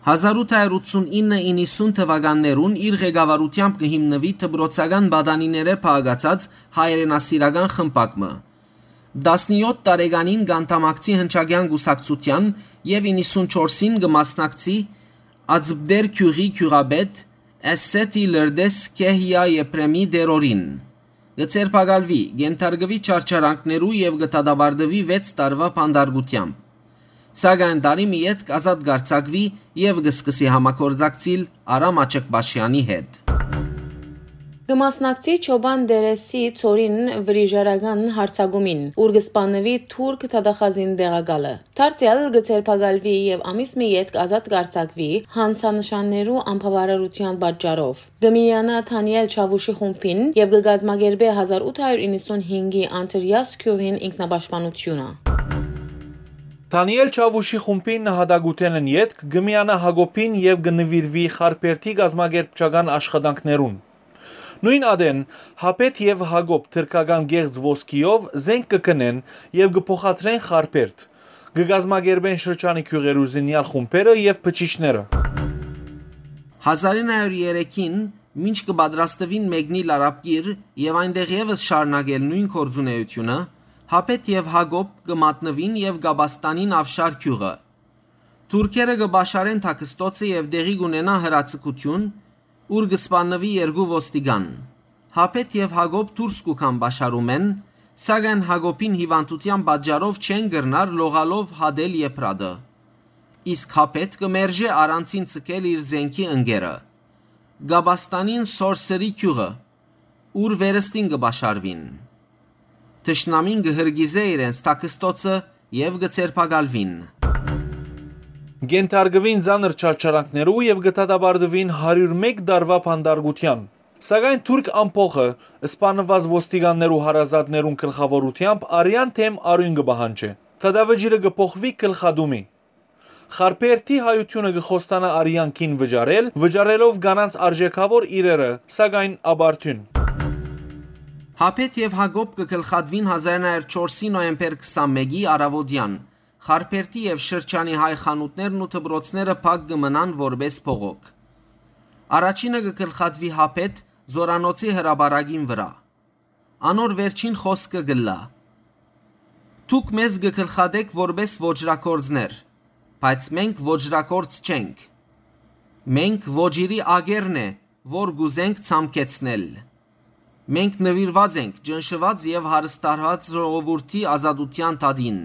Հազար ութ հարիւր ութսուն ինը իննսուն թուականներուն իր ղեկավարութեամբ կը հիմնուի դպրոցական պատանիներէ փաղկացած հայրենասիրական խմբակ մը։ Տասնյոթ տարեկանին կ'անդամակցի Հնչակեան կուսակցութեան եւ իննսուն չորսին կը մասնակցի Ածպտեր գիւղի գիւղապետ Էսսեթի Լրտես Քեհիա Եփրեմի տերորին։ Կը ձերբակալուի, կ'ենթարկուի չարչարանքներու եւ կը դատապարտուի վեց տարուայ բանտարկութեամբ։ Սակայն տարի մը ետք ազատ կ'արձակուի եւ կը սկսի համագործակցիլ Արամ Աչկպաշեանի հետ։ Կը մասնակցի Չոբան Տերեսի ծորին վրիժարական յարձակումին, ուր կը սպաննուի թուրք դատախազին տեղակալը։ Դարձեալ կը ձերբակալուի եւ ամիս մը ետք ազատ կ'արձակուի հանցանշաններու անբաւարարութեան պատճառով։ Կը միանայ Դանիել Չաւուշի խումբին եւ կը կազմակերպէ հազար ութ հարիւր իննսուն հինգի Անդրեաս գիւղին ինքնապաշտպանութիւնը։ Դանիել Չաւուշի խումբին նահատակութենէն ետք կը միանայ Հակոբին եւ կը նուիրուի Խարբերդի կազմակերպչական աշխատանքներուն։ Նոյն ատեն Հապետ եւ Հակոբ թրքական կեղծ ոսկիով զենք կը գնեն եւ կը փոխադրեն Խարբերդ։ Կը կազմակերպեն շրջանի գիւղերու զինեալ խումբերը եւ բջիջները։ Հազար ինը հարիւր երեքին, մինչ կը պատրաստուին մեկնիլ Արաբկիր եւ այնտեղ եւս շարունակել նոյն գործունէութիւնը, Հապետ եւ Հակոբ կը մատնուին եւ կ'ապաստանին Աւշար գիւղը։ Թուրքերը կը պաշարեն Թաքստոցը եւ տեղի կ'ունենայ հրաձգութիւն, ուր կը սպաննուի երկու ոստիկան։ Հապետ եւ Հակոբ դուրս կու գան պաշարումէն, սակայն Հակոբին հիւանդութեան պատճառով չեն կրնար լողալով հատել Եփրատը։ Իսկ Հապետ կը մերժէ առանցին ձգել իր զենքի ընկերը։ Կ'ապաստանին Սորսերի գիւղը, ուր վերստին կը պաշարուին։ Թշնամին կը հրկիզէ իրենց Թաքստոցը եւ կը ձերբակալուին։ Կ'ենթարկուին ծանր չարչարանքներու եւ կը դատապարտուին հարիւր մէկ տարուայ բանտարկութեան։ Սակայն թուրք ամբոխը, սպաննուած ոստիկաններու հարազատներուն գլխաւորութեամբ, արեան դէմ արիւն կը պահանջէ։ Դատավճիռը կը փոխուի գլխատումի։ Խարբերդի հայութիւնը կը խոստանայ արեան կին վճարել, վճարելով կանանց արժէքաւոր իրերը, սակայն ապարդիւն։ Հապետ եւ Հակոբ կը գլխատուին հազար նոյ հարիւր չորսի նոյեմբեր քսանմէկի առաւօտեան։ Խարբերդի եւ շրջանի հայ խանութներն ու դպրոցները փակ կը մնան որպէս բողոք։ Առաջինը կը գլխատուի Հապետ Զօրանոցի հրապարակին վրայ։ Անոր վերջին խօսքը կ'ըլլայ. «Դուք մեզ կը գլխատէք որպէս ոճրագործներ, բայց մենք ոճրագործ չենք։ Մենք ոճիրի ակերն է, որ կ'ուզենք ցամքեցնել։ Մենք նուիրուած ենք ճնշուած եւ հարստահարուած ժողովուրդի ազատութեան դատին,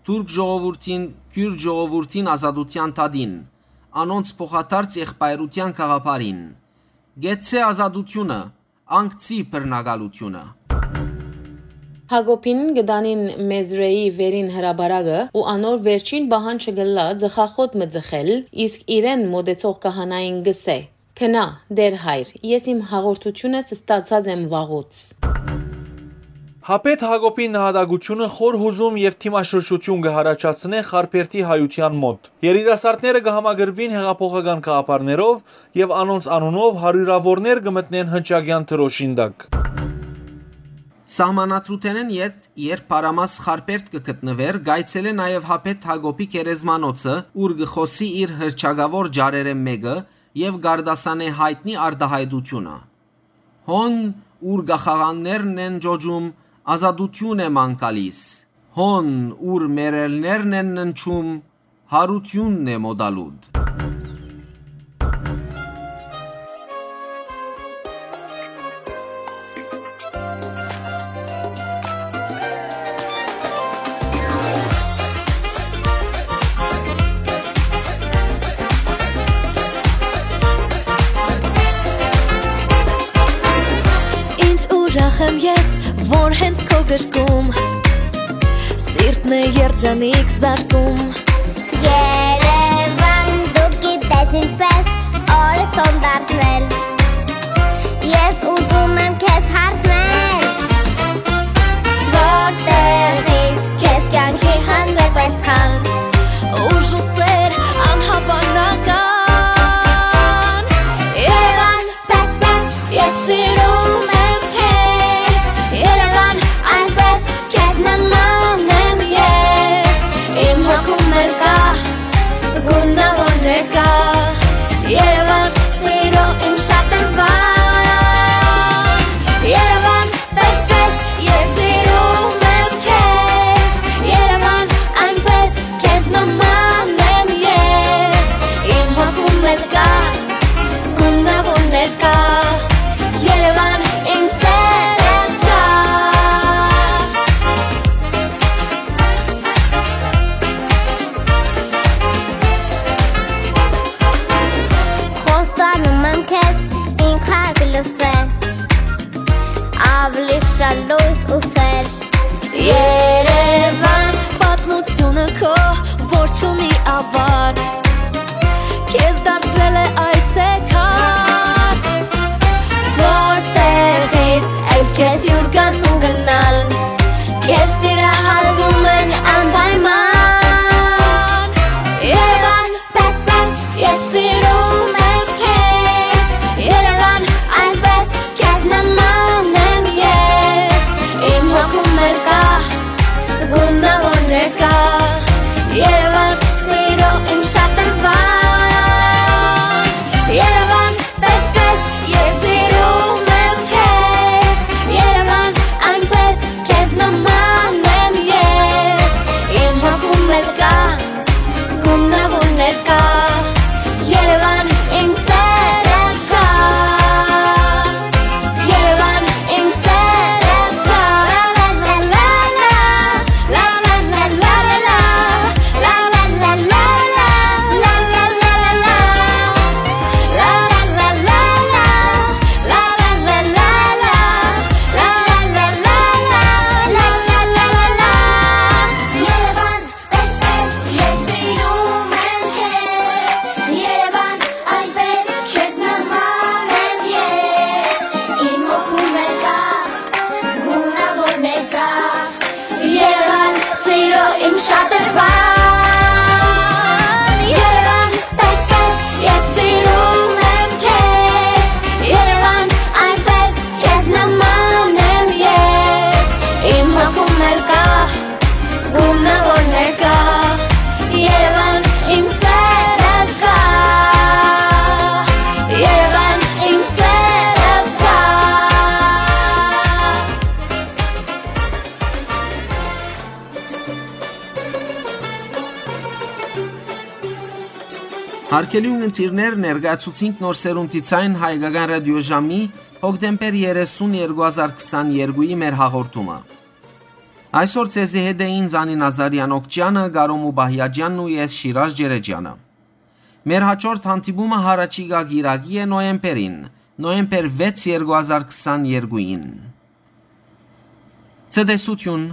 թուրք ժողովուրդին, քիւրտ ժողովուրդին ազատութեան դատին, անոնց փոխադարձ եղբայրութեան գաղափարին։ Կեցցէ ազատութիւնը, անկցի բռնակալութիւնը»։ Հակոբին կը տանին Մեզրէի վերին հրապարակը ու անոր վերջին պահանջը կ'ըլլայ ծխախոտ մը ծխել, իսկ իրեն մօտեցող քահանային կ'ըսէ. «Գնա, Տէր հայր, ես իմ հաղորդութիւնս ստացած եմ վաղուց»։ Հապետ Հակոբի նահատակութիւնը խոր յուզում եւ դիմաշրջութիւն կը յառաջացնէ Խարբերդի հայութեան մօտ։ Երիտասարդները կը համակրուին յեղափոխական գաղափարներով եւ անոնց անունով հարիւրաւորներ կը մտնեն հնչակեան դրօշին տակ։ Սահմանադրութենէն ետք, երբ Փարամաս Խարբերդ կը գտնուէր, կ'այցելէ նաեւ Հապետ Հակոբի գերեզմանոցը, ուր կը խօսի իր հռչակաւոր ճառերէն մէկը եւ կ'արտասանէ յայտնի արտայայտութիւնը. «Հոն, ուր կախաղաններն են ճոճում, ազատութիւն է ման գալիս։ Հոն, ուր մեռելներն են ննջում, յարութիւնն է մօտալուտ»։ Ինչ ուրախ եմ ես, որ հենց քո գրկում սիրտն է երջանիկ զարկում։ Երևան, դու գիտես ինչպես օրս տոն դարձնել։ Ես ուզում եմ քեզ հարցնել, որտեղից քեզ կյանքի հանդեպ այսքան ուժ ու սեր անհավանական։ Երևան, պես, պես, ես սիրում եմ քեզ, Երևան, այնպես քեզ նման եմ ես, իմ հոգում էլ կա, գունավոր ներկա, Երևան, սիրո իմ շատրվան, Երևան, պես, պես, ես սիրում եմ քեզ, Երևան, այնպես քեզ նման եմ ես, իմ հոգում էլ կա, գունավոր ներկա, Երևան, իմ սերս կա։ Խոստանում եմ քեզ, ինքը կլսե, ավելի շատ լույս ու սեր։ Երևան, պատմությունը քո, որ չունի ավարտ, քեզ դարձրել է այցեքարտ, որտեղից էլ քեզ հյուր գան ու գնան, քեզ սիրահարվում են անպայման։ Երևան, պես, պես, ես սիրում եմ քեզ, Երևան, այնպես քեզ նման եմ ես, իմ հոգում էլ կա, գունավոր ներկա, Երևան, սիրո իմ շատրվան, Երևան, պես, պես, ես սիրում եմ քեզ, Երևան, Արգելի ունգընտիրներ, ներկայացուցինք Նոր Սերունդի Ձայն հայկական ռադիոժամի հոկտեմբեր երեսուն, երկու հազար քսաներկուի մեր հաղորդումը։ Այսօր ձեզի հետ էին Զանի Նազարեան Օքճեանը, Կարո Մուբահիաջյանն ու ես, Շիրազ Ջերեջյանը։ Մեր հաջորդ հանդիպումը յառաջիկայ կիրակի է, նոյեմբերին, նոյեմբեր վեց, երկու հազար քսաներկուին։ Ցտեսություն։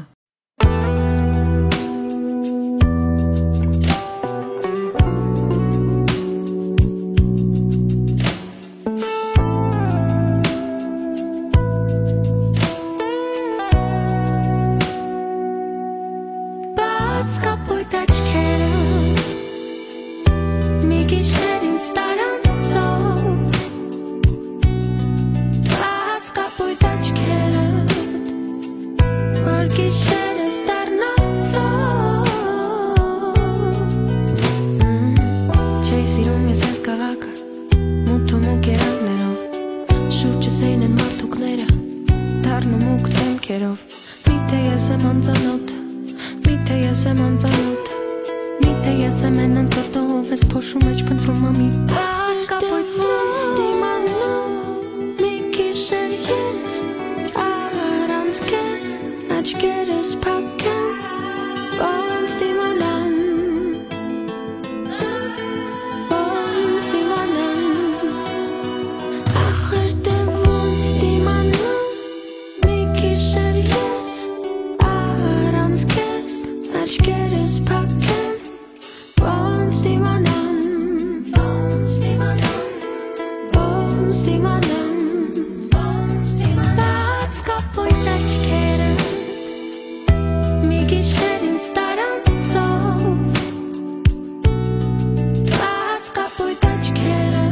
Բաց կապոյտ աչքերը, մի գիշեր ինձ տարանցով, բաց կապոյտ աչքերը, որ գիշերս դառնանցով։ Չէի սիրում ես այս քաղաքը, մութ ու մուգ երանգներով, շուրջս էին են մարդուկները, դառնու մուգ դեմքերով։ Միթե ես եմ անծանոթ, միթե ես եմ անծանոթ, միթե ես եմ են անծանոթով, ես փոշու մեջ փնտրում եմ մի բաց կապոյտ ոնց դիմանամ, մի գիշեր ես առանց քեզ, աչքերս փակ են, ոնց դիմանամ, ոնց դիմանամ, ախր դե ոնց դիմանամ, մի գիշեր ես առանց քեզ, աչքերս փակ են, ոնց դիմանամ, ոնց դիմանամ, բաց կապոյտ աչքերը, մի գիշեր ինձ տարանցով, բաց կապոյտ աչքերը,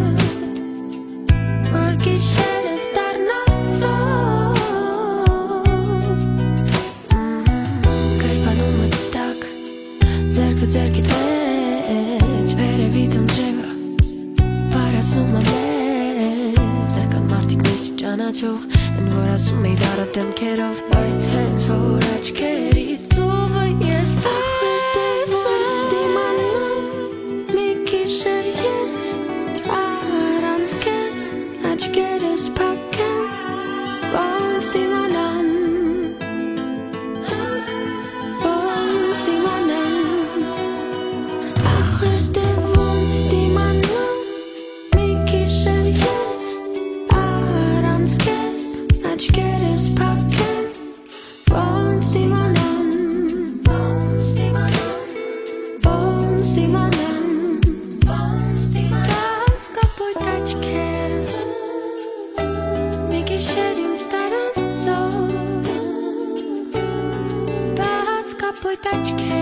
որ գիշերս դառնանցով։ Կերպանում մտտակ, ձեռքը ձեռքի մեջ, վերևից անձրևը վարացնում է մեզ, դեռ կան մարդիկ մեզ չճանաչող, են որ ասում էի դառը դեմքերով, բայց հենց որ աչքերիդ ծովը ես ախր տեսնեմ, դիմանամ, մի գիշեր ես առանց քեզ, աչքերս փակ են, ոնց դիմանամ, ոնց դիմանամ, ախր դե ոնց դիմանամ, մի գիշեր ես առանց քեզ, աչքերս փակ են, ոնց դիմանամ, ոնց դիմանամ, ոնց դիմանամ, ոնց դիմանամ, բաց կապոյտ աչքերը, մի գիշեր ինձ տարանցով, բաց կապոյտ աչքերը,